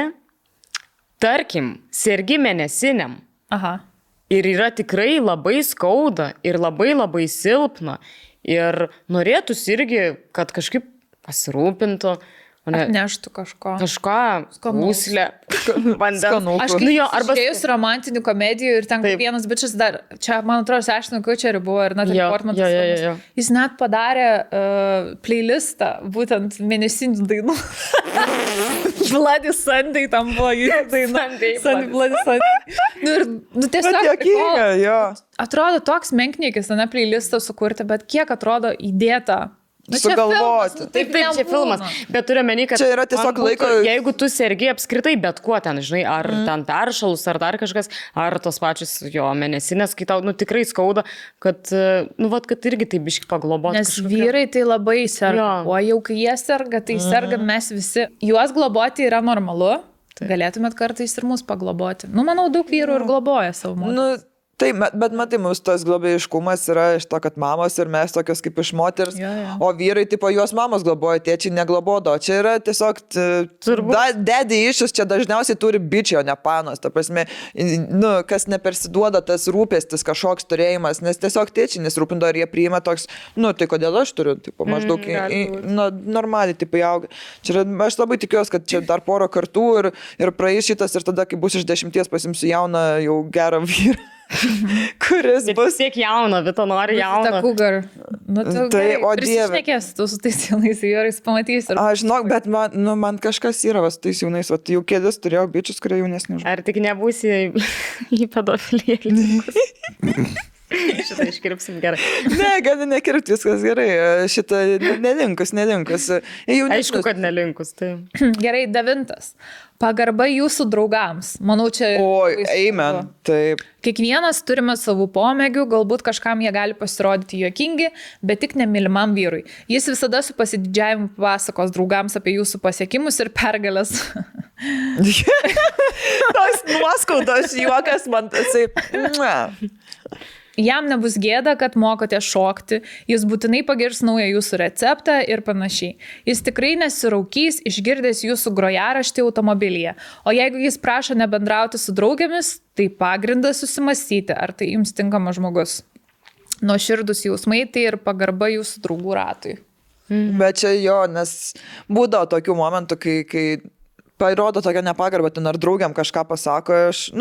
Speaker 3: tarkim, sergi mėnesiniam.
Speaker 1: Aha.
Speaker 3: Ir yra tikrai labai skauda ir labai labai silpna. Ir norėtųsi irgi, kad kažkaip pasirūpintų.
Speaker 1: Atneštų kažko.
Speaker 3: Kažką, skūslę, vandens.
Speaker 1: Aš žiūrėjus romantinių komedijų ir ten vienas bičias dar, čia man atrodo, Ashton Kutcher buvo ir Natalie Portman. Jis net padarė playlistą, būtent mėnesinių dainų. Bloody Sunday tam buvo jų daina. Bloody Sunday. Tiesiog, atrodo toks menkniekis, ne playlistą sukurti, bet kiek atrodo įdėta.
Speaker 2: Sugalvoti.
Speaker 3: Taip, čia filmas. Bet turiu menį, kad
Speaker 2: čia yra tiesiog laiko...
Speaker 3: Jeigu tu sergi apskritai bet kuo ten, žinai, ar ten peršalus, ar dar kažkas, ar tos pačios mėnesinės, kai tau tikrai skauda, kad, kad irgi taip biški pagloboti.
Speaker 1: Nes vyrai tai labai serga. O jau kai jie serga, tai sergam mes visi. Juos globoti yra normalu. Galėtumėt kartais ir mus pagloboti. Manau, daug vyrų ir globoja savo moterį.
Speaker 2: Tai, bet matai, mūsų tas globėjiškumas yra iš to, kad mamos ir mes tokios kaip iš moters, o vyrai, tipo, juos mamos globoja, tėčiai neglobodo. Čia yra tiesiog daddy issues, čia dažniausiai turi bičiai, o ne panos. Ta prasme, kas nepersiduoda tas rūpestis, kažkoks turėjimas, nes tiesiog tėčiai nesirūpindo, ar jie priima toks, tai kodėl aš turiu, tipo, maždaug normaliai, tipo, auga. Čia aš labai tikiuosi, kad čia dar porą kartų ir praeis šitas ir tada, kai bus iš 10, pasimsiu jauną, jau gerą vyrą. Kuris bus
Speaker 3: tiek jauno, bet to nori jauno.
Speaker 1: Ta cougar.
Speaker 2: Tai, o dieve.
Speaker 1: Prisišnekės tu su tais jaunais vyrais, pamatysi.
Speaker 2: Aš žinok, bet man kažkas yra su tais jaunais, jau kėdės turėjau bičius, kurie jaunesni.
Speaker 3: Ar tik nebūsi į pedofiliją? Šitą iškirpsim gerai.
Speaker 2: Ne, gali nekirpti, viskas gerai. Šitą nelinkus.
Speaker 3: Aišku, kad nelinkus. Tai.
Speaker 1: Gerai, 9. Pagarba jūsų draugams. Manau, čia...
Speaker 2: Oi, amen. Taip.
Speaker 1: Kiekvienas turime savų pomėgių, galbūt kažkam jie gali pasirodyti juokingi, bet tik nemylimam vyrui. Jis visada su pasididžiavimu pasakos draugams apie jūsų pasiekimus ir pergalės.
Speaker 2: Tos nuoskaudos juokas man tasai...
Speaker 1: Jam nebus gėda, kad mokote šokti, jis būtinai pagirs naują jūsų receptą ir panašiai. Jis tikrai nesiraukys, išgirdęs jūsų grojaraštį automobilyje. O jeigu jis prašo nebendrauti su draugėmis, tai pagrindas susimastyti, ar tai jums tinkamas žmogus. Nuoširdūs jausmai tai ir pagarba jūsų draugų ratui.
Speaker 2: Bet čia nes būdavo tokių momentų, kai parodo tokią nepagarbą, ten ar draugiam kažką pasako, aš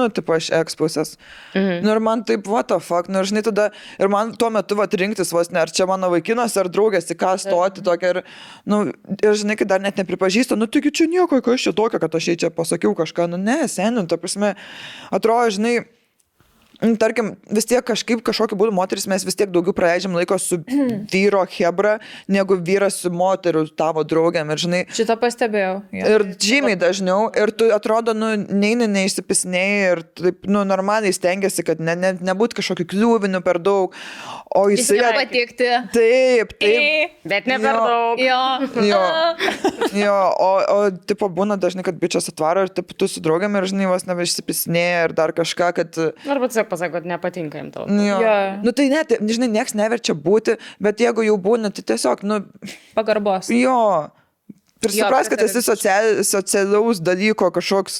Speaker 2: ekspusės. Ir man taip, what the fuck, žinai, tada, ir man tuo metu rinktis vos ne, ar čia mano vaikinas, ar draugės, į ką stoti tokia, ir žinai, kai dar net nepripažįsta, taigi čia nieko, kas čia tokio, kad aš čia pasakiau kažką, ne, seniai, ta prasme, atrodo, žinai, tarkim, vis tiek kažkokiu būdu moteris mes vis tiek daugiau praleidžiam laiko su vyro hebra, negu vyras su moteriu tavo draugiam. Ir, žinai,
Speaker 1: šitą pastebėjau.
Speaker 2: Ir žymiai dažniau. Ir tu atrodo, neišsipisinėjai ir taip, normaliai stengiasi, kad nebūtų kažkokių kliūvinių per daug. O jis
Speaker 1: patikti.
Speaker 2: Taip.
Speaker 3: Bet ne per daug.
Speaker 2: Jo. O tipo, būna dažnai, kad bičias atvaro ir taip, tu su draugiam ir, žinai, vos nebeišsipisinėjai ir dar kažką, kad...
Speaker 3: Arba tiesiog pasako, kad nepatinka jam tau.
Speaker 2: Tai net, žinai, nieks neverčia būti, bet jeigu jau būna, tai tiesiog,
Speaker 1: pagarbos.
Speaker 2: Jo. Prisipras, kad esi socialaus dalyko kažkoks.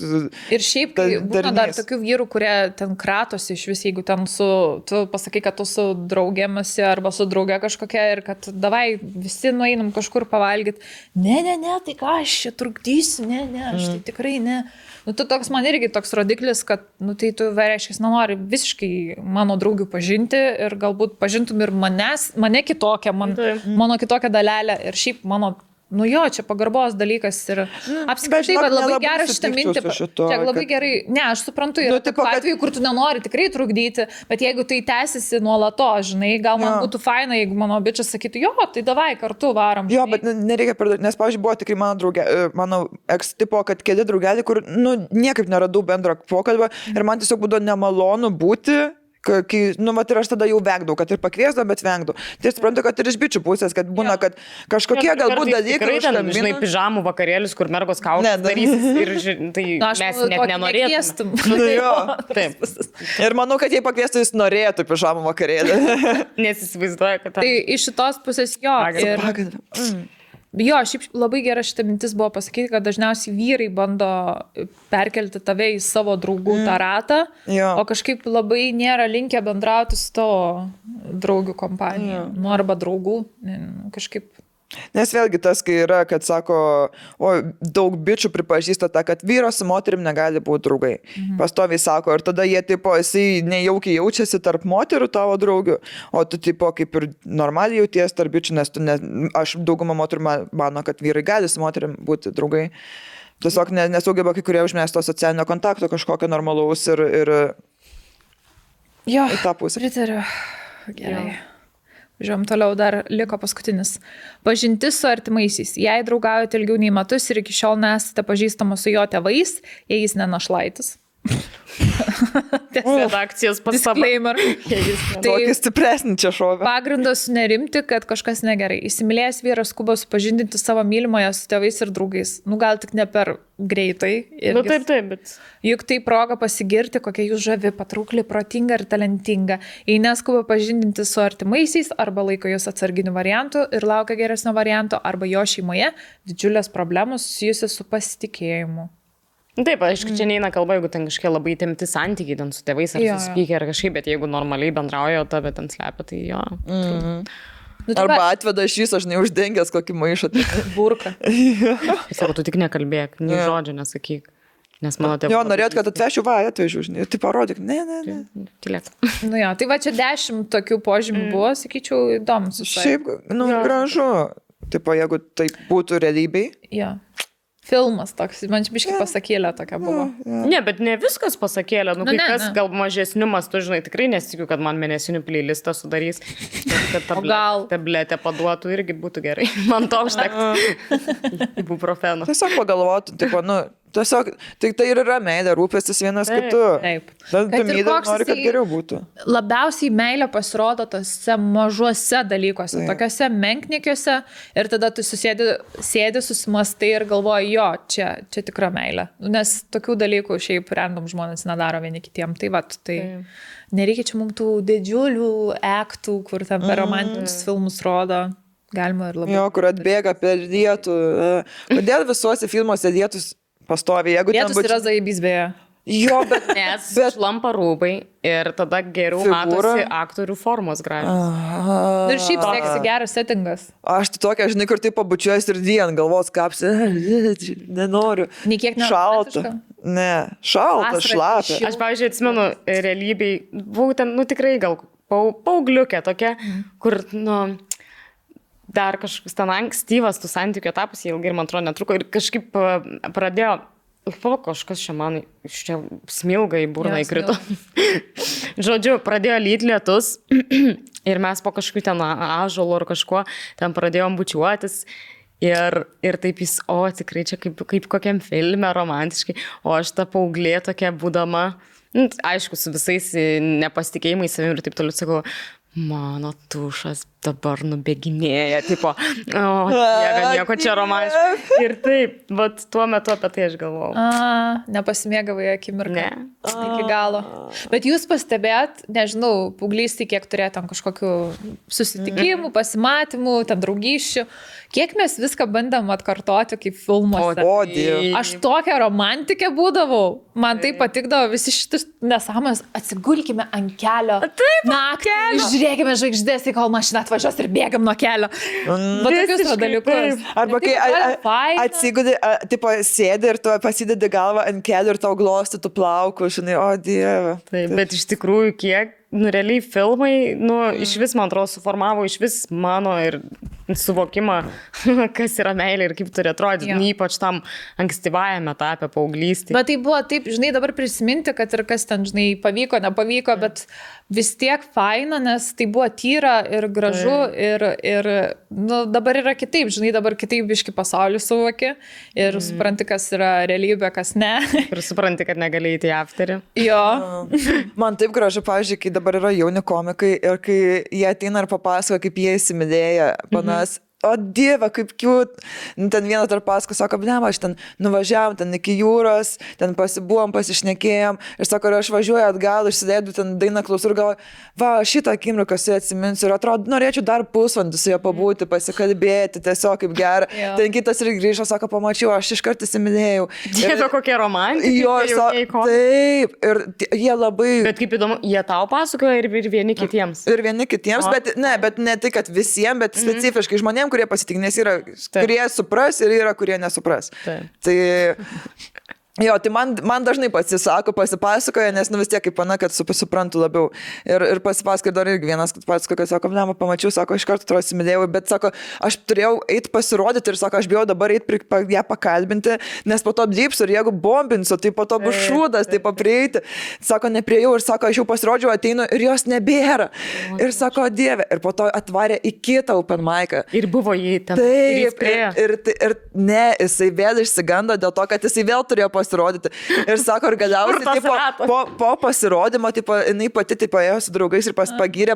Speaker 1: Ir šiaip, kai būna dar tokių vyrų, kurie ten kratosi iš vis, jeigu ten tu pasakai, kad tu su draugėmasi arba su drauge kažkokia ir kad davai visi nueinam kažkur pavalgyti. Ne, tai ką aš čia trukdysiu, aš tai tikrai ne. Tu toks man irgi toks rodiklis, kad, tai tu reiškia, nenori visiškai mano draugių pažinti ir galbūt pažintum ir mane kitokią, mano kitokią dalelę ir šiaip mano... čia pagarbos dalykas ir apskritai, kad labai gerai šitą mintį. Čia labai gerai, aš suprantu, yra tokių atvejų, kur tu nenori tikrai trukdyti, bet jeigu tai tęsiasi nuolatos, žinai, gal man būtų faina, jeigu mano bičias sakytų, bet davai kartu varom.
Speaker 2: Žinai. Bet nereikia perdėti, nes, pavyzdžiui, buvo tikrai mano ex-tipo, kad keli draugelį, kur, niekaip neradau bendro pokalbio ir man tiesiog būdavo nemalonu būti Vat ir aš tada jau vengdavau, kad ir pakviesdavau, bet vengdavau. Tai suprantu, kad ir iš bičių pusės, kad būna, kad kažkokie galbūt dalykai...
Speaker 3: Žinai, pižamų vakarėlius, kur mergos kaukės darysis ir tai mes net nenorėtum.
Speaker 1: Taip.
Speaker 2: Ir manau, kad jei pakviestų, jis norėtų pižamų vakarėlį.
Speaker 3: Nes įsivaizduoja, kad...
Speaker 1: Tai iš šitos pusės jo. Jo, šiaip labai gera šita mintis buvo pasakyti, kad dažniausiai vyrai bando perkelti tave į savo draugų tą ratą, o kažkaip labai nėra linkę bendrauti su tavo draugių kompanija. Arba draugų, kažkaip.
Speaker 2: Nes vėlgi tas, kai yra, kad sako, daug bičių pripažįsta tą, kad vyras su moterim negali būti draugai. Pastoviai sako, ir tada jie, jisai nejaukiai jaučiasi tarp moterų tavo draugių, o tu, kaip ir normaliai jauties tarp bičių, nes aš daugumą moterų mano, kad vyrai gali su moterim būti draugai. Tiesiog nesugeba kai kurie užmesti to socialinio kontakto kažkokio normalaus ir
Speaker 1: jo,
Speaker 2: į tą pusę.
Speaker 1: Pritariu. Gerai. Žiūrėjom, toliau dar liko paskutinis. Pažintis su artimaisiais. Jei draugaujate ilgiau nei metus ir iki šiol nesate pažįstamos su jo tėvais, jei jis nenašlaitis.
Speaker 3: Redakcijos
Speaker 1: disclaimer.
Speaker 2: Tokį stipresnį čia šovę.
Speaker 1: Pagrindas nerimti, kad kažkas negerai. Įsimylėjęs vyras skuba supažindinti savo mylimoje su tėvais ir draugais. Gal tik ne per greitai.
Speaker 3: Taip, bet...
Speaker 1: Juk tai proga pasigirti, kokia jūs žavi, patraukli, protinga ir talentinga. Jei neskuba pažindinti su artimaisiais, arba laiko jūs atsarginiu variantu ir laukia geresnio varianto, arba jo šeimoje didžiulės problemos susijusios su pasitikėjimu.
Speaker 3: Taip, aišku, čia neina kalba, jeigu ten kažkiek labai temti santykiai ten su tėvais ar susipykę ar kažkaip, bet jeigu normaliai bendrauja, o tave ten slepia, tai jo.
Speaker 2: Arba atveda šis, aš neuždengęs kokį maišą.
Speaker 1: Burką.
Speaker 3: Sako, tu tik nekalbėk, nei žodžio nesakyk. Nes mano tėvai...
Speaker 2: Jo, norėt, kad atvešiu, atvežiu, žinai, tai parodyk. Ne.
Speaker 3: Tylėk.
Speaker 1: Tai va čia 10 tokių požymių buvo, sakyčiau, įdomus.
Speaker 2: Šiaip, gražu. Tipo, jeigu tai būtų realybėj.
Speaker 1: Jo. Filmas toks, man čia biškai pasakėlė tokia buvo.
Speaker 3: Ne, bet ne viskas pasakėlė. Kas gal mažesniu mastu, žinai, tikrai nesitikiu, kad man mėnesinių playlistą sudarys. Kad tabletę paduotų irgi būtų gerai. Man to užtektų. Ibuprofeno.
Speaker 2: Tiesiog pagalvotų, tipo, tiesiog, tai ir yra meilė, rūpestis vienas kitu.
Speaker 1: Taip.
Speaker 2: Nori, kad geriau būtų.
Speaker 1: Labiausiai meilė pasirodo tose mažuose dalykuose, tokiuose menkniekiuose ir tada tu sėdi, susimastai ir galvoji, jo, čia tikra meilė. Nes tokių dalykų šiaip random žmonės nedaro vieni kitiem. Tai nereikia čia mums tų didžiulių aktų, kur ten per romantinius filmus rodo. Galima ir labai.
Speaker 2: Jo, kur atbėga per dietų. Kodėl visuose filmuose dietus pastoviai?
Speaker 1: Dietus yra zaibys beje.
Speaker 2: Jo, bet...
Speaker 3: Nes šlampa rūbai ir tada geriau matosi aktorių formos gražiai.
Speaker 1: Ir šiaip seksi geras settingas.
Speaker 2: Aš tai tokia, žinai, kur tai pabučiuojas ir dien, galvos kapsi, nenoriu.
Speaker 1: Niekiek
Speaker 2: šalta. Ne, šalta, šlapia.
Speaker 3: Aš, pavyzdžiui, atsimenu realybėj, buvau ten, tikrai gal paaugliukė tokia, kur, dar kažkoks ten ankstyvas tų santykių etapas, jie ilgai ir man atrodo netruko ir kažkaip pradėjo kažkas čia man smilga į burną įkrito. Žodžiu, pradėjo lyt lietus ir mes po kažkokiu ten ąžuolu ar kažkuo ten pradėjom bučiuotis ir taip jis, tikrai čia kaip kokiam filme romantiškai, o aš ta paauglė tokia būdama, aišku, su visais nepasitikėjimais savim ir taip toliau sakau, mano tušas dabar nubėginėja, tipo, nieko čia romantiškai. Ir taip, bet tuo metu apie tai aš galvojau.
Speaker 1: Nepasimėgavai akimirką. Ne. Iki galo. Bet jūs pastebėt, nežinau, paauglystėj, kiek turėjo tam kažkokių susitikimų, pasimatymų, ten draugysčių, kiek mes viską bandėm atkartoti kaip filmuose. Aš tokia romantikė būdavau. Man tai patikdavo visi šitus nesąmonės. Atsigulkime ant kelio. Naktį, žiūrėkime žvaigždės, kol mašina atvažiuos ir bėgam nuo kelio. Va tokius dalykus.
Speaker 2: Arba kai atsigudi, tipo, sėdi ir tu pasidedi galvą ant kelio ir tau glostytų plaukus, žinai, o dieve.
Speaker 3: Taip, bet iš tikrųjų kiek, realiai filmai, iš vis, man atrodo, suformavo iš vis mano ir suvokimą, kas yra meilė ir kaip turi atrodyti, ypač tam ankstyvajame etape paauglystėje.
Speaker 1: Bet tai buvo taip, žinai, dabar prisiminti, kad ir kas ten, žinai, pavyko, nepavyko, bet vis tiek faina, nes tai buvo tyra ir gražu ir nu, dabar yra kitaip, žinai, dabar kitaip biški pasaulį suvoki ir supranti, kas yra realybė, kas ne.
Speaker 3: Ir supranti, kad negali įti į afterį.
Speaker 1: Jo.
Speaker 2: Man taip gražu, pavyzdžiui, kai dabar yra jauni komikai ir kai jie ateina ir papasako, kaip jie įsimylėja panas. O Dieve, kaip cute. Ten vienas dar pasako, sako, blema, aš ten nuvažiavam ten iki jūros, ten pasibuvom, pasišnekėjom ir sako, aš važiuoju atgal, išsidėdu ten dainą klausau ir galvoju, va, šitą akimirką su atsiminsiu ir atrodo, norėčiau dar pusvalandį su juo pabūti, pasikalbėti, tiesiog kaip gera. Ten kitas ir grįžo, sako, pamačiau, aš iškart įsimylėjau.
Speaker 3: Dieve, kokie romantikai.
Speaker 2: Jo, taip, ir jie labai...
Speaker 3: Bet kaip įdomu, jie tau pasakoja ir vieni kitiems.
Speaker 2: Ir vieni kitiems, bet ne tai, kad visiems, bet specifiškai žmonėms, kurie pasitik, nes yra, kurie supras ir yra, kurie nesupras. Tai jo, tai man dažnai pasipasakoja, nes nu vis tiek kaip pana, kad suprantu labiau. Ir pasipasakoja dar irgi vienas, kad pasakoja, kad sako, blema, pamačiau, sako, iš karto atrodo įsimylėjau, bet sako, aš turėjau eiti pasirodyti ir sako, aš bijau dabar eiti ją pakalbinti, nes po to apdypsiu ir jeigu bombinsiu, tai po to bus šūdas, tai paprieiti. Sako, nepriejau ir sako, aš jau pasirodžiau, ateinu ir jos nebėra. Ir sako, Dieve, ir po to atvarė į kitą open mic'ą.
Speaker 3: Ir buvo jį ten.
Speaker 2: Taip, ir ne, jisai vėl išsigando dėl to, kad jisai vėl turėjo pasirodyti. Ir sako, ir galiausiai po pasirodymo, jinai pati ėjo su draugais ir pagyrė.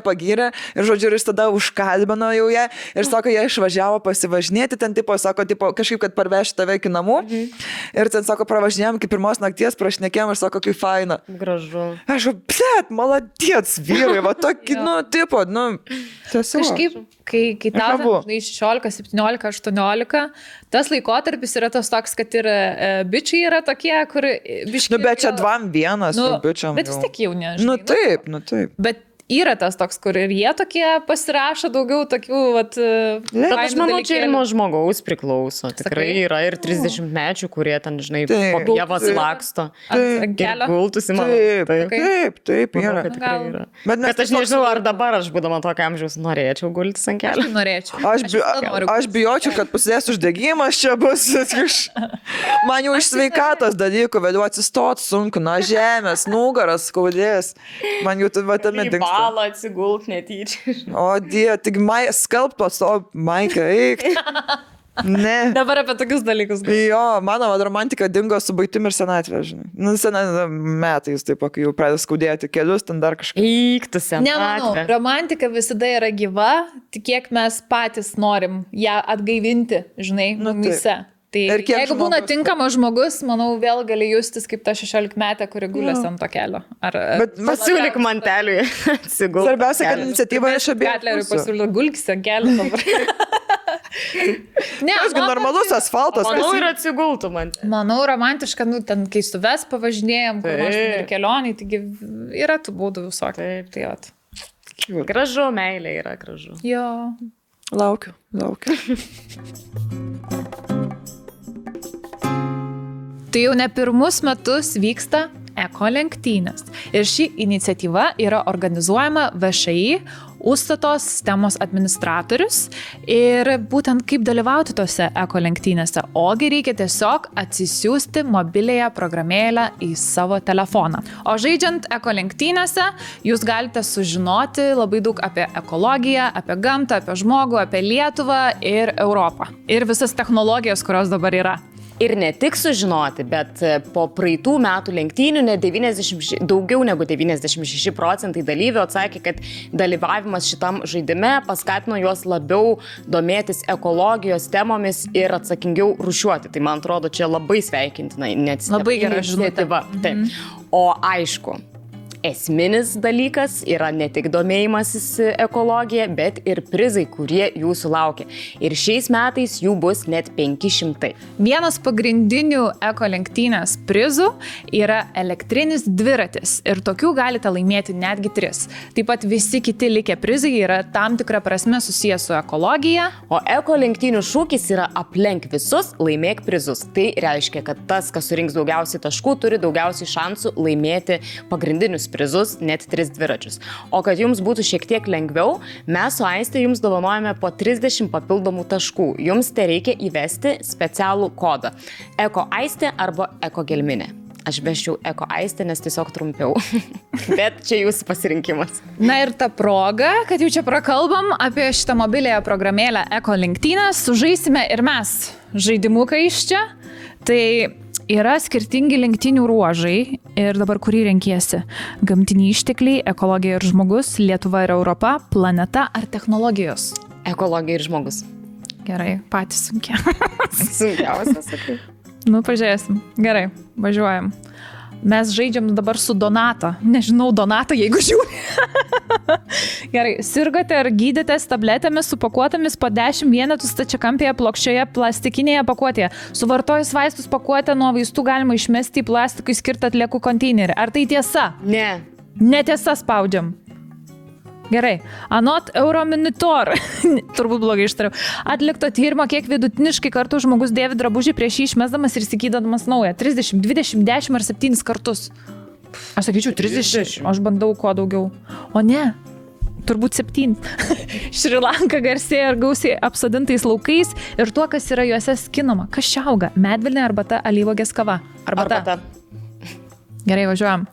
Speaker 2: Ir žodžiu, ir jis tada užkalbino jau ją. Ir sako, jie išvažiavo pasivažinėti. Ten sako, kažkaip, kad parveši tave iki namų. Ir ten sako, pravažinėjom iki pirmos nakties, prašnekėjom ir sako, kaip faina.
Speaker 3: Gražu.
Speaker 2: Aš, blėt, maladies vyrai, va tokį, tiesiog.
Speaker 1: Kažkaip, kai tau, žinai, 16, 17, 18, tas laikotarpis yra tas toks, kad ir bičiai yra tokie, kur biškai...
Speaker 2: Nu, bet čia 2-1 bičiam.
Speaker 1: Bet vis tiek jau nežinai.
Speaker 2: Nu taip.
Speaker 1: Bet yra tas toks, kur ir jie tokie pasirašo daugiau tokių, vat...
Speaker 3: Bet aš manau, čia ir nuo žmogaus priklauso. Tikrai yra ir 30-mečių, kurie ten, žinai, po pievas laksto. Ir gultusi, man.
Speaker 2: Taip, yra.
Speaker 3: Bet aš nežinau, ar dabar aš, būdama tokio amžiaus, norėčiau gultis ant kelio.
Speaker 1: Aš norėčiau.
Speaker 2: Aš bijočiau, kad prasidės uždegimas čia bus. Man jau iš sveikatos dalykų vėliau atsistot sunku, nuo žemės, nugaras skaudės. Man jau tame dingsta.
Speaker 3: Balą atsigult netyčia.
Speaker 2: O Dieve, tik skalbtos, o Maika, eik. Ne.
Speaker 1: Dabar apie tokius dalykus.
Speaker 2: Jo, mano romantika dingo su baigtim ir senatvė, žinai. Metais, taip, kai jau pradeda skaudėti kelius, ten dar kažką.
Speaker 3: Eik, tu senatvė.
Speaker 1: Nemanau, romantika visada yra gyva, tik kiek mes patys norim ją atgaivinti, žinai, mumise. Tai jeigu būna tinkamas žmogus, manau, vėl gali justis kaip ta 16-metė, kuri gulės ant to kelio.
Speaker 3: Bet pasiūlyk manteliui atsigulti.
Speaker 2: Svarbiausia, kad iniciatyva iš abiejų.
Speaker 1: Gatleriui pasiūlyk gulkis ant kelio dabar.
Speaker 2: Ne, aš normalus asfaltas.
Speaker 3: Manau, ir atsigultų man.
Speaker 1: Manau, romantiška, ten kai su ves pavažinėjom, kur nors ir kelioniai, taigi yra tų būdų visokių. Taip.
Speaker 3: Gražu, meilė yra gražu.
Speaker 1: Jo.
Speaker 2: Laukiu.
Speaker 1: Tai jau ne pirmus metus vyksta eko lenktynės. Ir ši iniciatyva yra organizuojama VŠI, Užstatos sistemos administratorius. Ir būtent kaip dalyvauti tose eko lenktynėse. Ogi reikia tiesiog atsisiųsti mobiliąją programėlę į savo telefoną. O žaidžiant eko lenktynėse, jūs galite sužinoti labai daug apie ekologiją, apie gamtą, apie žmogų, apie Lietuvą ir Europą. Ir visas technologijas, kurios dabar yra.
Speaker 3: Ir ne tik sužinoti, bet po praeitų metų lenktynių daugiau negu 96% dalyvių atsakė, kad dalyvavimas šitam žaidime paskatino juos labiau domėtis ekologijos temomis ir atsakingiau rūšiuoti. Tai man atrodo, čia labai sveikintina iniciatyva. O aišku, esminis dalykas yra ne tik domėjimasis ekologija, bet ir prizai, kurie jūsų laukia. Ir šiais metais jų bus net 500.
Speaker 1: Vienas pagrindinių eko lenktynės prizų yra elektrinis dviratis. Ir tokių galite laimėti netgi 3. Taip pat visi kiti likę prizai yra tam tikra prasme susijęs su ekologija.
Speaker 3: O eko lenktynių šūkis yra aplenk visus, laimėk prizus. Tai reiškia, kad tas, kas surinks daugiausiai taškų, turi daugiausiai šansų laimėti pagrindinius prizus, net 3 dviračius. O kad jums būtų šiek tiek lengviau, mes su Aiste jums dovanojame po 30 papildomų taškų. Jums tai reikia įvesti specialų kodą. Eko Aiste arba Eko Gelminė. Aš beščiau Eko Aiste, nes tiesiog trumpiau. Bet čia jūsų pasirinkimas.
Speaker 1: Na ir ta proga, kad jau čia prakalbam apie šitą mobilėją programėlę Eko lenktynės, sužaisime ir mes žaidimuką iš čia. Tai yra skirtingi lenktynių ruožai ir dabar kurį renkiesi? Gamtiniai ištekliai, ekologija ir žmogus, Lietuva ir Europa, planeta ar technologijos?
Speaker 3: Ekologija ir žmogus.
Speaker 1: Gerai, patys sunkia.
Speaker 3: Sunkiausias, sakai.
Speaker 1: Nu, pažiūrėsim. Gerai, važiuojam. Mes žaidžiam dabar su Donata. Nežinau, Donata, jeigu žiūri. Gerai, sirgote ar gydėtės tabletėmis supakuotomis po 10 vienetų stačiakampėje plokščioje plastikinėje pakuotėje. Suvartojus vaistus pakuotę nuo vaistų galima išmesti į plastikui skirtą atliekų konteinerį. Ar tai tiesa?
Speaker 3: Ne.
Speaker 1: Netiesa, spaudžiam. Gerai, anot Euromonitor, turbūt blogai ištariau, atlikto tyrimo, kiek vidutiniškai kartų žmogus dėvi drabužį prieš jį išmesdamas ir įsigydamas naują. 30, 20, 10 ar 7 kartus. Aš sakyčiau 30, aš bandau kuo daugiau. O ne, turbūt 7. Šri Lanka garsėja ir gausiai apsodintais laukais ir tuo, kas yra juose skinama. Kas čia auga? Medvilnė, arbata, alyvuogės kava. Arbata. Gerai, važiuojam.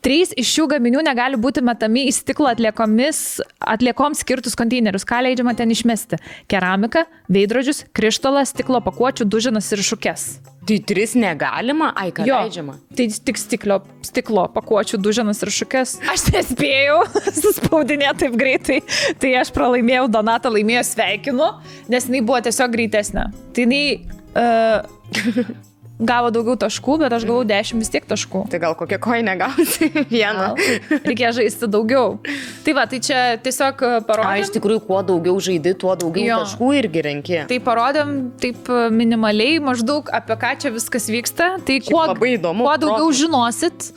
Speaker 1: 3 iš šių gaminių negali būti metami į stiklo atliekoms skirtus konteinerius. Ką leidžiama ten išmesti? Keramika, veidrodžius, krištolą, stiklo pakuočių, duženas ir šukes.
Speaker 3: Tai 3 negalima? Ai, ką leidžiama?
Speaker 1: Tai tik stiklo pakuočių, duženas ir šukes. Aš nespėjau suspaudinėti taip greitai. Tai aš pralaimėjau, Donata laimėjo, sveikinu, nes jinai buvo tiesiog greitesnė. Tai jinai... gavo daugiau taškų, bet aš gavau 10 vis tiek taškų.
Speaker 3: Tai gal kokią koinę gausi? Vieną.
Speaker 1: Reikėjo žaisti daugiau. Tai va, tai čia tiesiog parodėm.
Speaker 3: Iš tikrųjų, kuo daugiau žaidi, tuo daugiau taškų irgi renki.
Speaker 1: Tai parodėm taip minimaliai maždaug apie ką čia viskas vyksta. Tai
Speaker 3: labai įdomu.
Speaker 1: Kuo daugiau žinosit,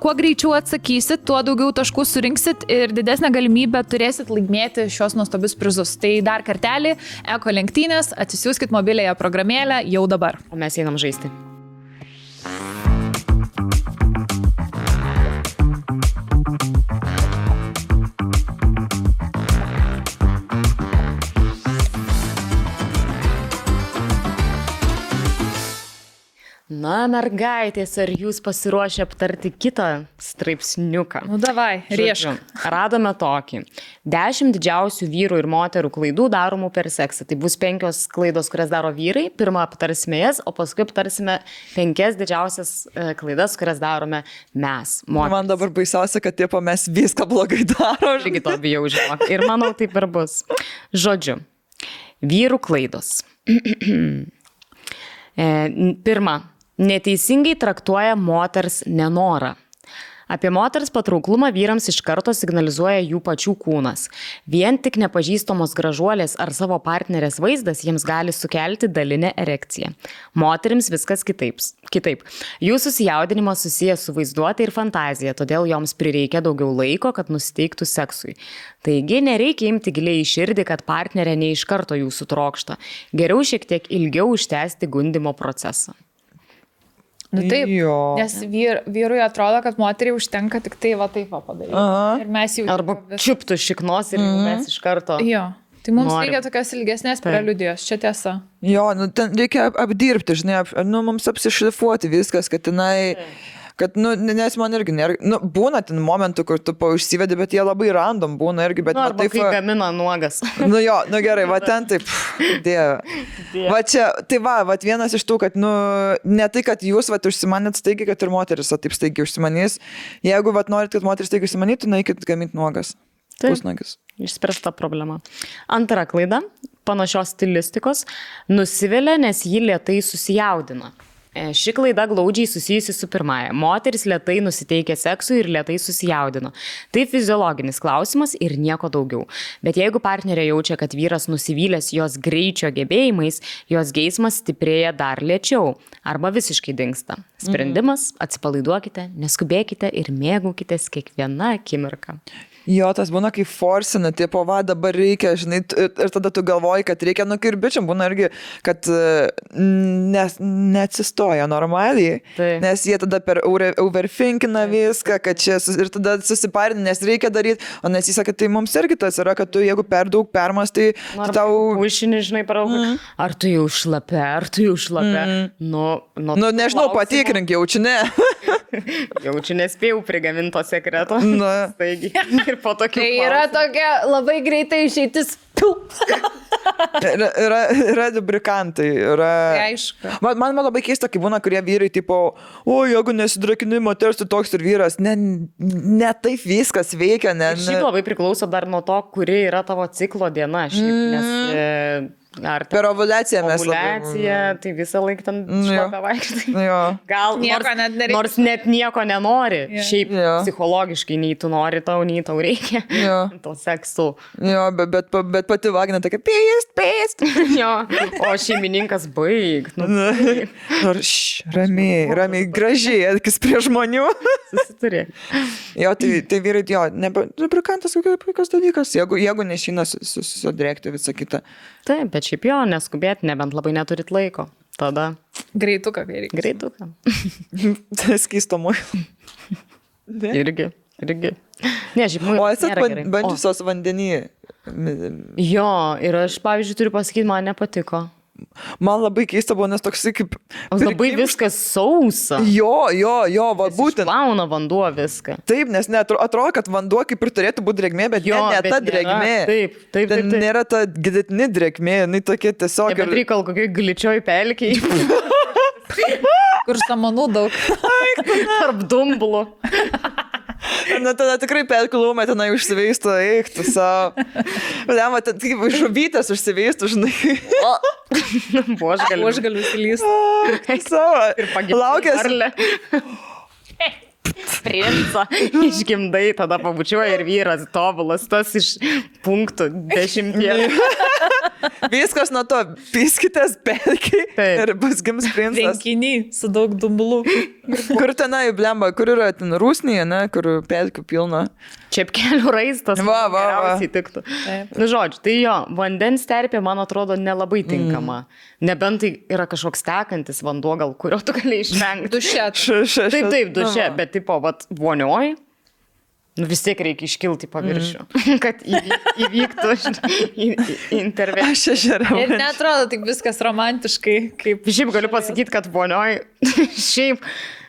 Speaker 1: kuo greičiau atsakysit, tuo daugiau taškų surinksit ir didesnę galimybę turėsit laimėti šios nuostabius prizus. Tai dar kartelį, Eko lenktynės, atsisiųskit mobilėje programėlę jau dabar.
Speaker 3: O mes einam žaisti. Na, mergaitės, ar jūs pasiruošę aptarti kitą straipsniuką?
Speaker 1: Nu, davai, riešk.
Speaker 3: Radome tokį. 10 didžiausių vyrų ir moterų klaidų daromų per seksą. Tai bus 5 klaidos, kurias daro vyrai. Pirmą aptarsime jas, o paskui aptarsime 5 didžiausias klaidas, kurias darome mes, moterys.
Speaker 2: Man dabar baisiausia, kad tipo mes viską blogai darom.
Speaker 3: Irgi to bijau, žinok. Ir manau, taip ir bus. Žodžiu, vyrų klaidos. Pirma. Neteisingai traktuoja moters nenorą. Apie moters patrauklumą vyrams iš karto signalizuoja jų pačių kūnas. Vien tik nepažįstamos gražuolės ar savo partnerės vaizdas jiems gali sukelti dalinę erekciją. Moterims viskas kitaip. Jų susijaudinimas susijęs su vaizduotė ir fantazija, todėl joms prireikia daugiau laiko, kad nusiteiktų seksui. Taigi nereikia imti giliai į širdį, kad partnerė ne iš karto jūsų trokšta. Geriau šiek tiek ilgiau užtęsti gundymo procesą.
Speaker 1: Nu taip, nes vyrui atrodo, kad moteriai užtenka tik tai va taip padaryti. Ir mes jau...
Speaker 3: Arba čiuptų šiknos ir mes iš karto...
Speaker 1: Jo, tai mums reikia tokios ilgesnės preliudijos, čia tiesa.
Speaker 2: Jo, nu ten reikia apdirbti, žinai, mums apsišlifuoti viskas, kad jinai... Kad, nes man irgi nėra, būna ten momentų, kur tu užsivedi, bet jie labai random būna irgi, bet...
Speaker 3: Arba taip, kai gamina nuogas.
Speaker 2: Gerai, va ten taip, dieve. Va čia, tai va, vienas iš tų, kad, ne tai, kad jūs, užsimanėt staigiai, kad ir moteris, taip staigiai užsimanys. Jeigu, norit, kad moteris staigiai užsimanytų, naikit gaminti nuogas. Pusnuogis.
Speaker 3: Išspręsta problema. Antra klaida, panašios stilistikos, nusivilia, nes ji lėtai susijaudina. Ši klaida glaudžiai susijusi su pirmąja. Moteris lėtai nusiteikė seksui ir lėtai susijaudino. Tai fiziologinis klausimas ir nieko daugiau. Bet jeigu partnerė jaučia, kad vyras nusivylęs jos greičio gebėjimais, jos geismas stiprėja dar lėčiau arba visiškai dingsta. Sprendimas, atsipalaiduokite, neskubėkite ir mėgaukitės kiekvieną akimirką.
Speaker 2: Jo, tas būna kaip forsina, tipo, va, dabar reikia, žinai, ir tada tu galvoji, kad reikia, nu, ir bičiam būna irgi, kad neatsistoja normaliai, nes jie tada per overthinkina viską, kad čia, ir tada susiparina, nes reikia daryti, o nes jis sakė, tai mums irgi tas yra, kad tu, jeigu per daug permastai, tau...
Speaker 3: Užšini, žinai, per daug, ar tu jau šlapia, Nu,
Speaker 2: nežinau, patikrink, jaučiu ne.
Speaker 3: Jaučiu nespėjau prigaminto sekreto. Taigi, ir po tokių.
Speaker 1: Tai yra tokia labai greitai išeitis.
Speaker 2: Yra lubrikantai.
Speaker 1: Aišku.
Speaker 2: Man labai keista, kai būna, kurie vyrai, tipo, o, jeigu nesidrakini moters, tu toks ir vyras. Ne taip viskas veikia.
Speaker 3: Šiaip labai priklauso dar nuo to, kuri yra tavo ciklo diena. Nes...
Speaker 2: Per ovulaciją mes.
Speaker 3: Ovulacija, tai visą laiką ten šlapia vaikštai. Gal
Speaker 1: nieko net nereikia.
Speaker 3: Nors net nieko nenori. Šiaip psichologiškai nei tu nori, nei tau reikia. To seksu.
Speaker 2: Jo, bet pati vagina tokia pėst.
Speaker 3: Jo, o šeimininkas baig.
Speaker 2: Ramiai, gražiai, elkis prie žmonių.
Speaker 3: Susituri.
Speaker 2: Jo, tai vyrai, jo, lubrikantas kokios dalykas, jeigu nešina susidrėkti visą kitą.
Speaker 3: Taip, bet šiaip jo, neskubėti, nebent labai neturit laiko. Tada.
Speaker 1: Greituką reikia.
Speaker 3: Greituką.
Speaker 2: Skysto muilą.
Speaker 3: Irgi. Ne, šiaip muilas.
Speaker 2: O esat bandžiusios vandenį?
Speaker 3: Jo, ir aš, pavyzdžiui, turiu pasakyti, man nepatiko.
Speaker 2: Man labai keista buvo, nes toksai kaip...
Speaker 3: Labai viskas sausa.
Speaker 2: Jo, va būtent.
Speaker 3: Išplauna vanduo viską.
Speaker 2: Taip, nes atrodo, kad vanduo kaip ir turėtų būti drėgmė, bet ne ta drėgmė.
Speaker 3: Taip.
Speaker 2: Nėra ta gilesnė drėgmė, jinai tokia tiesiog...
Speaker 3: Bet reikal kokiai gličioj pelkiai.
Speaker 1: Kur samanų daug.
Speaker 3: Tarp dumblų.
Speaker 2: Na, tada tikrai pelkilumą tenai užsiveistų, eik, tu savo. Lema, ten kaip žuvytės užsiveistų, žinai.
Speaker 3: Aš galiu įsilysti.
Speaker 2: Savo.
Speaker 3: Ir pagimdai. Princą išgimdai, tada pabučiuoja ir vyras tobulas, tas iš punktų 10.
Speaker 2: Viskas nuo to, piskitės pelkiai ir bus gims princas.
Speaker 1: Vienkinį su daug dumblų.
Speaker 2: Kur tenai, blemba, kur yra ten Rusnėje, ne, kur pelkių pilna.
Speaker 3: Čepkelių raistas.
Speaker 2: Geriausiai
Speaker 3: tiktų. Nu, žodžiu, tai jo, vandens terpė, man atrodo, nelabai tinkama. Nebent tai yra kažkoks tekantis vanduo, gal kurio tu gali išvengti.
Speaker 1: Duše.
Speaker 3: Taip, duše, bet tipo, vat, vonioj, nu vis tiek reikia iškilti paviršių, kad įvyktų intervencija.
Speaker 2: Aš ežerą.
Speaker 1: Ir netrodo tik viskas romantiškai, kaip...
Speaker 3: Šiaip galiu pasakyti, kad vonioj, šiaip...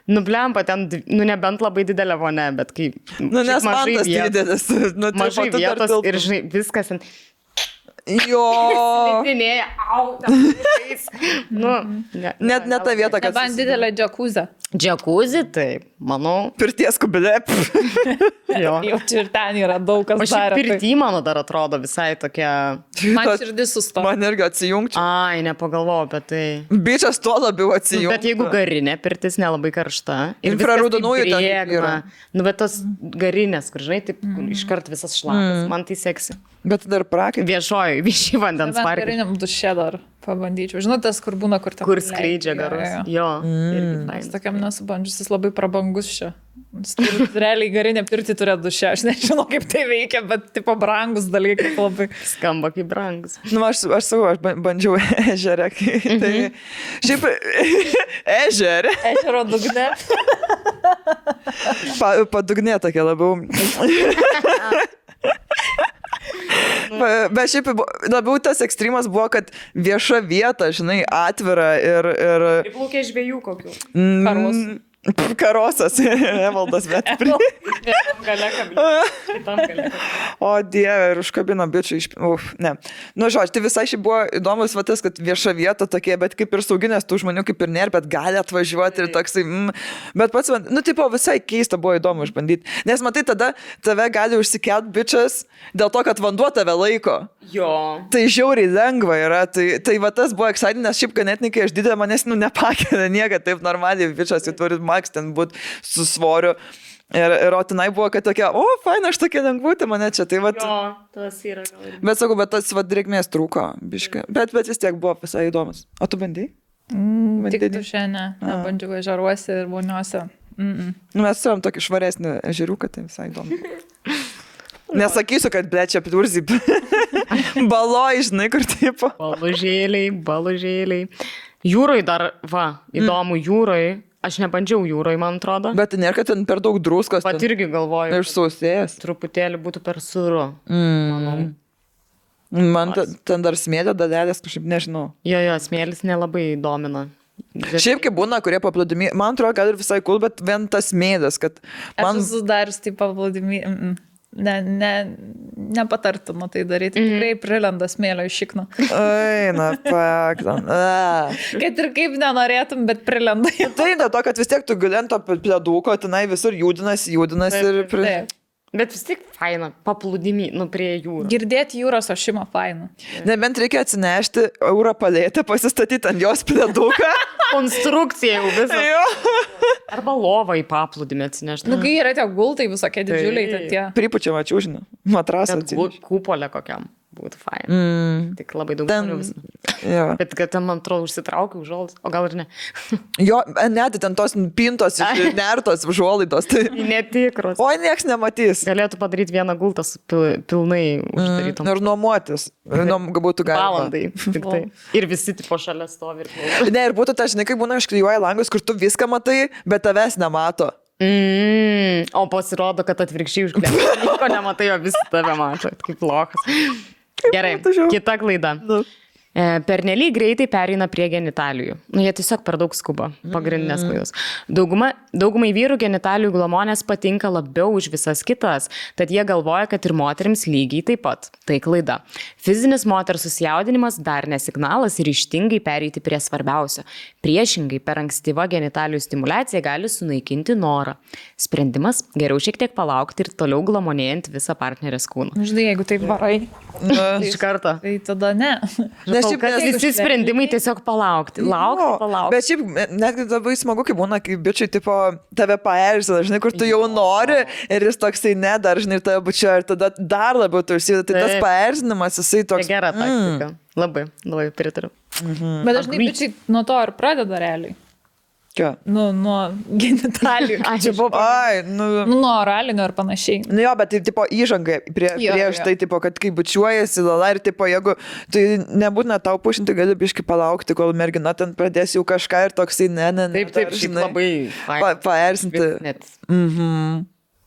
Speaker 3: Nublempa ten, nu nebent labai didelė vonė, bet kai...
Speaker 2: Nu nes mantas didelis.
Speaker 3: Mažai vietos ir žinai, viskas ten...
Speaker 2: Jo.
Speaker 3: Slidinėja, nu,
Speaker 2: ne ta vieta, kad...
Speaker 1: Nebent didelė džakuzė.
Speaker 3: Džakuzė, taip, manau.
Speaker 2: Pirties kubelė.
Speaker 3: Jo.
Speaker 1: Jau ir ten yra daug kas dar.
Speaker 3: O pirty, mano dar atrodo visai tokia...
Speaker 1: Man širdis susto.
Speaker 2: Man irgi atsijungčiau.
Speaker 3: Ai, nepagalvojau apie tai.
Speaker 2: Bičias tuo labiau atsijungčiau.
Speaker 3: Bet jeigu garinė pirtis nelabai karšta.
Speaker 2: Infraraudonųjų ten yra.
Speaker 3: Nu, bet tos garinės, kur žinai, taip iškart visas šlapas. Man tai seksi.
Speaker 2: Bet dar prakai.
Speaker 3: Viešai vandens parkai.
Speaker 1: Gariniam duše dar pabandyčiau. Žinau, tas, kur būna, kur ten...
Speaker 3: Kur skleidžia garus. Jo.
Speaker 1: Jis tokiam nesubandžius, jis labai prabangus čia. Realiai garinė pirti turi duše. Aš nežinau, kaip tai veikia, bet tipo brangus dalykai labai.
Speaker 3: Skamba kaip brangus.
Speaker 2: Nu, aš bandžiau ežerę. Tai šiaip ežerė.
Speaker 1: Ežero dugne.
Speaker 2: Padugnė tokia labiau. Bet šiaip labiau tas ekstremas buvo, kad vieša vieta, žinai, atvira ir...
Speaker 3: Priplaukė žvejų kokių.
Speaker 2: Karosas, Evaldas, bet... O Dieve, ir užkabino bičių iš... Ne. Nu, žodžiu, tai visai šiaip buvo įdomus vatas, kad vieša vieta tokie, bet kaip ir sauginės tų žmonių kaip ir nėra, bet gali atvažiuoti ir toksai... Bet pats, nu, tipo, visai keista buvo įdomu išbandyti. Nes matai, tada tave gali užsikelt bičias dėl to, kad vanduo tave laiko.
Speaker 3: Jo.
Speaker 2: Tai žiauriai lengva yra. Tai va tas buvo exciting, nes šiaip ganėtinai, kai aš didelė, manęs, nu, nepakelia nieka, taip normaliai bičias, jau turi maks ten būti su svoriu. Ir o tenai buvo, kad tokia, faina, aš tokia lengvutė mane čia. Tai vat,
Speaker 3: jo, tas yra gal. Bet
Speaker 2: sakau, bet tas drėgmės trūko, biškai. Bet vis tiek buvo visai įdomus. O tu bandai?
Speaker 1: Tik tu šiandien nebandžiau ežeruose ir voniuose.
Speaker 2: Mes turim tokį švaresnį ežeriuką, tai visai įdomu. Nesakysiu, kad blečia pidurzi. Baloj, žinai, kur tipo.
Speaker 3: Balužėliai. Jūroj dar, įdomu, jūroj. Aš nebandžiau jūroj, man atrodo.
Speaker 2: Bet nėra, kad ten per daug druskos.
Speaker 3: Pat irgi galvoju.
Speaker 2: Ir sausėjas.
Speaker 3: Truputėlį būtų per sūru. Manau.
Speaker 2: Man ten dar smėlio dalelės, kažkaip nežinau.
Speaker 3: Jo, smėlis nelabai domina.
Speaker 2: Šiaip kaip būna, kurie paplūdimi, man atrodo, kad ir visai cool, bet vien tas smėlis, kad man...
Speaker 1: Aš esu darius tai paplūdimi, nepatartume tai daryti, tikrai prilenda smėlio iš šikno.
Speaker 2: Eina, paktan.
Speaker 1: Kad ir kaip nenorėtum, bet prilenda.
Speaker 2: Tai dėl to, kad vis tiek tu gali ant to pleduko, tenai visur judinasi ir...
Speaker 3: Bet vis tiek faina, paplūdimi, prie jūros.
Speaker 1: Girdėti jūros ošimą faina.
Speaker 2: Nebent reikia atsinešti eurą palėtę, pasistatyti ant jos pleduką.
Speaker 3: Konstrukcija jau visą. Arba lovą į paplūdimį atsinešti.
Speaker 1: Kai yra tie gultai visokie didžiuliai, tie.
Speaker 2: Pripučiamą čiūžinį, matrasą atsinešti.
Speaker 3: Kūpolę kokiam. Būtų fain. Tik labai daug žmonių visą. Bet kad ten, man atrodo, užsitraukiau užuolaidas, o gal ir ne.
Speaker 2: Jo, net ten tos pintos, nertos užuolaidos. Tai...
Speaker 3: Netikros.
Speaker 2: Oi, nieks nematys.
Speaker 3: Galėtų padaryti vieną gultą pilnai uždarytom.
Speaker 2: Ir nuomotis. Būtų galima.
Speaker 3: Valandai. Tik tai. Ir visi tipo šalia stovi ir klauso.
Speaker 2: Ne, ir būtų ta, žinai, kaip būna išklijuoja langus, kur tu viską matai, bet tavęs nemato.
Speaker 3: O pasirodo, kad atvirkščiai užglėmė. Nieko nematai, o visi tave mato. Kaip lokas. Gerai, kita klaida. Pernelyg greitai pereina prie genitalijų. Jie tiesiog per daug skuba. Pagrindinės klaidos. Daugumai vyrų genitalijų glamonės patinka labiau už visas kitas, tad jie galvoja, kad ir moterims lygiai taip pat. Tai klaida. Fizinis moters susijaudinimas dar nesignalas ir ryžtingai pereiti prie svarbiausio. Priešingai, per ankstyvą genitalijų stimulaciją gali sunaikinti norą. Sprendimas - geriau šiek tiek palaukti ir toliau glamonėjant visą partnerės kūną.
Speaker 1: Žinai, jeigu taip varai.
Speaker 3: Iš karto.
Speaker 1: Tai tada ne.
Speaker 3: Visi sprendimai tiesiog palaukti. Laukti.
Speaker 2: Bet šiaip netgi labai smagu, kai būna, kai bičiai tipo tave paerzina, žinai, kur tu jau nori ir jis toksai nedar, žinai, tave bučia ir tada dar labiau tu užsideda. Tai tas paerzinimas, jisai toks...
Speaker 3: Gera taktika. Labai pritariu.
Speaker 1: Bet dažnai bičiai nuo to ir pradeda realiai.
Speaker 2: Ką?
Speaker 1: Nuo genitalijų. Nuo oralinio ir panašiai.
Speaker 2: Jo, bet tai tipo įžanga prieš tai, tipo, kad kai bučiuojasi lala ir tipo, jeigu tai nebūtina tau pušinti, gali biški palaukti, kol mergina ten pradės jau kažką ir toksai
Speaker 3: Taip, žinai, labai
Speaker 2: paerzinti.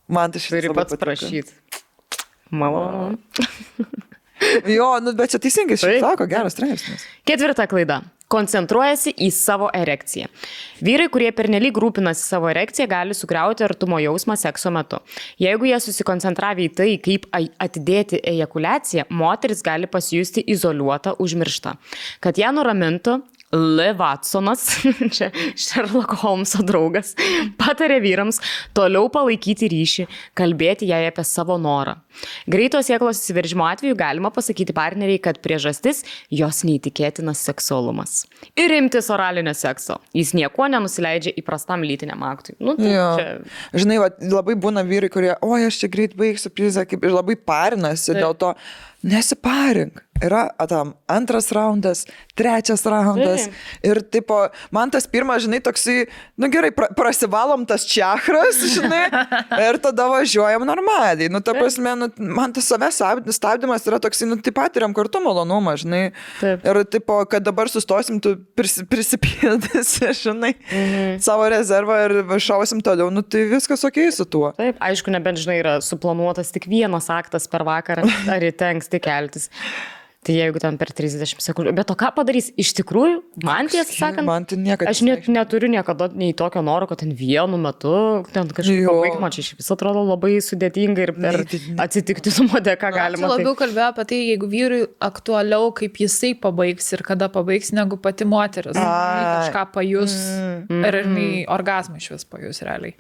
Speaker 2: Man tai šitą
Speaker 3: turi pats prašyti. Malonu.
Speaker 2: Jo, bet čia teisingai sako, geras straipsnis.
Speaker 3: Ketvirta klaida. Koncentruojasi į savo erekciją. Vyrai, kurie pernelyg rūpinasi savo erekciją, gali sugriauti artumo jausmą sekso metu. Jeigu jie susikoncentravę į tai, kaip atidėti ejakuliaciją, moteris gali pasijusti izoliuota, užmiršta. Kad ją nuramintų, L. Watsonas, čia Sherlock Holmeso draugas, patarė vyrams toliau palaikyti ryšį, kalbėti jai apie savo norą. Greito sėklos įsiveržimo atveju galima pasakyti partneriai, kad priežastis jos neįtikėtinas seksualumas. Ir imtis oralinio sekso. Jis niekuo nenusileidžia įprastam lytiniam aktui.
Speaker 2: Žinai, labai būna vyrai, kurie, aš čia greit baigsiu prizą, ir labai parinasi dėl to. Nesiparink. Yra tam antras raundas, trečias raundas. Ir tipo, man tas pirmas, žinai, toksai, gerai, prasivalom tas čakras, žinai, ir tada važiuojam normaliai. Ta prasme, man tas savęs stabdymas yra toksai, tai patiriam kartu malonumą, žinai.
Speaker 3: Taip.
Speaker 2: Ir tipo, kad dabar sustosim, tu prisipildysi, žinai, savo rezervą ir šausim toliau, tai viskas okei su tuo.
Speaker 3: Taip, aišku, nebent, žinai, yra suplanuotas tik vienas aktas per vakarą, ar įtengs tik keltis. Tai jeigu ten per 30 sekundžių. Bet o ką padarys? Iš tikrųjų, man tiesą sakant, aš neturiu niekada nei tokio noro, kad ten vienu metu, ten kažkaip pabaigimą, čia iš vis atrodo labai sudėtinga ir per atsitiktinumo dėka galima.
Speaker 1: Aš labiau kalbėjau apie tai, jeigu vyrui aktualiau, kaip jisai pabaigs ir kada pabaigs, negu pati moteris. Kažką pajus ir orgasmą iš vis pajus realiai.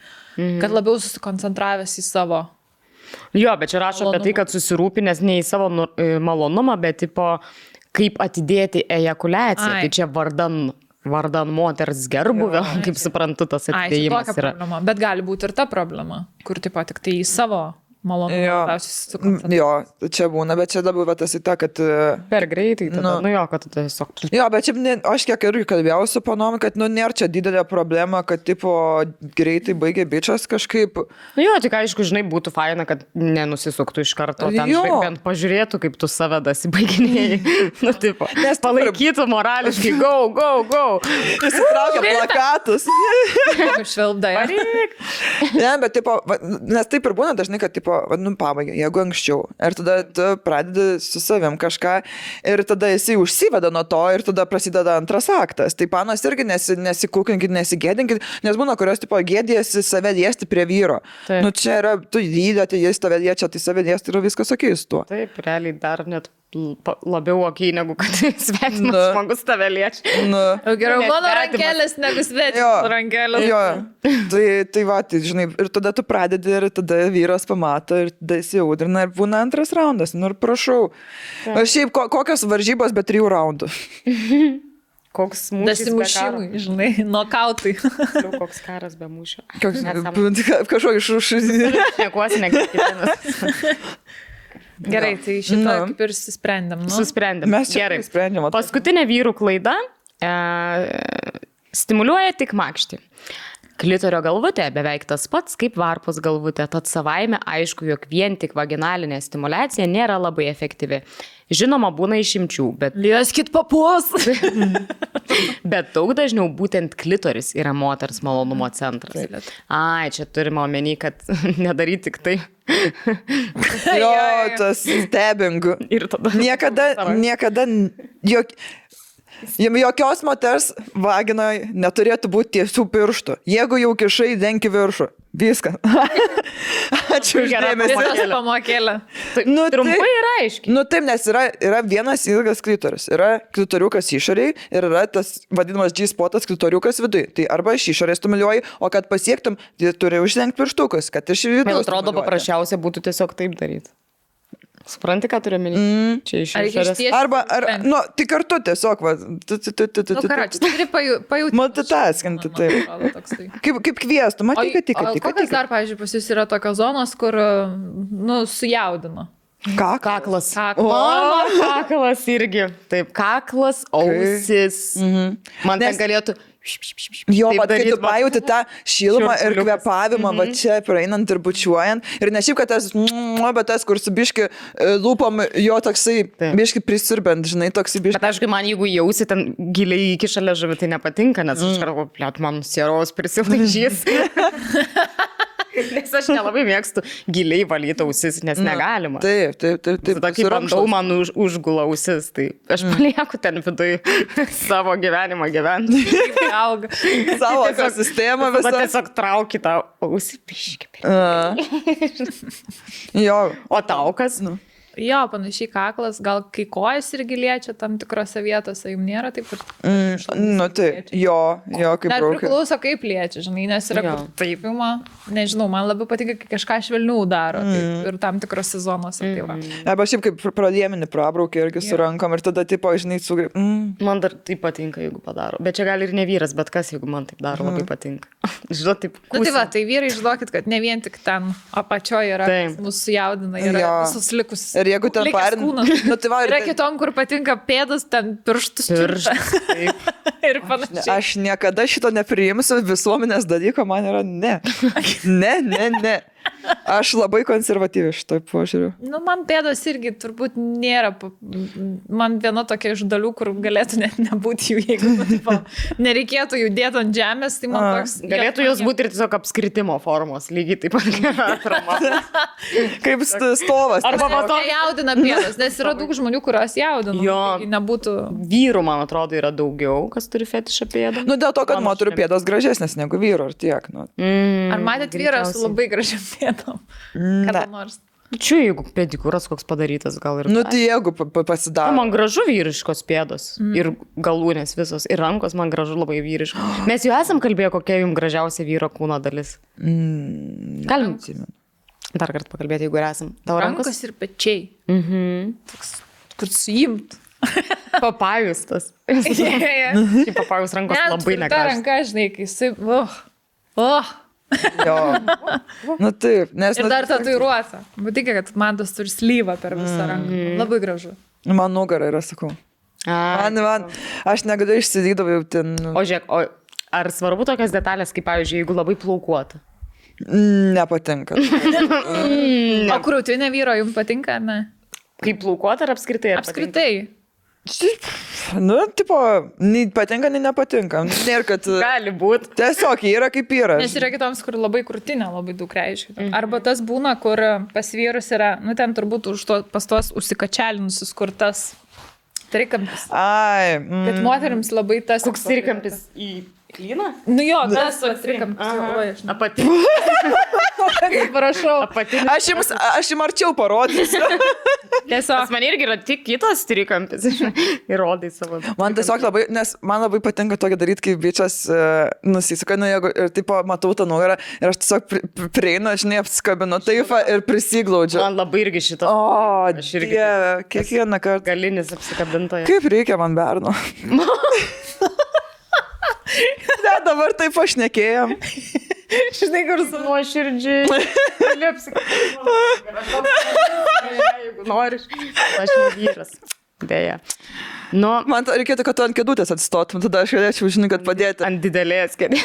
Speaker 1: Kad labiau susikoncentravęs į savo.
Speaker 3: Jo, bet čia rašo apie tai, kad susirūpinęs ne į savo malonumą, bet tipo, kaip atidėti ejakuliaciją. Tai čia vardan moters gerbuvio, kaip suprantu, tas atidėjimas
Speaker 1: yra. Problema. Bet gali būti ir ta problema, kur tipo tik tai į savo malonu.
Speaker 2: Jo, čia būna, bet čia dabar tas į tą, kad...
Speaker 3: Per greitai, tada, jo, kad tiesiog...
Speaker 2: Jo, bet čia, aš kiek irgi kalbėjau su panom, kad, nėra čia didelė problema, kad, tipo, greitai baigė bičias kažkaip.
Speaker 3: Jo, tik aišku, žinai, būtų faina, kad nenusisuktų iš karto, ten bent pažiūrėtų, kaip tu save dasibaiginėjai. Nu, tipo, nes palaikytų morališkai, go.
Speaker 2: Įsitraukia plakatus.
Speaker 1: Švelbdai.
Speaker 2: Ne, bet, tipo, nes taip ir būna dažnai, kad, tipo, pabaigia, jeigu anksčiau. Ir tada tu pradedi su savim kažką ir tada jisai užsiveda nuo to ir tada prasideda antras aktas. Tai panos irgi nesikūkinkit, nesigėdinkit, nes būna, kurios, tipo, gėdėsi save liesti prie vyro. Taip. Nu, čia yra, tu lydėti, jis tave liečia, tai save liesti yra viskas okei su tuo.
Speaker 3: Taip, realiai dar net labiau okei, negu kad svetimas žmogus tave liečia.
Speaker 1: Geriau mano rankelės negu svetimas rankelės.
Speaker 2: Jo, tai va, tai, žinai, ir tada tu pradedi ir tada vyras pamato ir tada įsiaudrina ir būna antras raundas. Nu ir prašau. Šiaip kokios varžybos be 3 raundų?
Speaker 3: Koks mūšis be karo.
Speaker 1: Žinai, nokautai.
Speaker 3: Koks karas be mūšio.
Speaker 2: Kažko iš...
Speaker 3: Nekuosi, nekvienas.
Speaker 1: Gerai, tai šitą kaip ir susprendėm.
Speaker 3: Susprendėm.
Speaker 2: Mes čia sprendėm.
Speaker 3: Paskutinė vyrų klaida stimuliuoja tik makštį. Klitorio galvutė beveik tas pats kaip varpos galvutė, tad savaime aišku, jog vien tik vaginalinė stimulacija nėra labai efektyvi. Žinoma, būna išimčių, bet...
Speaker 1: Lieskit papus!
Speaker 3: Bet daug dažniau būtent klitoris yra moters malonumo centras. Ai, čia turime omeny, kad nedaryti tik tai.
Speaker 2: Jo, tas stebingu.
Speaker 3: Ir tada...
Speaker 2: Niekada... Jokios moters vaginoj neturėtų būti tiesių pirštų. Jeigu jau kišai, denki viršų. Viską. Ačiū už dėmesį.
Speaker 1: Viskas pamokėlė.
Speaker 3: Trumpai ir aiškiai.
Speaker 2: Nu taip, nes yra vienas ilgas klitoris. Yra klitoriukas išoriai ir yra tas vadinamas G-spotas klitoriukas vidui. Tai arba iš išorės stimuliuoji, o kad pasiektum, tai turi uždengti pirštukus, kad iš vidų.
Speaker 3: Man atrodo, paprasčiausia būtų tiesiog taip daryti. Supranti, ką turiu menį? Čia iš išorės.
Speaker 2: Arba, tai kartu tiesiog, va.
Speaker 1: Karoči, turi pajūti.
Speaker 2: Multitaskinti, taip. Kaip kviestų, matai, kad tik.
Speaker 1: O kokias dar, pavyzdžiui, pas jūs yra tokios zonos, kur, sujaudino?
Speaker 3: Kaklas. Mano kaklas irgi. Taip, kaklas, ausis. Man ten galėtų...
Speaker 2: Jo, bet kai tu pajauti tą šilumą ir kvėpavimą, va čia praeinant ir bučiuojant. Ir ne šiaip, kad bet tas, kur su biški lūpom, jo toksai biški prisirbent, žinai, toksai biški.
Speaker 3: Bet aišku, man jeigu jausi ten giliai iki šalia žuvį, tai nepatinka, nes aš kartu, man sieros prisilaižys. Nes aš nelabai mėgstu giliai valyti ausis, nes negalima.
Speaker 2: Taip.
Speaker 3: Tada kai bandau, man užgula ausis, tai aš palieku ten vidui savo gyvenimą gyventi.
Speaker 1: Auga.
Speaker 2: Savo ekosistemą visą.
Speaker 3: Bet tiesiog trauki tą ausį piškį.
Speaker 2: Jo.
Speaker 3: O tau kas?
Speaker 1: Jo, panašiai kaklas, gal kai kojas irgi liečia tam tikrose vietose, jums nėra taip ir...
Speaker 2: taip, jo, kaip
Speaker 1: dar
Speaker 2: braukia.
Speaker 1: Priklauso, kaip liečia, žinai, nes yra kur taip ima, nežinau, man labiau patinka, kai kažką švelniau daro ir tam tikrose zonose.
Speaker 2: Arba šiaip kaip pradėminį prabraukia irgi su rankom ir tada, tipo, žinai, sugrip.
Speaker 3: Man dar taip patinka, jeigu padaro. Bet čia gali ir ne vyras, bet kas, jeigu man taip daro, labai patinka. Žinau, taip.
Speaker 1: Tai vyrai, žinokit, kad ne vien tik ten apačioje yra, mūsų jaudina, yra visus likusius.
Speaker 2: Ir jeigu ten parin...
Speaker 1: Yra kitom, kur patinka pėdas, ten pirštus. Ir panašiai.
Speaker 2: Aš niekada šito nepriimsiu, visuomenės dalyko man yra ne. Ne. Aš labai konservatyvi šitoj požiūriu.
Speaker 1: Man pėdos irgi turbūt nėra. Man viena tokia iš dalių, kur galėtų net nebūti jų, jeigu nereikėtų jų dėti ant žemės, tai man toks...
Speaker 3: Galėtų jos būti ir tiesiog apskritimo formos, lygiai taip pat atrama.
Speaker 2: Kaip stovas.
Speaker 1: Arba to jaudina pėdos, nes yra daug žmonių, kurios jaudina.
Speaker 3: Jo,
Speaker 1: nebūtų...
Speaker 3: Vyrų, man atrodo, yra daugiau, kas turi fetišą pėdą.
Speaker 2: Dėl to, kad moterų pėdos gražesnės negu vyro, ar tiek.
Speaker 1: Ar matėt vyrą su labai gražiam pėdom? Kada nors.
Speaker 3: Čia jeigu pedikūras koks padarytas, gal ir...
Speaker 2: Tai jeigu pasidaro.
Speaker 3: Man gražu vyriškos pėdos. Ir galūnės visos. Ir rankos man gražu labai vyriškos. Mes jau esam kalbėję, kokia jums gražiausia vyro kūno dalis. Galim dar kartą pakalbėti, jeigu esam. Tavo
Speaker 1: rankos ir pečiai. Toks, kur suimt.
Speaker 3: Papajus tas. Papajus rankos labai negražios.
Speaker 1: Ta ranka, žinai, kai
Speaker 2: Jo. Nu taip, nes...
Speaker 1: Ir dar tatuiruota. Būtikė, kad man tas turi slyvą per visą ranką. Labai gražu.
Speaker 2: Man nugarą yra, sakau. Man, aš negaliu išsidydavau jau ten.
Speaker 3: O žiūrėk, ar svarbu tokios detalės, kaip, pavyzdžiui, jeigu labai plaukuota?
Speaker 2: Nepatinka.
Speaker 1: O krūtinė vyro jums patinka, ar ne?
Speaker 3: Kaip plaukuota ar apskritai?
Speaker 1: Apskritai.
Speaker 2: Nu, tipo, nei patinka, nei nepatinka. Nėra, kad...
Speaker 3: Gali būti.
Speaker 2: Tiesiog yra kaip yra.
Speaker 1: Nes yra kitoms, kur labai krūtinė labai daug reiškia. Arba tas būna, kur pas vyrus yra, nu ten turbūt pas tuos užsikačialinusius, kur tas trikampis.
Speaker 2: Ai.
Speaker 1: Bet moterims labai tas...
Speaker 3: Koks trikampis į klyną?
Speaker 1: Nu jo, tas trikampis.
Speaker 3: Apatinis.
Speaker 1: Prašau.
Speaker 3: Apatinis.
Speaker 2: Aš jums arčiau parodysiu.
Speaker 1: Tiesiog.
Speaker 3: Man irgi yra tik kitas trikampis. Įrodai savo.
Speaker 2: Man tiesiog labai, nes man labai patinka tokį daryti, kai bičias nusisuka, nu jeigu ir taip matau tą nugarą ir aš tiesiog prieinu, žinai, apsikabinu taip ir prisiglaudžiu.
Speaker 3: Man labai irgi šito.
Speaker 2: O,
Speaker 3: aš irgi.
Speaker 2: Dieve, kiekvieną kartą.
Speaker 3: Galinis apsikabintojas.
Speaker 2: Kaip reikia man berno? Ne, dabar taip pašnekėjom.
Speaker 3: Žinai, kur su nuoširdžiai. Gali apsikabinti. Jeigu nori, aš ne vyras. Deja. Nu,
Speaker 2: man reikėtų, kad tu ant kėdutės atsistotum, tada aš galėčiau, žinai, kad padėti.
Speaker 3: Ant didelės kėdės.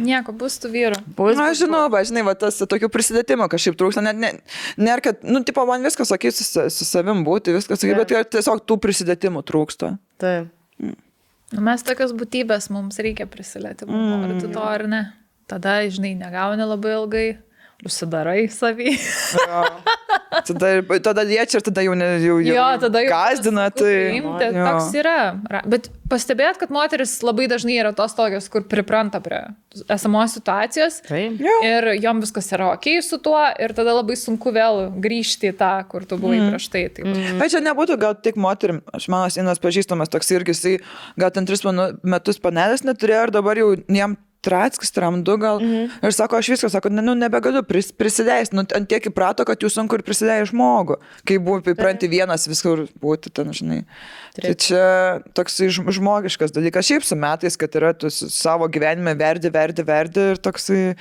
Speaker 1: Nieko, bus tų vyrų.
Speaker 2: Na, žinau, žinai, va, tas tokių prisidėtimo kažkaip trūksta. Nėra, kad, nu, tipo, man viskas, sakai, su savim būti, viskas, sakai, bet tiesiog tų prisidėtimų trūksta.
Speaker 3: Taip.
Speaker 1: Mes tokios būtybės, mums reikia prisilietimų, nori tu to ar ne. Tada, žinai, negauni labai ilgai. Užsidarai savį.
Speaker 2: Tada liečia ir tada jau gazdina.
Speaker 1: Toks yra. Bet pastebėt, kad moteris labai dažnai yra tos tokios, kur pripranta prie esamos situacijos. Ir jom viskas yra okei su tuo ir tada labai sunku vėl grįžti į tą, kur tu buvai prieš tai.
Speaker 2: Bet čia nebūtų gal tik moterim. Aš mano Inos pažįstamas toks irgi, jisai gal ten 3 metus panelės neturėjo ir dabar jau jam Trackis, tramdu gal. Ir sako, aš viską, sako, nebegaliu prisileisti. Ant tiek įprato, kad jūs sunku ir prisidėjai žmogų. Kai buvo įpranti vienas viskur būti, ten, žinai. Tai čia toks žmogiškas dalykas. Šiaip su metais, kad yra tu savo gyvenime verdi ir toksai...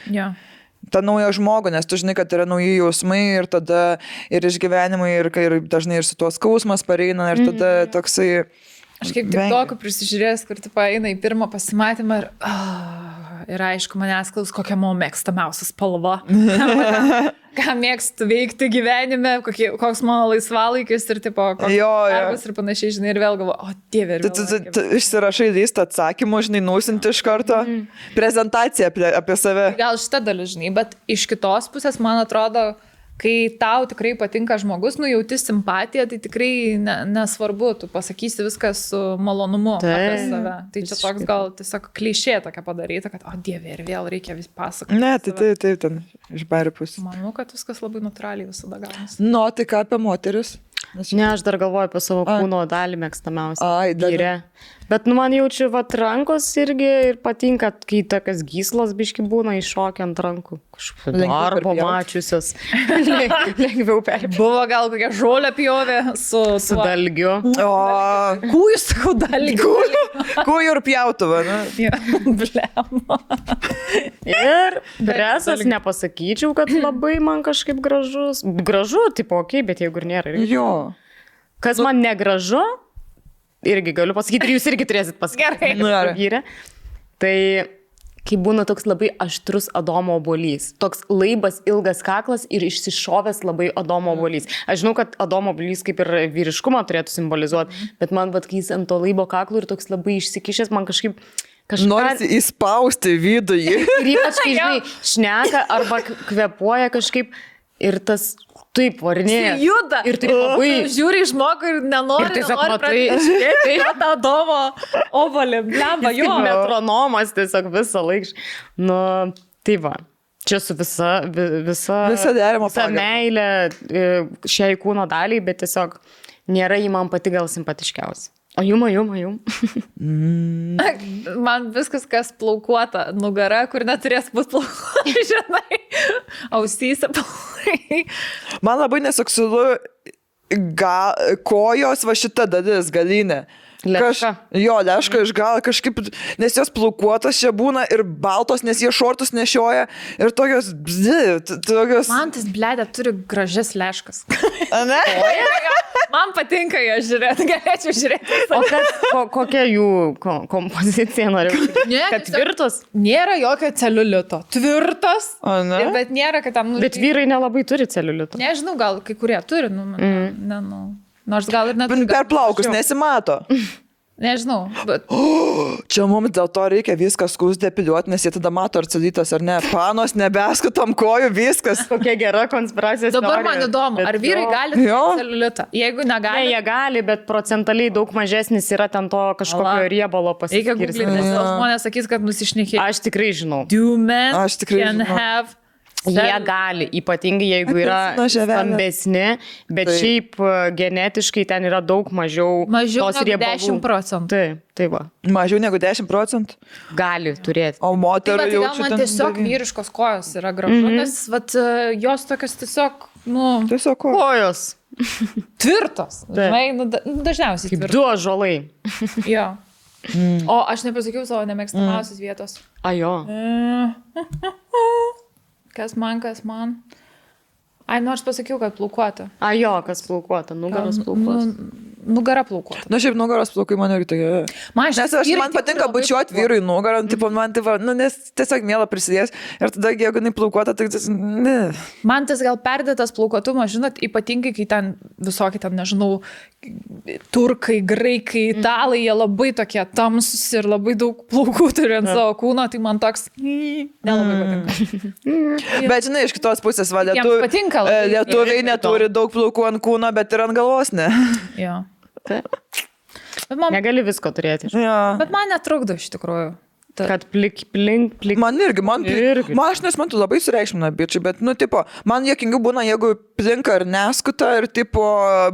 Speaker 2: tą naują žmogų, nes tu žinai, kad yra nauji jausmai ir tada ir išgyvenimai ir dažnai ir su tuo skausmas pareina ir tada toksai...
Speaker 1: Aš kaip tik tokį prisižiūrėjęs, kur tu eina į pirmą pasimatymą ir aišku, manęs klaus, kokia mano mėgstamiausia spalva. Ką mėgstu veikti gyvenime, koks mano laisvalaikis ir tipo, koks darbas ir panašiai, žinai, ir vėl galvoju, o dieve, ir vėl.
Speaker 2: Tu išsirašai listą atsakymų, žinai, nusinti iš karto prezentaciją apie save.
Speaker 1: Gal šitą dalį, žinai, bet iš kitos pusės, man atrodo, kai tau tikrai patinka žmogus, jauti simpatiją, tai tikrai nesvarbu, tu pasakysi viskas su malonumu apie save. Tai čia toks gal tiesiog klišė tokia padaryta, kad, o dieve, ir vėl reikia vis pasakoti.
Speaker 2: Ne, tai ten iš bairių pusės.
Speaker 1: Manau, kad viskas labai natūraliai visada gaunasi.
Speaker 2: Nu, tai ką apie moteris?
Speaker 3: Ne, aš dar galvoju apie savo kūno dalį mėgstamiausią. Gyrė. Bet man jaučiu, rankos irgi ir patinka, kai tokias gyslos biški būna iššokia ant rankų. Arba mačiusios. Lengviau perpjauti.
Speaker 1: Buvo gal kokia žolė pjovė su
Speaker 3: dalgiu.
Speaker 1: Kūjų, sakau, dalgiu.
Speaker 2: Kūjų ir pjautuvą, ne?
Speaker 1: Blema.
Speaker 3: Ir presas nepasakyčiau, kad labai man kažkaip gražus. Gražu, tipo, okei, bet jeigu ir nėra.
Speaker 2: Jo.
Speaker 3: Kas man negražu, irgi galiu pasakyti, ir jūs irgi turėsit pasakyti.
Speaker 1: Gerai.
Speaker 3: Tai kai būna toks labai aštrus Adomo obuolys. Toks laibas, ilgas kaklas ir išsišovęs labai Adomo obuolys. Aš žinau, kad Adomo obuolys kaip ir vyriškumą turėtų simbolizuoti, bet man, kai jis ant to laibo kaklo ir toks labai išsikišęs, man kažkaip...
Speaker 2: Norisi įspausti viduje.
Speaker 3: Ir ypač, kai, žinai, šneka arba kvepuoja kažkaip ir tas... Taip, varinėja.
Speaker 1: Jis juda.
Speaker 3: Ir tai labai...
Speaker 1: Žiūri į žmogų ir nenori pradėti. Tai tą Adomo ovalį, blemba, jo.
Speaker 3: Metronomas tiesiog visą laiką. Nu, tai va. Čia su visa meilė šiai kūno daliai, bet tiesiog nėra jį man pati gal simpatiškiausia. O jum.
Speaker 1: Man viskas, kas plaukuota nugara, kur neturės būti plaukuota, žinai, ausyse plaukai.
Speaker 2: Man labai neseksualu kojos va šita dalis, galinė.
Speaker 3: Leška.
Speaker 2: Leška iš gal kažkaip, nes jos plaukuotos čia būna ir baltos, nes jie šortus nešioja ir tokios, tokios...
Speaker 1: Man tas bledė turi gražias leškas.
Speaker 2: Ne?
Speaker 1: Man patinka ją žiūrėti, galėčiau žiūrėti.
Speaker 3: O kokia jų kompozicija noriu? Kad tvirtos?
Speaker 1: Nėra jokio celiulito. Tvirtos, bet nėra, kad tam...
Speaker 3: Bet vyrai nelabai turi celiulito.
Speaker 1: Nežinau, gal kai kurie turi, nors gal ir neturi.
Speaker 2: Per plaukus nesimato.
Speaker 1: Nežinau, bet...
Speaker 2: Čia mums dėl to reikia viską skūs depiliuoti, nes jie tada mato ar celiulitas ar ne. Panos nebeskutam kojų, viskas.
Speaker 3: Kokia gera konspiracijos
Speaker 1: teorija. Dabar man įdomu, ar vyrai gali celiulitą? Jeigu negali...
Speaker 3: Ne, jie gali, bet procentaliai daug mažesnis yra ten to kažkokio riebalo pasiskirstymo.
Speaker 1: Reikia googlyti, nes žmonės sakys, kad nusišnekė.
Speaker 3: Aš tikrai žinau.
Speaker 1: Do men can have...
Speaker 3: Jie gali, ypatingai jeigu yra stambesni, bet šiaip genetiškai ten yra daug mažiau tos riebalų.
Speaker 1: Mažiau negu 10%.
Speaker 3: Tai va.
Speaker 2: Mažiau negu 10%?
Speaker 3: Gali turėti.
Speaker 2: O moterų
Speaker 1: jau čia... Man tiesiog vyriškos kojos yra gražu, nes jos tokios tiesiog,
Speaker 2: Tiesiog
Speaker 3: kojos.
Speaker 1: Tvirtos. Dažniausiai
Speaker 3: kaip tvirtos. 2 ąžuolai.
Speaker 1: Jo. O aš nepasakiau savo nemėgstamiausios vietos.
Speaker 3: Jo.
Speaker 1: Kas man? Ai, nors pasakiau, kad plaukuota.
Speaker 3: Jo, kas plaukuota, nugaros plaukuota.
Speaker 1: Nugara plaukuota.
Speaker 2: Šiaip nugaros plaukai man irgi tokia. Man patinka bučiuoti vyrui nugarą, nes tiesiog mėla prisidės. Ir tada, jeigu jinai plaukuota, tai ne.
Speaker 1: Man tas gal perdėtas plaukuotumas, žinot, ypatingai, kai ten visokie, nežinau, turkai, graikai, italai, jie labai tokie tamsus ir labai daug plaukų turi ant savo kūno, tai man toks nelabai patinka.
Speaker 2: Bet žinai, iš kitos pusės, lietuviai neturi daug plaukų ant kūno, bet ir ant galvos, ne?
Speaker 1: Jo.
Speaker 3: Negali visko turėti.
Speaker 1: Bet man netrukdo iš tikrųjų.
Speaker 3: Kad plik.
Speaker 2: Man irgi. Aš nesmantu labai sureikšmina bičiai, bet, man juokingiau būna, jeigu plinka ir neskuta ir,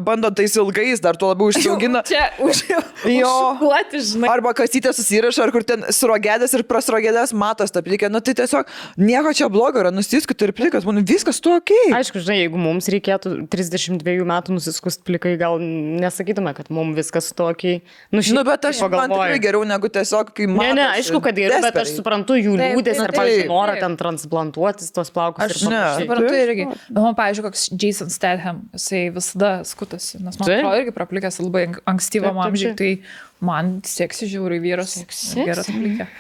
Speaker 2: bando tais ilgais, dar tuo labiau išsiaugina.
Speaker 1: Čia užšukuoti, žinai.
Speaker 2: Arba kasytė susiraša, ar kur ten surogėdės ir prasrogėdės matos tą plikę. Tai tiesiog nieko čia blogo yra, nusiskuti ir plikas, man viskas tu okei.
Speaker 3: Aišku, žinai, jeigu mums reikėtų 32 metų nusiskust plikai, gal nesakytume, kad mums viskas tu okei.
Speaker 2: Bet man tikrai geriau negu tiesiog, kai matos.
Speaker 3: Ne, aišku, kad geriau, bet aš suprantu jų liūdės ar, pavyzdžiui, norą ten transplantuotis tos plaukus.
Speaker 1: Aš suprantu irgi. Bet man, pavyzdžiui, koks Jason Statham, jisai visada skutasi, nes man atrodo irgi praplikęs labai ankstyvam amžiui, tai man seksi žiauriai vyras. Geras plikė.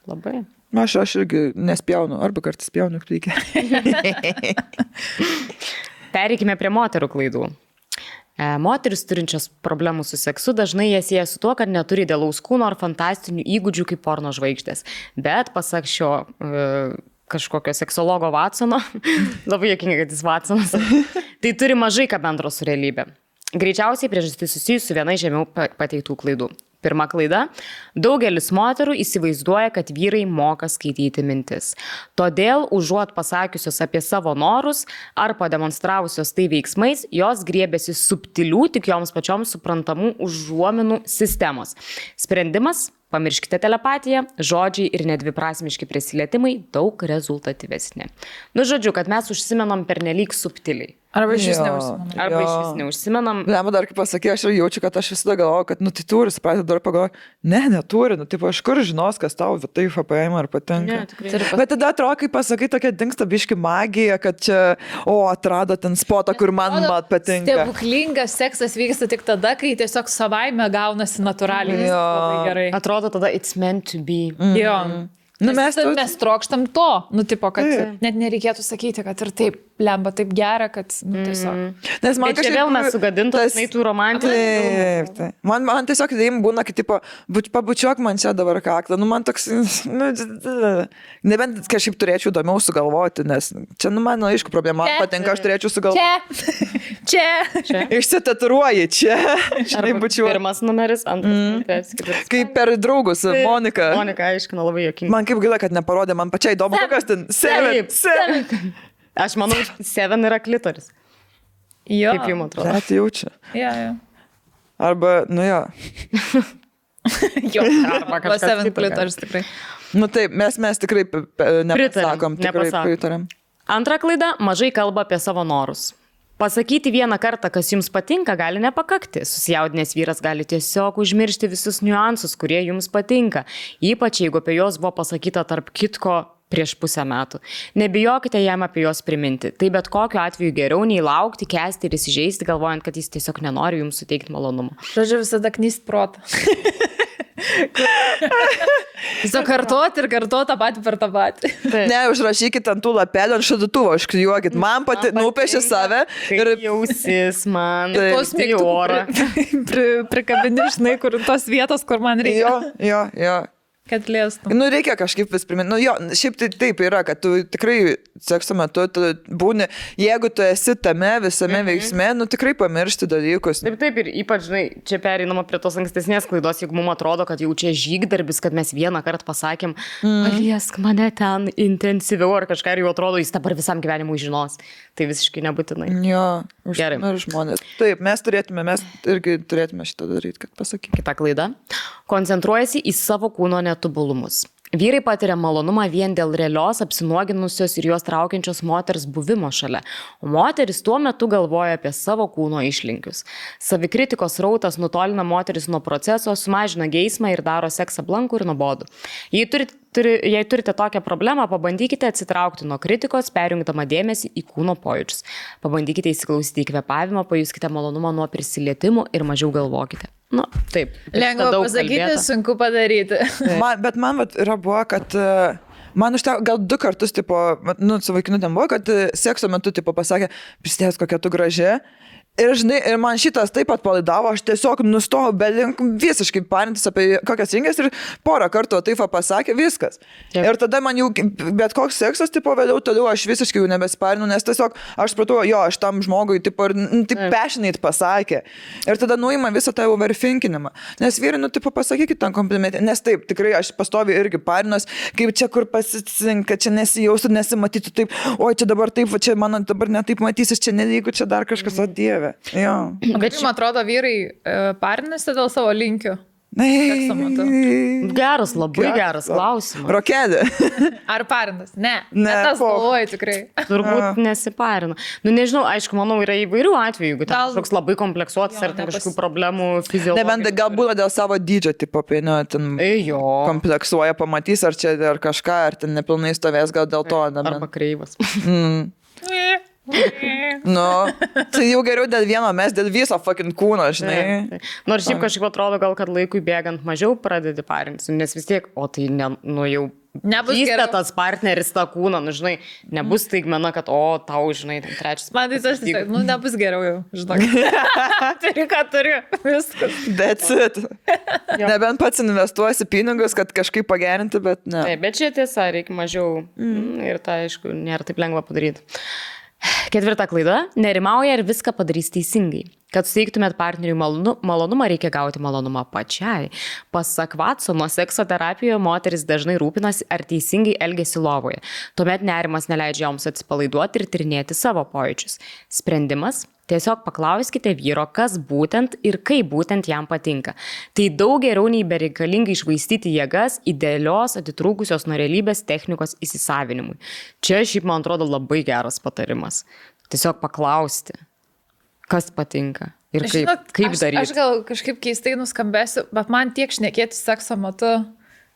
Speaker 3: Labai.
Speaker 2: Aš irgi nespjaunu, arba kartais spjaunu plikę.
Speaker 3: Pereikime prie moterų klaidų. Moteris turinčios problemų su seksu dažnai jas sieja su tuo, kad neturi idealaus kūno ar fantastinių įgūdžių kaip porno žvaigždės. Bet pasak šio kažkokio seksologo Watsono, labai juokinga, kad jis Watsonas, tai turi mažai ką bendro su realybė. Greičiausiai priežastis susijusi su viena žemiau pateiktų klaidų. Pirma klaida. Daugelis moterų įsivaizduoja, kad vyrai moka skaityti mintis. Todėl, užuot pasakiusios apie savo norus ar pademonstravusios tai veiksmais, jos griebėsi subtilių, tik joms pačioms suprantamų užuominų sistemos. Sprendimas – pamirškite telepatiją, žodžiai ir nedviprasmiški prisilietimai daug rezultatyvesni. Žodžiu, kad mes užsimenam pernelyg subtiliai.
Speaker 1: Arba iš vis neužsimenam.
Speaker 3: Arba iš vis neužsimenam.
Speaker 2: Lemą dar kaip pasakė, aš jaučiu, kad aš visada galvoju, kad, tai turi, supratau, dar pagalvoju, neturi, aš kur žinos, kas tau tai FPM ar patinka. Bet tada atrodo, kai pasakai, tokia dingsta biški magija, kad čia, atrado ten spotą, kur man patinka.
Speaker 1: Stebuklingas seksas vyksta tik tada, kai tiesiog savaime gaunasi natūraliai. Labai gerai.
Speaker 3: Atrodo tada it's meant to be.
Speaker 1: Jo. Mes trokštam to, kad net nereikėtų sakyti, kad ir taip lemba taip gera, kad tiesiog.
Speaker 2: Nes man
Speaker 3: kažkaip vėl mes sugadintos, tų romantikų.
Speaker 2: Taip. Man tiesiog įdėjim būna, kad pabučiuok man čia dabar kaklą. Man toks, nebent kažkaip turėčiau įdomiau sugalvoti, nes čia, man aišku problema, man patinka, aš turėčiau sugalvoti.
Speaker 1: Čia.
Speaker 2: Išsitaturuoji čia.
Speaker 3: Pirmas numeris, antras.
Speaker 2: Kaip per draugus, Monika.
Speaker 3: Monika aiškina labai juokingai.
Speaker 2: Man kaip gaila, kad neparodė, man pačiai įdomu, kokias ten 7.
Speaker 3: Aš manau, 7 yra klitoris.
Speaker 1: Jo.
Speaker 3: Kaip jums atrodo?
Speaker 2: Tai jaučia.
Speaker 1: Jo.
Speaker 2: Arba, jo.
Speaker 1: Jo, arba 7 klitoris tikrai.
Speaker 2: Taip, mes tikrai nepasakom, tikrai pritarėm.
Speaker 3: Antra klaida, mažai kalba apie savo norus. Pasakyti vieną kartą, kas jums patinka, gali nepakakti. Susijaudinęs vyras gali tiesiog užmiršti visus niuansus, kurie jums patinka. Ypač jeigu apie juos buvo pasakyta tarp kitko prieš pusę metų. Nebijokite jam apie juos priminti. Tai bet kokiu atveju geriau nei laukti, kęsti ir įsižeisti, galvojant, kad jis tiesiog nenori jums suteikti malonumo.
Speaker 1: Žodžiu, visada knyst protą. Tiesiog kartuoti ir kartuoti tą patį per tą patį.
Speaker 2: Ne, užrašykit ant tų lapelių, ant šaldytuvo, užklijuokit. Man nupiešė save.
Speaker 3: Ir jausis man.
Speaker 1: Tos mėgtų prikabini, žinai, kur tos vietos, kur man reikia.
Speaker 2: Jo.
Speaker 1: Kad lėstum.
Speaker 2: Nu, reikia kažkaip vis priminti. Nu, jo, šiaip tai taip yra, kad tu tikrai sekso metu tu būni, jeigu tu esi tame visame veiksme, nu tikrai pamiršti dalykus.
Speaker 3: Taip, ir ypač, žinai, čia pereinama prie tos ankstesnės klaidos, jeigu mums atrodo, kad jau čia žygdarbis, kad mes vieną kartą pasakėm, paliesk mane ten intensyviau ar kažką ir jau atrodo, jis dabar visam gyvenimui žinos. Tai visiškai nebūtinai.
Speaker 2: Jo,
Speaker 3: gerai.
Speaker 2: Ir žmonės. Taip, mes irgi turėtume šitą daryti, kad pasakyk.
Speaker 3: Kita klaida. Koncentruojasi į savo kūno netobulumus. Vyrai patiria malonumą vien dėl realios, apsinuoginusios ir juos traukiančios moters buvimo šalia, o moteris tuo metu galvoja apie savo kūno išlinkius. Savikritikos rautas nutolina moteris nuo proceso, sumažina geismą ir daro seksą blankų ir nuobodų. Jei turite tokią problemą, pabandykite atsitraukti nuo kritikos, perjungdama dėmesį į kūno pojūčius. Pabandykite įsiklausyti į kvėpavimą, pajuskite malonumą nuo prisilietimų ir mažiau galvokite. Nu, taip.
Speaker 1: Lengva pasakyti, sunku padaryti.
Speaker 2: Bet man yra buvo, kad man užteko gal 2 kartus, tipo, su vaikinu ten buvo, kad sekso metu, tipo, pasakė, prisidės kokia tu graži. Ir, žinai, ir man šitas taip pat palaidavo, aš tiesiog nustojau visiškai parintis apie kokias rinkas ir porą kartų taip pasakė, viskas. Taip. Ir tada man jau bet koks seksas, tipo, vėliau toliau aš visiškai jau nebesiparinu, nes tiesiog aš supratau, jo, aš tam žmogui, tipo, taip passionate pasakė. Ir tada nuima visą tą overthinkinimą. Nes vyrai, tipo, pasakykit tam komplimentį, nes taip, tikrai aš pastoviai irgi parinuos, kaip čia kur pasicinka, čia nesijaustų, nesimatytų taip, oi, čia dabar taip, čia man dabar netaip matysis, čia nelygu, čia dar kažkas, o Dieve. Jo.
Speaker 1: Bet man atrodo, vyrai parinasi dėl savo linkių.
Speaker 3: Geras, labai geras klausimas.
Speaker 2: Rokelė.
Speaker 1: Ar parinas? Ne. Tas galvoju tikrai.
Speaker 3: Turbūt nesiparina. Nu, nežinau, aišku, manau, yra įvairių atvejų, jeigu ten kažkoks labai kompleksuotas ar kažkokių problemų fiziologijos.
Speaker 2: Nebent galbūt dėl savo dydžio, tipo, ten kompleksuoja, pamatys, ar čia ar kažką, ar ten nepilnai stovės, gal dėl to.
Speaker 3: Arba kreivas.
Speaker 2: Nu, tai jau geriau dėl vieno, mes dėl viso fucking kūno, žinai.
Speaker 3: Nors šiaip kažkaip atrodo, gal kad laikui bėgant mažiau pradedi parintis, nes vis tiek, o tai jau vystė tas partneris tą kūną, nu, žinai, nebus staigmena, kad, tau, žinai, trečias.
Speaker 1: Man tai tas, nebus geriau jau, žinai. Turiu, ką turiu, viskas.
Speaker 2: That's it. Nebent pats investuosi pinigus, kad kažkaip pagerinti, bet ne.
Speaker 3: Taip, bet čia tiesa, reikia mažiau ir tai, aišku, nėra taip lengva padaryti. 4 klaida. Nerimauja ir viską padarys teisingai. Kad suteiktumėt partneriui malonumą, reikia gauti malonumą pačiai. Pasak Watsono, sekso terapijoje moteris dažnai rūpinasi, ar teisingai elgiasi lovoje. Tuomet nerimas neleidžia joms atsipalaiduoti ir tyrinėti savo pojūčius. Sprendimas? Tiesiog paklauskite vyro, kas būtent ir kaip būtent jam patinka. Tai daug geriau nei bereikalingai išvaistyti jėgas idealios, atitrūkusios nuo realybės technikos įsisavinimui. Čia šiaip, man atrodo, labai geras patarimas. Tiesiog paklausti, kas patinka ir kaip daryti.
Speaker 1: Aš gal kažkaip keistai nuskambėsiu, bet man tiek šnekėti sekso metu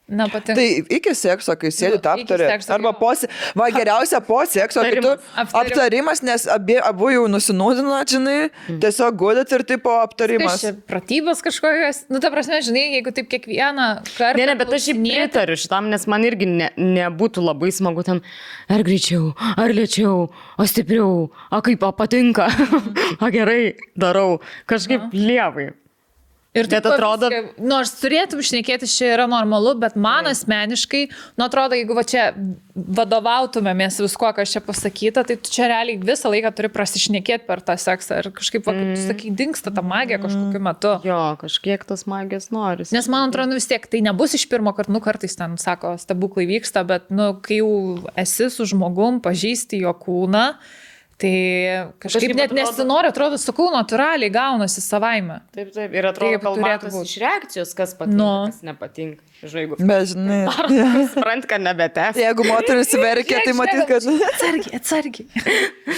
Speaker 1: nepatinka.
Speaker 2: Tai iki sekso, kai sėdit aptarė, arba geriausia po sekso, kai tu aptarimas, nes abu jau nusinūdino, žinai, tiesiog gulit ir tipo aptarimas.
Speaker 1: Tai pratybos kažkokios, nu ta prasme, žinai, jeigu taip kiekvieną kartą.
Speaker 3: Ne, bet aš šiaip pritariu šitam, nes man irgi nebūtų labai smagu ten, ar greičiau, ar lėčiau, o stipriau, o kaip patinka, o gerai darau, kažkaip lievai.
Speaker 1: Ir taip atrodo, nors turėtum šnekėti, čia yra normalu, bet man asmeniškai, atrodo, jeigu čia vadovautumėmės visko, kas čia pasakyta, tai tu čia realiai visą laiką turi prasišnekėti per tą seksą ir kažkaip, kaip tu sakai, dingsta ta magija kažkokiu metu.
Speaker 3: Jo, kažkiek tas magijos noris.
Speaker 1: Nes man atrodo, vis tiek tai nebus iš pirmo karto, kartais ten, sako, stebuklai vyksta, bet, kai jau esi su žmogum, pažįsti jo kūną, tai kažkaip net nesinori, atrodo, sakau, natūraliai gaunasi savaime.
Speaker 3: Taip, ir atrodo, kalbatas iš reakcijos, kas patinka, kas nepatinka. Žaigu.
Speaker 2: Bet, žinai.
Speaker 3: Suprant, kad nebetęs.
Speaker 2: Jeigu moteris verkia, tai matyt, kad...
Speaker 1: Atsargiai.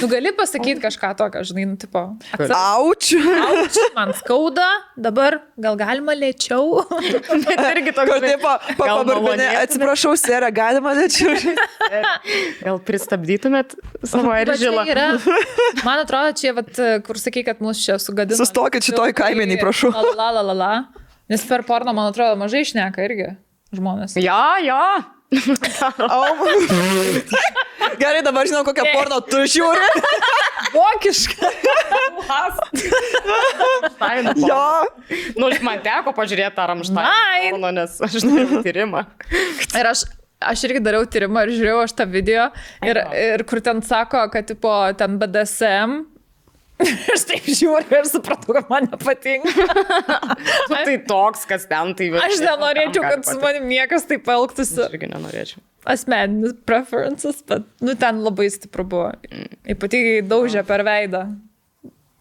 Speaker 1: Tu gali pasakyti kažką tokio, žinai, nu, tipo.
Speaker 2: Aučiu.
Speaker 1: Man skauda, dabar gal galima lėčiau.
Speaker 3: Bet irgi toks.
Speaker 2: Pabarbinė, atsiprašau, Sera, galima lėčiau.
Speaker 3: Gal pristabdytumėt savo eržilą?
Speaker 1: Man atrodo, čia, vat, kur sakai, kad mūsų čia sugadino.
Speaker 2: Sustokit šitoj kaimeniai, prašau.
Speaker 1: La. Nes per porno, man atrodo, mažai šneka irgi žmonės.
Speaker 3: Jo.
Speaker 2: Gerai, dabar žinau, kokią porno tu žiūri.
Speaker 1: Vokiška.
Speaker 2: Jo.
Speaker 3: Nu, man teko pažiūrėti tą Rammstein porno, nes aš dariau tyrimą.
Speaker 1: Ir aš irgi dariau tyrimą ir žiūrėjau aš tą video. Ir kur ten sako, kad tipo, ten BDSM. Aš taip žiūriu ir supratau, kad man nepatinka.
Speaker 3: Tai toks, kas ten, tai...
Speaker 1: Aš nenorėčiau, kad su manim niekas taip elgtųsi.
Speaker 3: Aš irgi nenorėčiau.
Speaker 1: Asmeninis preferences, bet, nu, ten labai stipru buvo. Ypatingai daužė per veidą.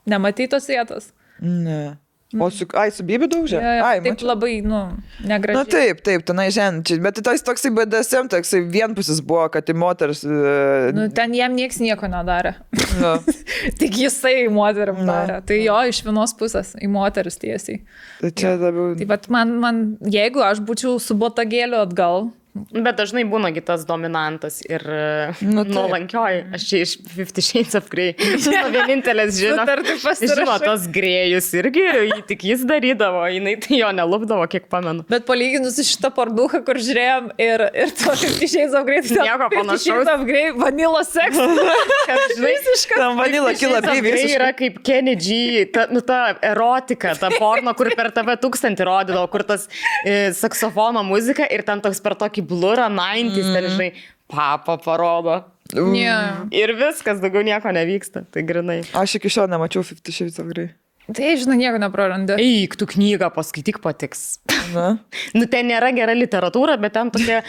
Speaker 1: Nematei tos vietos?
Speaker 2: Ne. O su Bibi daužė?
Speaker 1: Ai, taip mačiau. Labai, nu, negražiai.
Speaker 2: Na taip, tenai žemčiai. Bet tai toksai BDSM, toksai vienpusis buvo, kad į moters...
Speaker 1: Nu, ten jam nieks nieko nedarė. No. Tik jisai moterim darė. Tai jo, iš vienos pusės į moteris tiesiai.
Speaker 2: Tai čia labiau...
Speaker 1: Tai bet man, jeigu aš būčiau su botagėliu atgal...
Speaker 3: Bet dažnai būna kitas dominantas ir nuolankioji. Aš čia iš 50 Shades of Grey. Vienintelės žino, tos grėjus irgi, tik jis darydavo, jinai tai jo nelupdavo, kiek pamenu.
Speaker 1: Bet palyginus šitą parduką, kur žiūrėjom ir to 50 Shades of Grey, tai
Speaker 3: nieko panašaus.
Speaker 1: 50 Shades of Grey, vanilla sex. Visiškas.
Speaker 2: Tam vanilla kila visiškai.
Speaker 3: Yra kaip Kenny G, ta erotika, ta porno, kur per TV 1000 rodydavo, kur tas saksofono muzika ir ten toks per tokį blurą 90s, ten žinai, papa parodo.
Speaker 1: Yeah.
Speaker 3: Ir viskas, daugiau nieko nevyksta, tai grinai.
Speaker 2: Aš iki šiol nemačiau 50 Shades of Grey.
Speaker 1: Tai, žinai, nieko neprarandi.
Speaker 3: Eik, tu knygą paskaityk, patiks.
Speaker 2: Na?
Speaker 3: Nu, ten nėra gera literatūra, bet ten tokia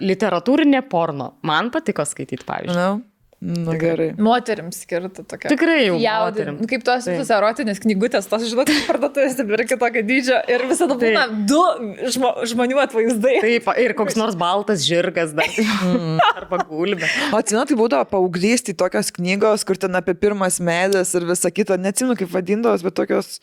Speaker 3: literatūrinė porno. Man patiko skaityti, pavyzdžiui.
Speaker 2: Na? Na gerai.
Speaker 1: Moterims skirta tokia.
Speaker 3: Tikrai jau moterims.
Speaker 1: Nu, kaip tos visos erotinės knygutės, tos, žinot, parduotuvės ir kitokio dydžio ir visada būna du žmonių atvaizdai.
Speaker 3: Taip, ir koks nors baltas žirgas dar. Arba gulbė.
Speaker 2: O atsimenu, tai būdavo paauglystėj tokios knygos, kur ten apie pirmas meilės ir visą kitą, neatsimenu kaip vadindavos, bet tokios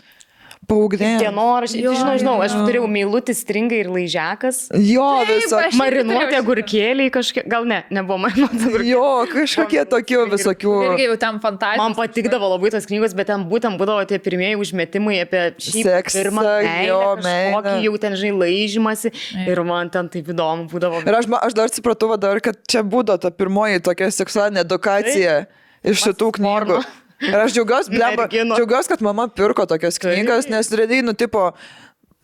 Speaker 2: paauglės.
Speaker 3: Dienoraščiai, žinau, aš turėjau Meilutis, Stringai ir Laižiakas.
Speaker 2: Jo, visokie.
Speaker 3: Marinuoti agurkėliai kažkiek, gal nebuvo marinuoti agurkėliai.
Speaker 2: Jo, kažkokie tokių visokių.
Speaker 1: Irgi jau ten fantastika.
Speaker 3: Man patikdavo labai tos knygos, bet ten būtent būdavo tie pirmieji užmetimai apie
Speaker 2: seksą,
Speaker 3: pirmą meilę, jau ten, žinai, laižymasi ir man ten taip įdomu būdavo.
Speaker 2: Ir aš dar supratau, kad čia būdavo ta pirmoji tokia seksualinė edukacija iš šitų knygų. Ir aš džiaugiausi, kad mama pirko tokias knygas, nes realiai, nu, tipo,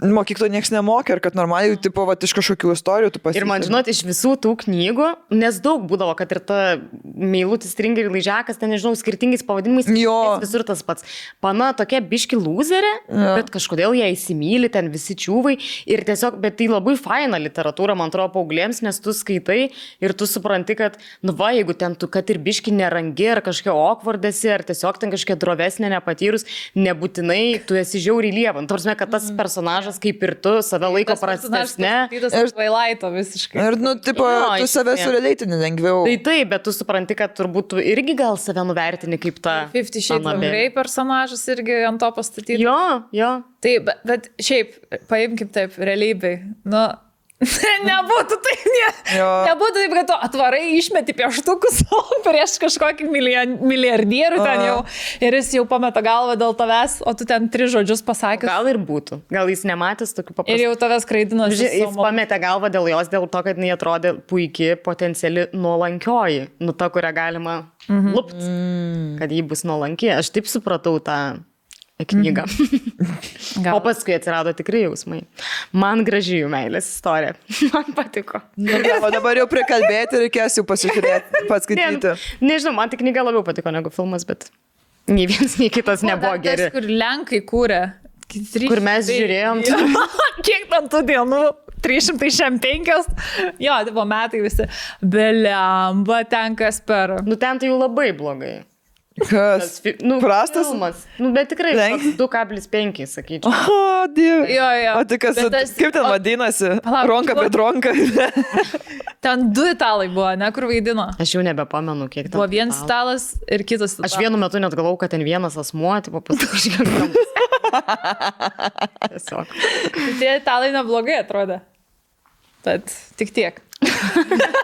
Speaker 2: mokyklo nieks nemokė ir kad normaliai, tipo, va, iš kažkokių istorijų tu pasitikė.
Speaker 3: Ir man, žinot, iš visų tų knygų, nes daug būdavo, kad ir ta Meilutis, Stringai ir Laižiakas, ten, nežinau, skirtingais pavadinimais, visur tas pats. Pana tokia biški lūzerė, bet kažkodėl ją įsimyli, ten visi čiūvai ir tiesiog, bet tai labai faina literatūra, man atrodo, paauglėms, nes tu skaitai ir tu supranti, kad, nu va, jeigu ten tu, kad ir biški nerangi, ar kažkokia okvardesi, ar tiesiog ten kažkokia drovesnė nepatyrus, nebūtinai tu esi žiauriai lieva. Tarsi, kad tas personažas kaip ir tu save laiko prastesne.
Speaker 1: Ir Tvailaito visiškai.
Speaker 2: Ir, nu, tipo, tu save surelatini lengviau.
Speaker 3: Tai taip, bet tu supranti, kad turbūt tu irgi gal save nuvertini kaip ta...
Speaker 1: 50 Shades of Grey personažas irgi ant to pastatyti.
Speaker 3: Jo.
Speaker 1: Taip, bet šiaip, paimkim taip, realybėj. Nu, nebūtų taip, nebūtų taip, kad tu atvarai išmeti pieštukus prieš kažkokį milijardierių ten jau ir jis jau pameta galvą dėl tavęs, o tu ten 3 žodžius pasakęs.
Speaker 3: Gal ir būtų. Gal jis nematęs tokių paprastų.
Speaker 1: Ir jau tavęs kraidino.
Speaker 3: Jis pametė galvą dėl jos, dėl to, kad jinai atrodė puikiai potenciali nuolankioji. Nu, ta, kurią galima lupti, kad ji bus nuolanki. Aš taip supratau tą knygą. O paskui atsirado tikrai jausmai. Man graži jų meilės istorija. Man patiko.
Speaker 2: O dabar jau prikalbėti reikės jau pasižiūrėti, paskaityti.
Speaker 3: Nežinau, man tik knyga labiau patiko negu filmas, bet nei vienas, nei kitas nebuvo geri.
Speaker 1: Kur Lenkai kūrė.
Speaker 3: Kur mes žiūrėjom.
Speaker 1: Kiek ten tų dienų? 365. Jo, tai buvo metai visi. Belemba ten kas per.
Speaker 3: Nu ten tai jau labai blogai.
Speaker 2: Kas? Prastas?
Speaker 3: Filmas. Bet tikrai 2,5, sakyčiau.
Speaker 2: O, Dieve.
Speaker 1: Jo.
Speaker 2: O tai kas, kaip ten vadinasi? Ronka prie dronka.
Speaker 1: Ten 2 italai buvo, ne, kur vaidino.
Speaker 3: Aš jau nebepamenu, kiek ten.
Speaker 1: Buvo vienas italas ir kitas italas.
Speaker 3: Aš vienu metu net galvau, kad ten vienas asmuo, tipo pasakyčiau. Tiesiog.
Speaker 1: Tie italai neblogai atrodė. Tad tik tiek.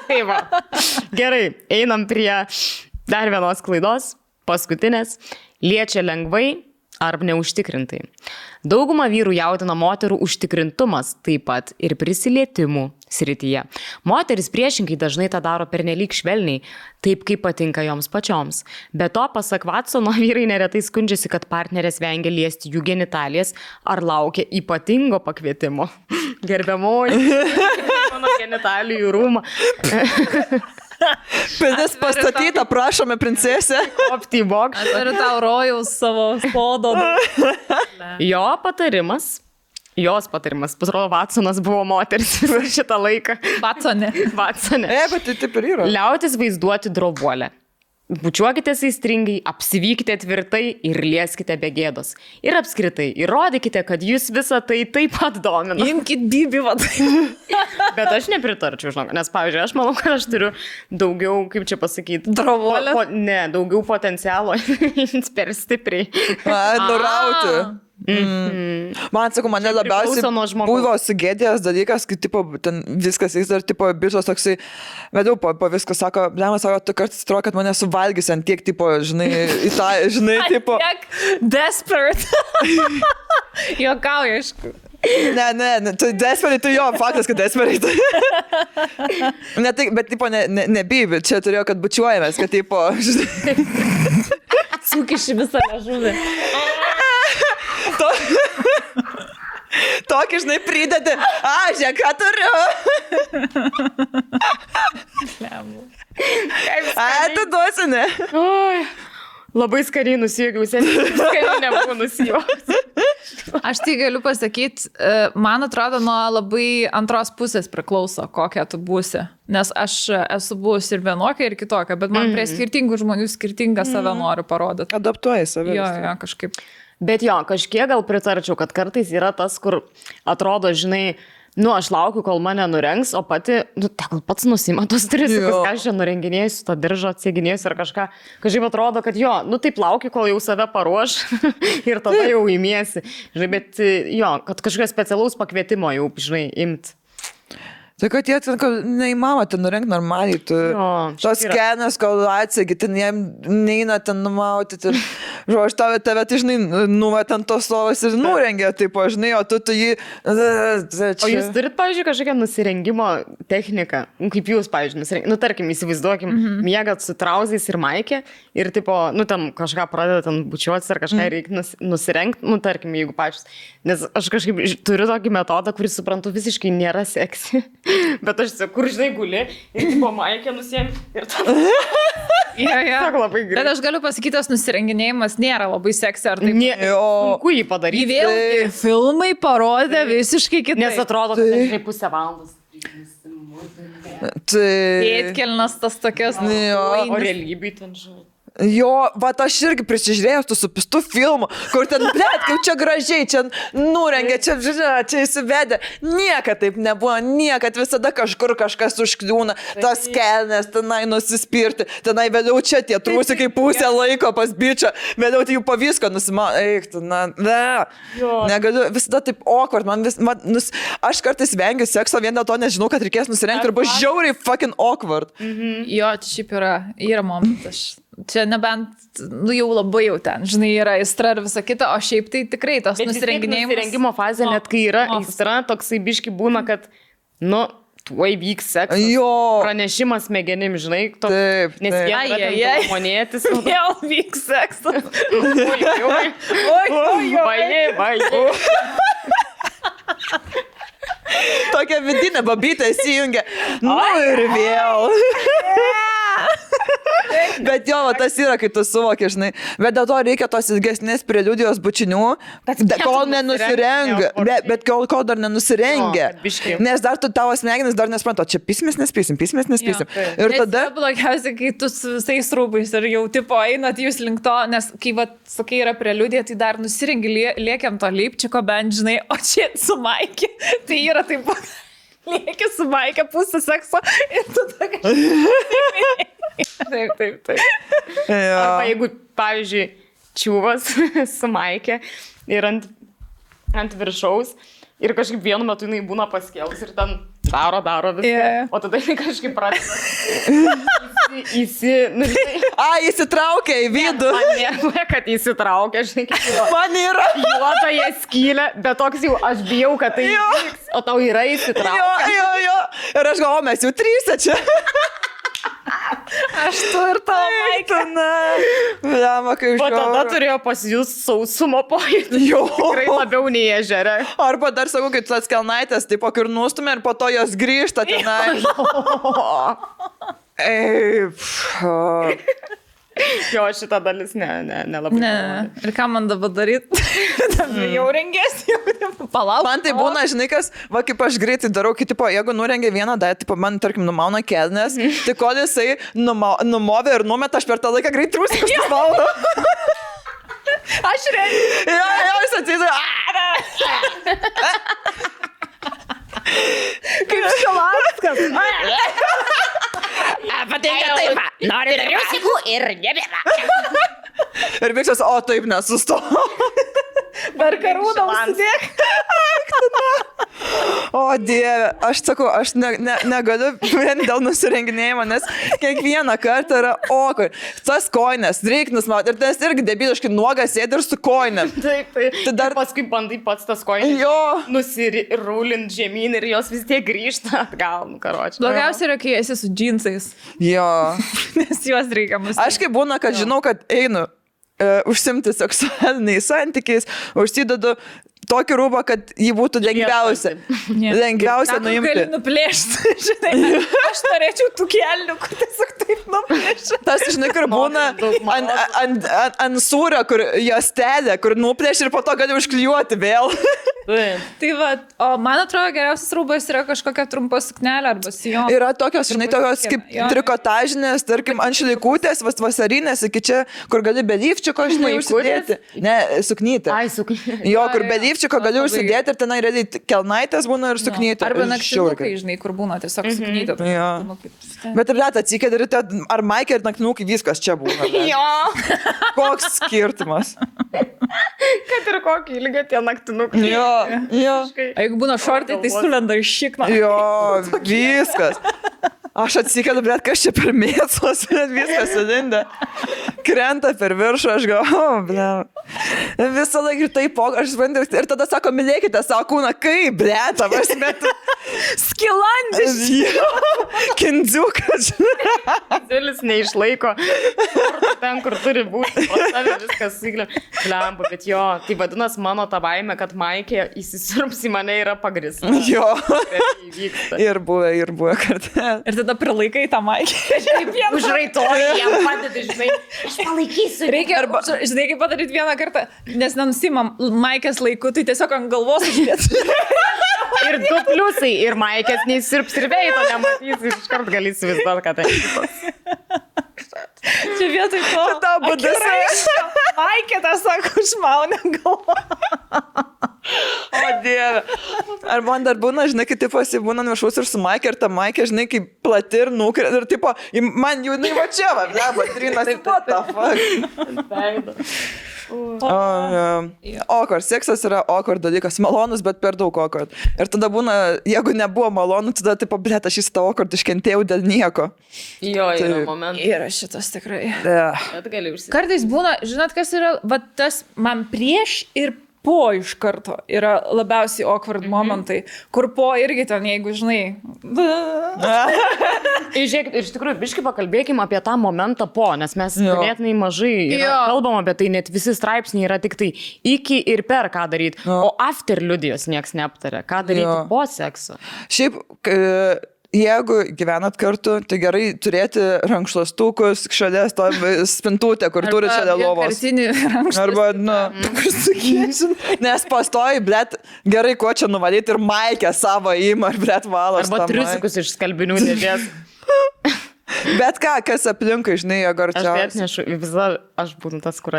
Speaker 3: Tai va. Gerai, einam prie dar vienos klaidos, paskutinės. Liečia lengvai ar neužtikrintai. Dauguma vyrų jaudina moterų užtikrintumas, taip pat ir prisilietimų srityje. Moteris priešingai dažnai tą daro pernelyg švelniai, taip kaip patinka joms pačioms. Be to, pasak Watsono, vyrai neretai skundžiasi, kad partnerės vengia liesti jų genitalijas ar laukia ypatingo pakvietimo. Gerbiamoji, mano genitalijų rūmą.
Speaker 2: Pilis pastatyta, prašome, princesė.
Speaker 3: Opti box.
Speaker 1: Turiu tau rojaus savo sodo.
Speaker 3: Jos patarimas, pasirodo, Watsonas buvo moteris visą šitą laiką.
Speaker 1: Watsone.
Speaker 2: Bet tai taip ir yra.
Speaker 3: Liautis vaizduoti drobuolę. Bučiuokitės aistringai, apsivykite tvirtai ir lieskite be gėdos. Ir apskritai, įrodykite, kad jūs visą tai taip pat domina.
Speaker 1: Imkit bibį, vadai.
Speaker 3: Bet aš nepritarčiau, žinok, nes, pavyzdžiui, aš manau, kad aš turiu daugiau, kaip čia pasakyti,
Speaker 1: Drobuolę?
Speaker 3: Daugiau potencialo per stipriai.
Speaker 2: Nurauti. Man, sakau, mane labiausiai buvo sugėdėjęs dalykas, kai tipo, ten viskas jis dar tipo bišos toksai, vedau po viską, sako, blemas, sako, tu kartais atrodo, kad mane suvalgys ant tiek, tipo, žinai, tipo.
Speaker 1: Tiek desperate. Juokauju, aišku.
Speaker 2: Ne, tu desperate, tu jo, faktas, kad desperate. Ne, tai, bet, tipo, nebibi, čia turėjo, kad bučiuojamės, kad, tipo, žinai.
Speaker 1: Sukiši visą liežuvį.
Speaker 2: Tokį, žinai, pridedi. Žiūrėk, ką turiu. Tu duosi, ne?
Speaker 3: Oi, labai skariai nusijokiau, seniai skariai nebuvau nusijokiau.
Speaker 1: Aš tai galiu pasakyti, man atrodo, nuo labai antros pusės priklauso, kokia tu būsi. Nes aš esu buvusi ir vienokia, ir kitokia, bet man prie skirtingų žmonių skirtingą save noriu parodyti.
Speaker 2: Adaptuoji save.
Speaker 1: Jo, kažkaip.
Speaker 3: Bet jo, kažkiek gal pritarčiau, kad kartais yra tas, kur atrodo, žinai, aš laukiu, kol mane nurengs, o pati, tegul pats nusima tos trisikus, ką aš čia nurenginėsiu, tą diržą atsiginėsiu ar kažką. Kažkaip atrodo, kad taip laukiu, kol jau save paruoš ir tada jau įmiesi. Žinai, bet jo, kad kažkokio specialaus pakvietimo jau, žinai, imt.
Speaker 2: Tai kad jie ten, neįmama ten nurengt normaliai, tu tos skenas, kol atsegi, ten jiem neina ten numauti, aš tave, žinai, nuvat ant tos lovos ir nurengia, taip, žinai, o tu jį...
Speaker 3: O jūs turit, pavyzdžiui, kažkokią nusirengimo techniką, kaip jūs, pavyzdžiui, nusirengimo, tarkim, įsivaizduokim, miegat su trauzais ir maikė ir, tipo, tam kažką pradeda ten bučiuotis ar kažką reikia nusirengti, tarkim, jeigu pačius, nes aš kažkaip turiu tokį metodą, kurį suprantu visiškai nėra seksi. Bet aš kur, žinai, guli ir tipo maikė nusiem ir tada. Labai gerai.
Speaker 1: Bet aš galiu pasakyti, tas nusirenginėjimas nėra labai seksi, ar taip?
Speaker 3: Sunku jį padaryti.
Speaker 1: Vėlgi filmai parodė visiškai kitaip.
Speaker 3: Nes atrodo, kad tai 0,5 valandos.
Speaker 1: Pėtkelnas tas tokias.
Speaker 3: O realybėj ten žinai.
Speaker 2: Jo, aš irgi prisižiūrėjau su pistu filmu, kur ten, kaip čia gražiai, čia nurengia, čia įsivedė. Niekad taip nebuvo, niekad visada kažkur kažkas užkliūna, tas kelnes, tenai nusispirti, tenai vėliau čia tie trūsikai pusę laiko pas bičią, vėliau tai jų po visko negaliu, visada taip awkward, aš kartais vengiu sekso vien dėl to, nežinau, kad reikės nusirengti ir bus žiauriai fucking awkward.
Speaker 1: Jo, čia šiaip yra momentas. Čia nebent, jau labai jau ten, žinai, yra aistra ir visa kita, o šiaip tai tikrai tas nusirenginėjimas.
Speaker 3: Nusirengimo fazė, net kai yra aistra, toksai biški būna, kad, tuoj vyks seksas. Pranešimas smegenim, žinai,
Speaker 2: taip.
Speaker 3: Nes jie monėtis.
Speaker 1: Jau vyks seksas.
Speaker 3: Oi.
Speaker 2: Tokia vidinė babytė įsijungia. Ir vėl. Bet jo, tas yra, kai tu suvoki, žinai. Bet dėl to reikia tos ilgesnės preliudijos bučinių, kol nenusirengia. Bet kol dar nenusirengia. Nes dar tavo smegenis dar nesuprantu, čia pismės nespysim. Ir tada...
Speaker 1: Blogiausia, kai tu su visais rūbais ir jau tipo einat jūs link to, nes kai, sakai, yra preliudija, tai dar nusirengi, liekiam to leipčiko bent, žinai, o čia su Maikė, tai yra taip, lieki su Maikė pusę sekso ir tu ta kažkaip. Taip.
Speaker 3: Arba jeigu, pavyzdžiui, čiūvas su Maikė ir ant viršaus ir kažkaip vienu metu jinai būna paskėlus ir ten daro viską, o tada jinai kažkaip pradeda
Speaker 2: įsitraukia į vidų.
Speaker 3: Man nėra, kad įsitraukia, žinai, kaip
Speaker 2: man yra.
Speaker 3: Juotoje skylė, bet toks jau aš bijau, kad tai įvyks, o tau yra įsitraukia.
Speaker 2: Jo. Ir aš galvoju, mes jau trysia čia.
Speaker 1: Aš tu ir tavo Maikė.
Speaker 2: Blema, kaip
Speaker 3: o tada turėjo pasijus sausumo pojūtį. Tikrai labiau nei ežere.
Speaker 2: Arba dar sakau, kai tas kelnaitės, taip ir nustumė ir po to jos grįžta tenai.
Speaker 3: Jo, šitą dalis nelabai.
Speaker 1: Ne. Ir ką man dabar daryti? Jau rengėsi, jau palauk.
Speaker 2: Man tai būna, žinai, kas, kaip aš greitai darau, kai, jeigu nurengia vieną datą, man, tarkim, numauna kelnes, tai kol jisai numovė ir numeta, aš per tą laiką greit trūsiu, kažkas valdo.
Speaker 1: Aš rengiu.
Speaker 2: Jo, jis atsėdė.
Speaker 1: Kaip Šilanskas.
Speaker 3: Patinka taip, nori dariausigų ir nebėra.
Speaker 2: Ir viskas, o taip nesusto.
Speaker 1: Per karūną užsidėk.
Speaker 2: O Dieve, aš sakau, aš negaliu vien dėl nusirenginėjimo, nes kiekvieną kartą yra okui. Tas koinės, reiknis, ir tas irgi debiliškai nuogas sėdi ir su koinėm.
Speaker 3: Taip. Tai dar paskui bandai pats tas koinės nusirūlint žemyn ir jos vis tiek grįžta atgal, karočiui.
Speaker 1: Blogiausia yra, kai esi su džinsais.
Speaker 2: Jo.
Speaker 1: Nes juos reikia mus.
Speaker 2: Aš kaip būna, kad žinau, kad einu užsimti seksualiniais santykiais, užsidedu tokį rūbą, kad jį būtų lengviausia nuimti.
Speaker 1: Gali nuplėšti, žinai. Aš norėčiau tų kelnių, kur tiesiog taip nuplėšti.
Speaker 2: Tas, žinai, kur būna ant sūrio, kur jos telė, kur nuplėšti ir po to gali užklijuoti vėl.
Speaker 1: Tai va, o man atrodo, geriausias rūbas yra kažkokia trumpa suknelė arba sijonas.
Speaker 2: Yra tokios, žinai, tokios kaip trikotažinės, tarkim, ant šlaikutės, vasarinės, iki čia, kur gali be lyfčiko, žinai, užsidėti. Ne, suknytė.
Speaker 3: Ai, suknytė.
Speaker 2: Jo, kur be lyfčiko gali užsidėti ir tenai realiai kelnaitės būna ir suknytė.
Speaker 1: Arba naktinukai, žinai, kur būna tiesiog suknytė.
Speaker 2: Bet ir net atsikėdė ir ar Maikė ir naktinukai viskas čia būna.
Speaker 3: Jo.
Speaker 2: Koks skirtumas.
Speaker 3: Kad ir kokį ilgą tie naktinukai.
Speaker 2: Jo.
Speaker 1: Jeigu būna šortai, tai sulenda iš šikno.
Speaker 2: Jo, viskas. Aš atsikėdu, bet kas čia per mėsos, viskas sudinda. Krenta per viršų, aš galvoju, visą laiką ir taip, aš suprantu, ir tada sako, mylėkite savo kūną, kaip, blėta, aš metu.
Speaker 1: Skilandis.
Speaker 2: Kindziukas.
Speaker 3: Zilis neišlaiko ten, kur turi būti, o tave viskas įglė. Blemba, bet jo, tai vadinas mano ta baimė, kad Maikė įsisirps į mane yra pagrįsta.
Speaker 2: Jo. Ir buvę kartą.
Speaker 1: Ir tada prilaikai tą Maikę.
Speaker 3: Užraitoji, jam padedi, žinai, aš palaikysiu.
Speaker 1: Reikia, žinai, kaip padaryti vieną kartą, nes nenusimam Maikės laiku, tai tiesiog ant galvos uždėti.
Speaker 3: Ir 2 pliusai, ir Maikės neįsirps ir veito nematysi, iškart gali įsivaizduoti, kad tai kitas.
Speaker 1: Čia vietoj to.
Speaker 2: Ta būdas.
Speaker 1: Maikė tą sako, užmaunė galvą.
Speaker 2: O Dieve. Ar man dar būna, žinai, kai tipo būna viršaus ir su Maikė, ir ta Maikė, žinai, kaip plati ir nukrė, ir tipo, man jau jinai va čia, trinas, what the fuck. Awkward. Seksas yra awkward dalykas. Malonus, bet per daug awkward. Ir tada būna, jeigu nebuvo malonu, tada tipo, blėt, aš šitą awkward iškentėjau dėl nieko.
Speaker 3: Jo, yra momentas.
Speaker 1: Yra šitas tikrai.
Speaker 3: Bet gali užsitikti.
Speaker 1: Kartais būna, žinot, kas yra, va tas man prieš ir po iš karto yra labiausiai awkward momentai, kur po irgi ten, jeigu žinai.
Speaker 3: Žiūrėk, ir iš tikrųjų, biškai pakalbėkime apie tą momentą po, nes mes ganėtinai mažai kalbam apie tai, net visi straipsniai yra tik tai iki ir per ką daryti, o after liudijos nieks neaptarė, ką daryti po sekso.
Speaker 2: Šiaip, jeigu gyvenat kartu, tai gerai turėti rankšluostukus šalia spintutę, kur turi šalia lovos. Arba, nes pastoji, blet, gerai, ko čia nuvalyti ir maikę savo įimą, ar blet valos.
Speaker 3: Arba triusikus iš skalbinių dėžės.
Speaker 2: Bet ką, kas aplinkui, žinai, jeigu arčiausiai.
Speaker 3: Aš atnešu, visada aš būtų tas, kur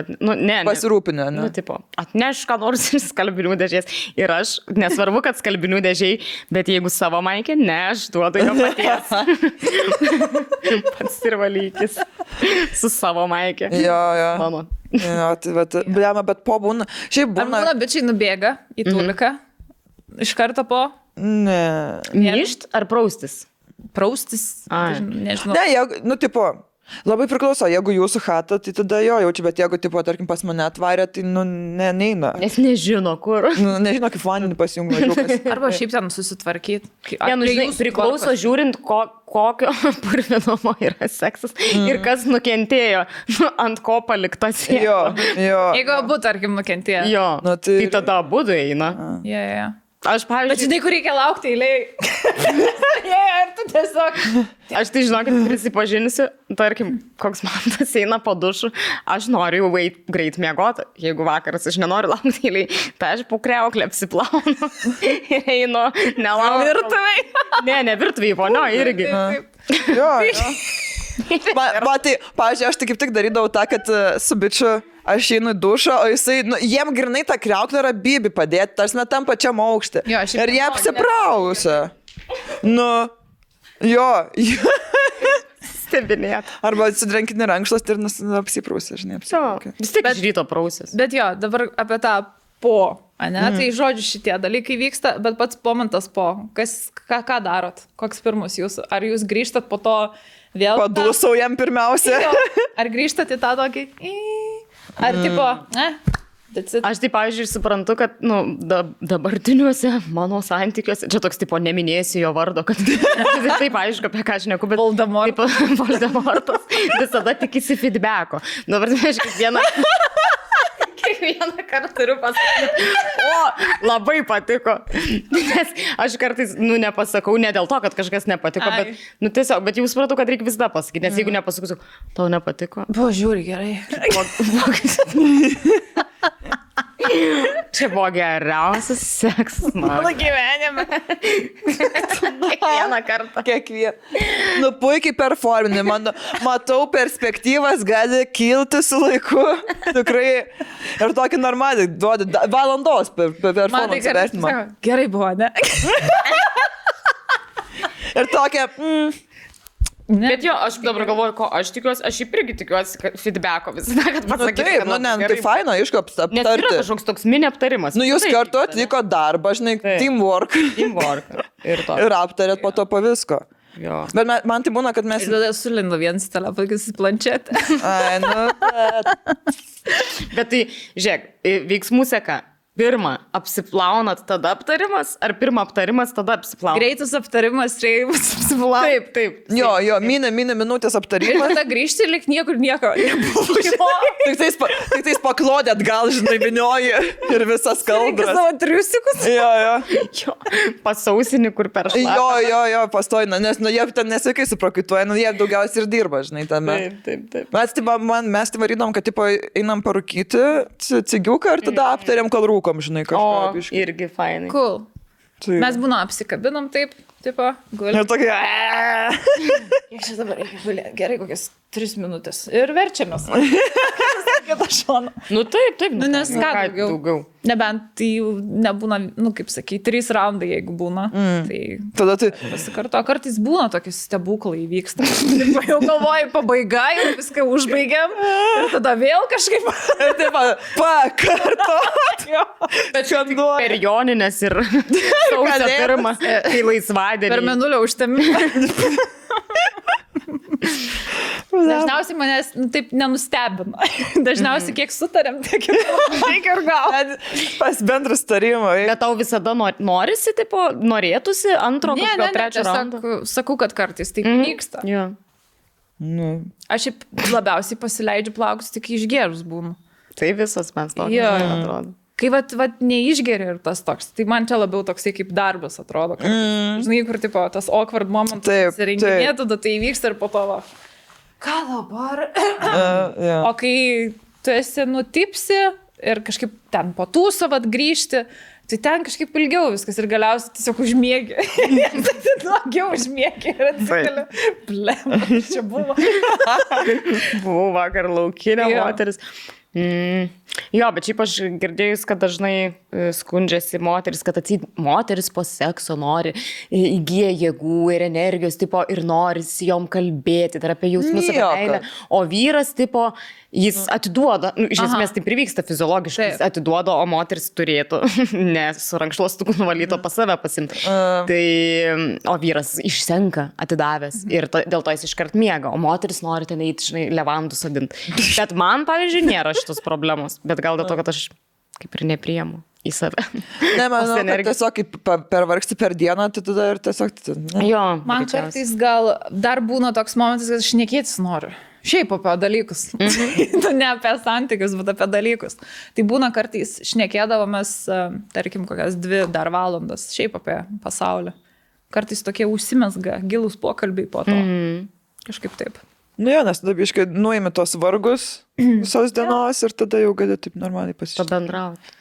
Speaker 2: pasirūpinę, ne?
Speaker 3: Tipo, atneš ką nors iš skalbinių dėžės. Ir aš, nesvarbu, kad skalbinių dėžiai, bet jeigu savo maikė, ne, aš duodu jo paties. Pats ir valykis su savo maikė.
Speaker 2: Jo.
Speaker 3: Mano.
Speaker 2: Jo, tai bet po būna. Šiaip būna.
Speaker 1: Ar būna bičiai nubėga į tuliką? Iš karto po?
Speaker 2: Ne.
Speaker 3: Myšt ar praustis?
Speaker 1: Praustis, nežinau.
Speaker 2: Ne, tipo, labai priklauso, jeigu jūsų chata, tai tada jaučiu, bet jeigu, tipo, tarkim, pas mane atvarė, tai, neina.
Speaker 3: Nes nežino, kur.
Speaker 2: Nežino, kaip vandenį pasijungia.
Speaker 1: Arba šiaip ten susitvarkyti.
Speaker 3: Žinai, priklauso žiūrint, kokio purvinumo yra seksas ir kas nukentėjo, ant ko palikta siena.
Speaker 2: Jo.
Speaker 1: Jeigu abu, tarkim, nukentėjo.
Speaker 3: Jo, tai tada abudu eina.
Speaker 1: Jo.
Speaker 3: Aš, pavyzdžiui...
Speaker 1: Bet žinai, kur reikia laukti eilėj. Ir tu tiesiog...
Speaker 3: Aš tai žinokit, prisipažinsiu, tarkim, koks man tas eina po dušu, aš noriu jau greit miegoti, jeigu vakaras aš nenoriu laukti eilėj, tai aš po kriauklę apsiplaunu ir einu, nelaukiu.
Speaker 1: Virtuvėj?
Speaker 3: Ne virtuvėj, ponio, irgi.
Speaker 2: Jo. Tai, pavyzdžiui, aš tai kaip tik darydavau tą, kad su bičiu aš einu į dušą, o jisai, jiem grinai tą kriauklę yra bibi padėti, tarsi net tam pačiam aukštį. Ir jie apsiprausia. Jo.
Speaker 3: Stebinėt.
Speaker 2: Arba atsidrenkinį rankšlas ir apsiprausia, žinai, apsiprausia.
Speaker 3: Vis tik iš ryto prausis.
Speaker 1: Bet jo, dabar apie tą po, ane? Tai žodžiu šitie dalykai vyksta, bet pats momentas po. Ką darot? Koks pirmus jūsų? Ar jūs grįžtat po to vėl?
Speaker 2: Padūsau jam pirmiausia.
Speaker 1: Ar grįžtat į tą tokį? Ar tipo,
Speaker 3: Aš tai, pavyzdžiui, suprantu, kad dabartiniuose mano santykiuose, čia toks, tipo, neminėsiu jo vardo, kad taip aišku, apie ką aš neku, bet Voldemortas visada tikisi feedbacko. Dabar, aš kiekvieną kartą turiu pasakyti, labai patiko. Nes aš kartais, nepasakau, ne dėl to, kad kažkas nepatiko, bet, tiesiog, bet jau supratau, kad reikia visada pasakyti, nes jeigu nepasakysiu, tau nepatiko.
Speaker 1: Buvo žiūri gerai.
Speaker 3: Čia buvo geriausias seksas mano
Speaker 1: gyvenime.
Speaker 3: Kiekvieną kartą.
Speaker 2: Puikiai performinį. Matau, perspektyvas gali kilti su laiku. Tikrai. Ir tokį normalį duodi valandos performance vertinimą.
Speaker 1: Gerai buvo, ne?
Speaker 2: Ir tokia...
Speaker 3: Bet jo, aš dabar galvoju, ko aš tikiuosi, aš irgi tikiuosi, kad feedbacko visada, kad pasakysiu.
Speaker 2: Taip, tai faina, aišku, aptarti.
Speaker 3: Nes yra kažkoks toks mini aptarimas.
Speaker 2: Jūs kartu atliko darbą, žinai, teamwork. Ir aptarėt po to po visko.
Speaker 3: Jo.
Speaker 2: Bet man tai būna, kad mes...
Speaker 1: Ir tada sulindu vienas telefonas į planšetę.
Speaker 3: Bet tai, žiūrėk, veiksmų seka. Pirma, apsiplaunat, tada aptarimas, ar pirma aptarimas, tada apsiplaunat?
Speaker 1: Greitas aptarimas, reimas apsiplaunat.
Speaker 3: Taip.
Speaker 2: Jo, minė minutės aptarimas.
Speaker 1: Ir tada grįžti, lik niekur nieko.
Speaker 2: Tik tais paklodėt, gal, žinai, vinioji ir visas kalbras.
Speaker 1: Savo triusikus.
Speaker 2: Jo.
Speaker 3: Pasausinį, kur per šlapą.
Speaker 2: Jo, pastojina, nes jie ten nesveikai suprakaituoja, jie daugiausiai ir dirba, žinai, tame.
Speaker 3: Taip.
Speaker 2: Mes tai varydom, kad tipo einam parūkyti cigiuką ir tada aptariam, kol rūkom, žinai, kažką.
Speaker 3: Irgi fainai.
Speaker 1: Cool. Mes būna apsikabinam taip, tipo, gulim.
Speaker 2: Ir tokia...
Speaker 1: Kiek čia dabar reikia gulėti? Gerai, kokias 3 minutės. Ir verčiamės. Kitą šoną.
Speaker 3: Taip.
Speaker 1: Nes ką daugiau? Nebent tai nebūna, kaip sakai, 3 raundai, jeigu būna. Tai
Speaker 2: tada tai...
Speaker 1: Pasikarto, kartais būna tokie stebuklai vyksta. Jau galvoju, pabaiga, jau viską užbaigiam. Ir tada vėl kažkaip...
Speaker 2: Ir taip, pakartot.
Speaker 3: Bet čia per joninės ir sausio pirmą, kai laisvadienį.
Speaker 1: Per menulio užtemimą. Dažniausiai manęs taip nenustebina. Dažniausiai kiek sutarėm, tiek ir gal.
Speaker 2: Pas bendrus tarimą.
Speaker 3: Bet tau visada norisi, tipo, norėtųsi antro, kažkokio trečio raundo?
Speaker 1: Sakau, kad kartais taip vyksta. Aš labiausiai pasileidžiu plaukus, tik išgėrus būnu.
Speaker 3: Tai visas mes to atrodo.
Speaker 1: kai vat neišgeri ir tas toks, tai man čia labiau toksai kaip darbas atrodo. Žinai, kur tipo tas awkward momentas įsirenginė, tada tai įvyksta ir po to va. Ką dabar? O kai tu esi nutipsi ir kažkaip ten po tūso vat grįžti, tai ten kažkaip ilgiau viskas ir galiausiai tiesiog užmiegi. Tai daugiau užmiegi ir atsikeli. Blem, čia buvo.
Speaker 3: Buvau vakar laukinė moteris. Jo, bet šiaip aš girdėjus, kad dažnai skundžiasi moteris, kad moteris po sekso nori, įgyja jėgų ir energijos, tipo, ir nori jom kalbėti, tai apie jausmus, apie meilę, o vyras, tipo, jis atiduoda, iš esmės tai privyksta fiziologiškai, jis atiduoda, o moteris turėtų, nes su rankšluostuku nuvalyto pas save pasimti. Tai, o vyras išsenka atidavęs ir dėl to jis iškart miega, o moteris nori ten eiti, žinai, levandų sadinti. Bet man, pavyzdžiui, nėra šitos problemos, bet gal dėl to, kad aš kaip ir nepriemu į save.
Speaker 2: Ne, manau, kad tiesiog pervargsti per dieną, tai tada ir tiesiog...
Speaker 3: Jo,
Speaker 1: man kartais gal dar būna toks momentas, kad aš šnekėtis noriu. Šiaip apie dalykus. Ne apie santykius, bet apie dalykus. Tai būna kartais šnekėdavomės, tarkim, kokias 2 dar valandas, šiaip apie pasaulį. Kartais tokie užsimesga, gilūs pokalbiai po to. Kažkaip taip.
Speaker 2: Nu jo, nes tada biškai nuimi tos vargus visos dienos ir tada jau gali taip normaliai pasišnekėti.
Speaker 3: Pabendrauti.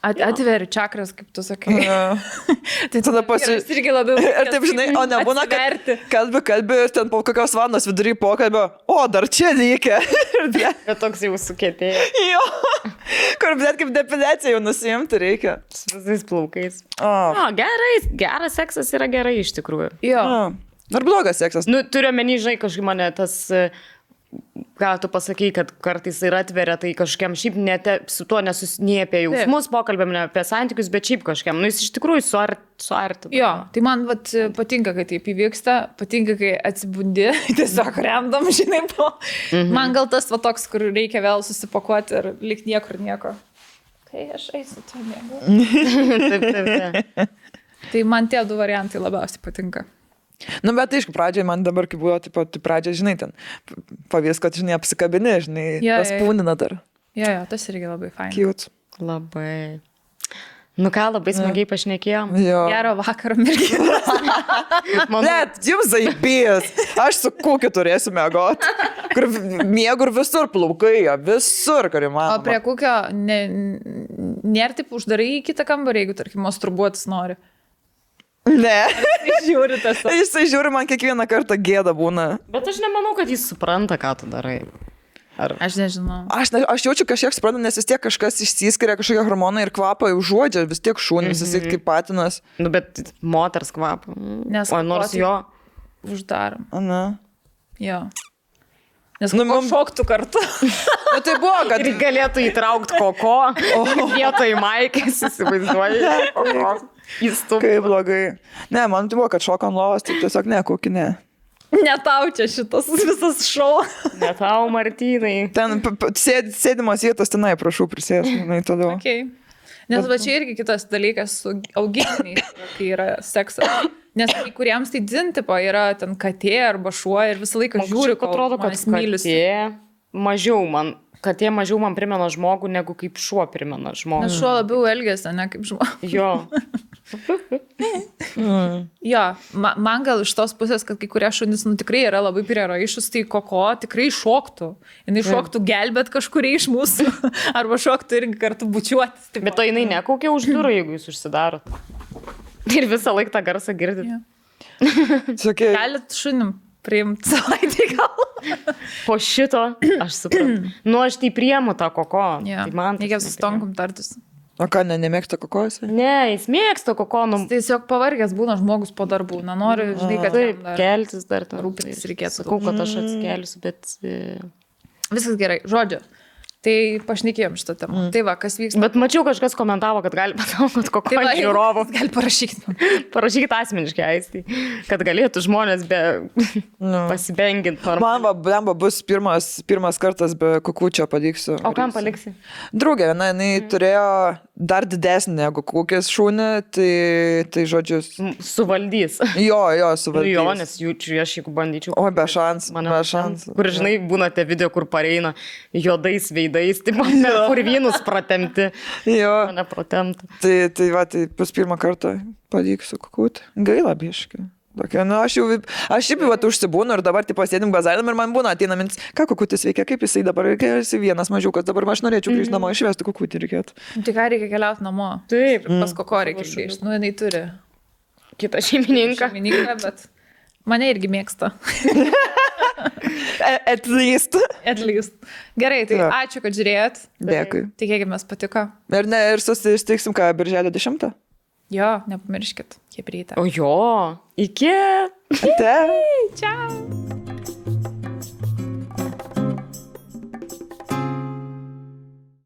Speaker 1: Atveri čakras, kaip tu sakai.
Speaker 2: Tai tada
Speaker 1: irgi labiau.
Speaker 2: Ir taip, žinai, o nebūna, kad kalbi ir ten po kokios valandos vidury pokalbio, o dar čia reikia.
Speaker 3: Bet toks jau sukėtėjo.
Speaker 2: Jo, kur bet kaip depiliacija jau nusiimti reikia.
Speaker 3: Su visais plaukais.
Speaker 2: O,
Speaker 3: geras seksas yra gerai iš tikrųjų.
Speaker 1: Jo.
Speaker 2: Ar blogas seksas?
Speaker 3: Nu, turiu menį, žinai, kažkaip mane tas... Ką tu pasakai, kad kartais ir atveria, tai kažkiam šiaip su tuo nesusinė apie jausmus, pokalbėm ne apie santykius, bet šiaip kažkiam. Nu, jis iš tikrųjų suartina.
Speaker 1: Jo, tai man patinka, kai taip įvyksta, patinka, kai atsibundi, tiesiog remdam, žinai, po. Man gal tas toks, kur reikia vėl susipakuoti ir lik niekur nieko. Kai aš eisiu, tu mėgau. Tai man tie 2 variantai labiausiai patinka.
Speaker 2: Nu, bet aišku, pradžiai man dabar, kai buvo, taip pat pradžiai, žinai, ten pavyzdys, kad, žinai, apsikabini, žinai, tas pūnina dar.
Speaker 1: Jo, tas irgi labai fain.
Speaker 2: Cute.
Speaker 3: Labai. Nu ką, labai smagiai pašnekėjom.
Speaker 1: Gero vakaro, merginos.
Speaker 2: Net, jums zaibės. Aš su kukiu turėsiu mėgoti. Kur miegu ir visur plaukai, visur, kur įmanoma.
Speaker 1: O prie kukio nėra taip uždarai į kitą kambarį, jeigu, tarkim, masturbuotis nori.
Speaker 2: Ne.
Speaker 1: Jisai
Speaker 2: žiūri, man kiekvieną kartą gėda būna.
Speaker 3: Bet aš nemanau, kad jis supranta, ką tu darai.
Speaker 1: Aš nežinau.
Speaker 2: Aš jaučiu kažkiek suprantu, nes vis tiek kažkas išsiskiria, kažkokie hormonai ir kvapą užuodžia, vis tiek šūnis, jisai kaip patinas.
Speaker 3: Nu, bet moters kvapą.
Speaker 1: Nes
Speaker 3: nors jo
Speaker 1: uždarom.
Speaker 2: Ana.
Speaker 1: Jo. Nes šoktų kartu.
Speaker 2: Nu, tai buvo, kad...
Speaker 3: Ir galėtų įtraukti koko, vietoj maikės, įsivaizduoji.
Speaker 2: Kaip blogai. Ne, man tai buvo, kad šoka ant lovos, tai tiesiog ne, kokį ne.
Speaker 1: Ne tau čia šitas visas šou.
Speaker 3: Ne tau, Martynai.
Speaker 2: Ten sėdimas vietos tenai, prašau, prisėsti, toliau.
Speaker 1: Okay. Nes va čia irgi kitas dalykas su augintiniais, kai yra seksas. Nes kai kuriems tai dzintipo yra ten katė arba šuo ir visą laiką žiūri, kol
Speaker 3: atrodo, kad katė mažiau man primena žmogų, negu kaip šuo primena žmogų.
Speaker 1: Nes šuo labiau elgiasi, ne kaip žmogų.
Speaker 3: Jo.
Speaker 1: Jo, man gal iš tos pusės, kad kai kurie šunys tikrai yra labai priraišus, tai koko tikrai šoktų. Jis šoktų gelbėt kažkurie iš mūsų. Arba šoktų irgi kartu bučiuotis.
Speaker 3: Bet to jinai nekaukia už durų, jeigu jūs užsidarot. Ir visą laiką tą garsą girdit.
Speaker 1: Galit šunim priimti savaitį gal.
Speaker 3: Po šito aš suprantu. Nu, aš tai priemu tą koko.
Speaker 1: Ja.
Speaker 3: Tai man
Speaker 1: reikia su Tonkum tartis.
Speaker 2: O ką, nemėgsta kokos?
Speaker 3: Ne, jis mėgsta kokonų.
Speaker 1: Jis tiesiog pavargęs būna žmogus po darbų. Nenori, žinai, kad
Speaker 3: taip, keltis dar
Speaker 1: rūpintis reikėtų.
Speaker 3: Sakau, kad aš atsikelsiu, bet...
Speaker 1: Viskas gerai. Žodžiu. Tai pašnekėjom šitą temą. Tai va, kas vyksta.
Speaker 3: Bet mačiau, kažkas komentavo, kad gali pasaukot kokio žiūrovų.
Speaker 1: Gali parašykti.
Speaker 3: Parašykit asmeniškai, Aistį, kad galėtų žmonės be pasibenginti.
Speaker 2: Man blemba bus pirmas kartas be kukučio paliksiu.
Speaker 3: O kam paliksi?
Speaker 2: Draugė, jinai turėjo dar didesnį negu kukės šūnį, tai žodžius.
Speaker 3: Suvaldys.
Speaker 2: Jo, suvaldys.
Speaker 3: Jo, nes jaučiu, aš jeigu bandyčiau.
Speaker 2: O, be šansų.
Speaker 3: Kur, žinai, būna tie video, kur pareina juodais veidais veidais, taip, purvynus pratemti.
Speaker 2: Jo.
Speaker 3: Mane pratemti.
Speaker 2: Tai pas pirmą kartą pavyks sukukūti. Gaila biškai. Tokia, aš šiaip užsibūnu ir dabar pasėdim bazarėm ir man būna ateina mintis, ką kukutis veikia, kaip jisai dabar, kai esi vienas mažiukas, dabar aš norėčiau grįžti namo, išvesti kukutį reikėtų.
Speaker 1: Tai ką reikia keliauti namo?
Speaker 3: Taip.
Speaker 1: Pas koko reikia grįžti. Nu, jinai turi
Speaker 3: kitą šeimininką.
Speaker 1: Bet mane irgi mėgsta.
Speaker 2: At least.
Speaker 1: Gerai, tai ačiū, kad žiūrėjot.
Speaker 2: Dėkui.
Speaker 1: Tikėkime, patiko.
Speaker 2: Ir susitiksim ką, birželio 10?
Speaker 1: Jo, nepamirškit, kaip ryte.
Speaker 3: O jo, iki.
Speaker 2: Ate.
Speaker 1: Ciao.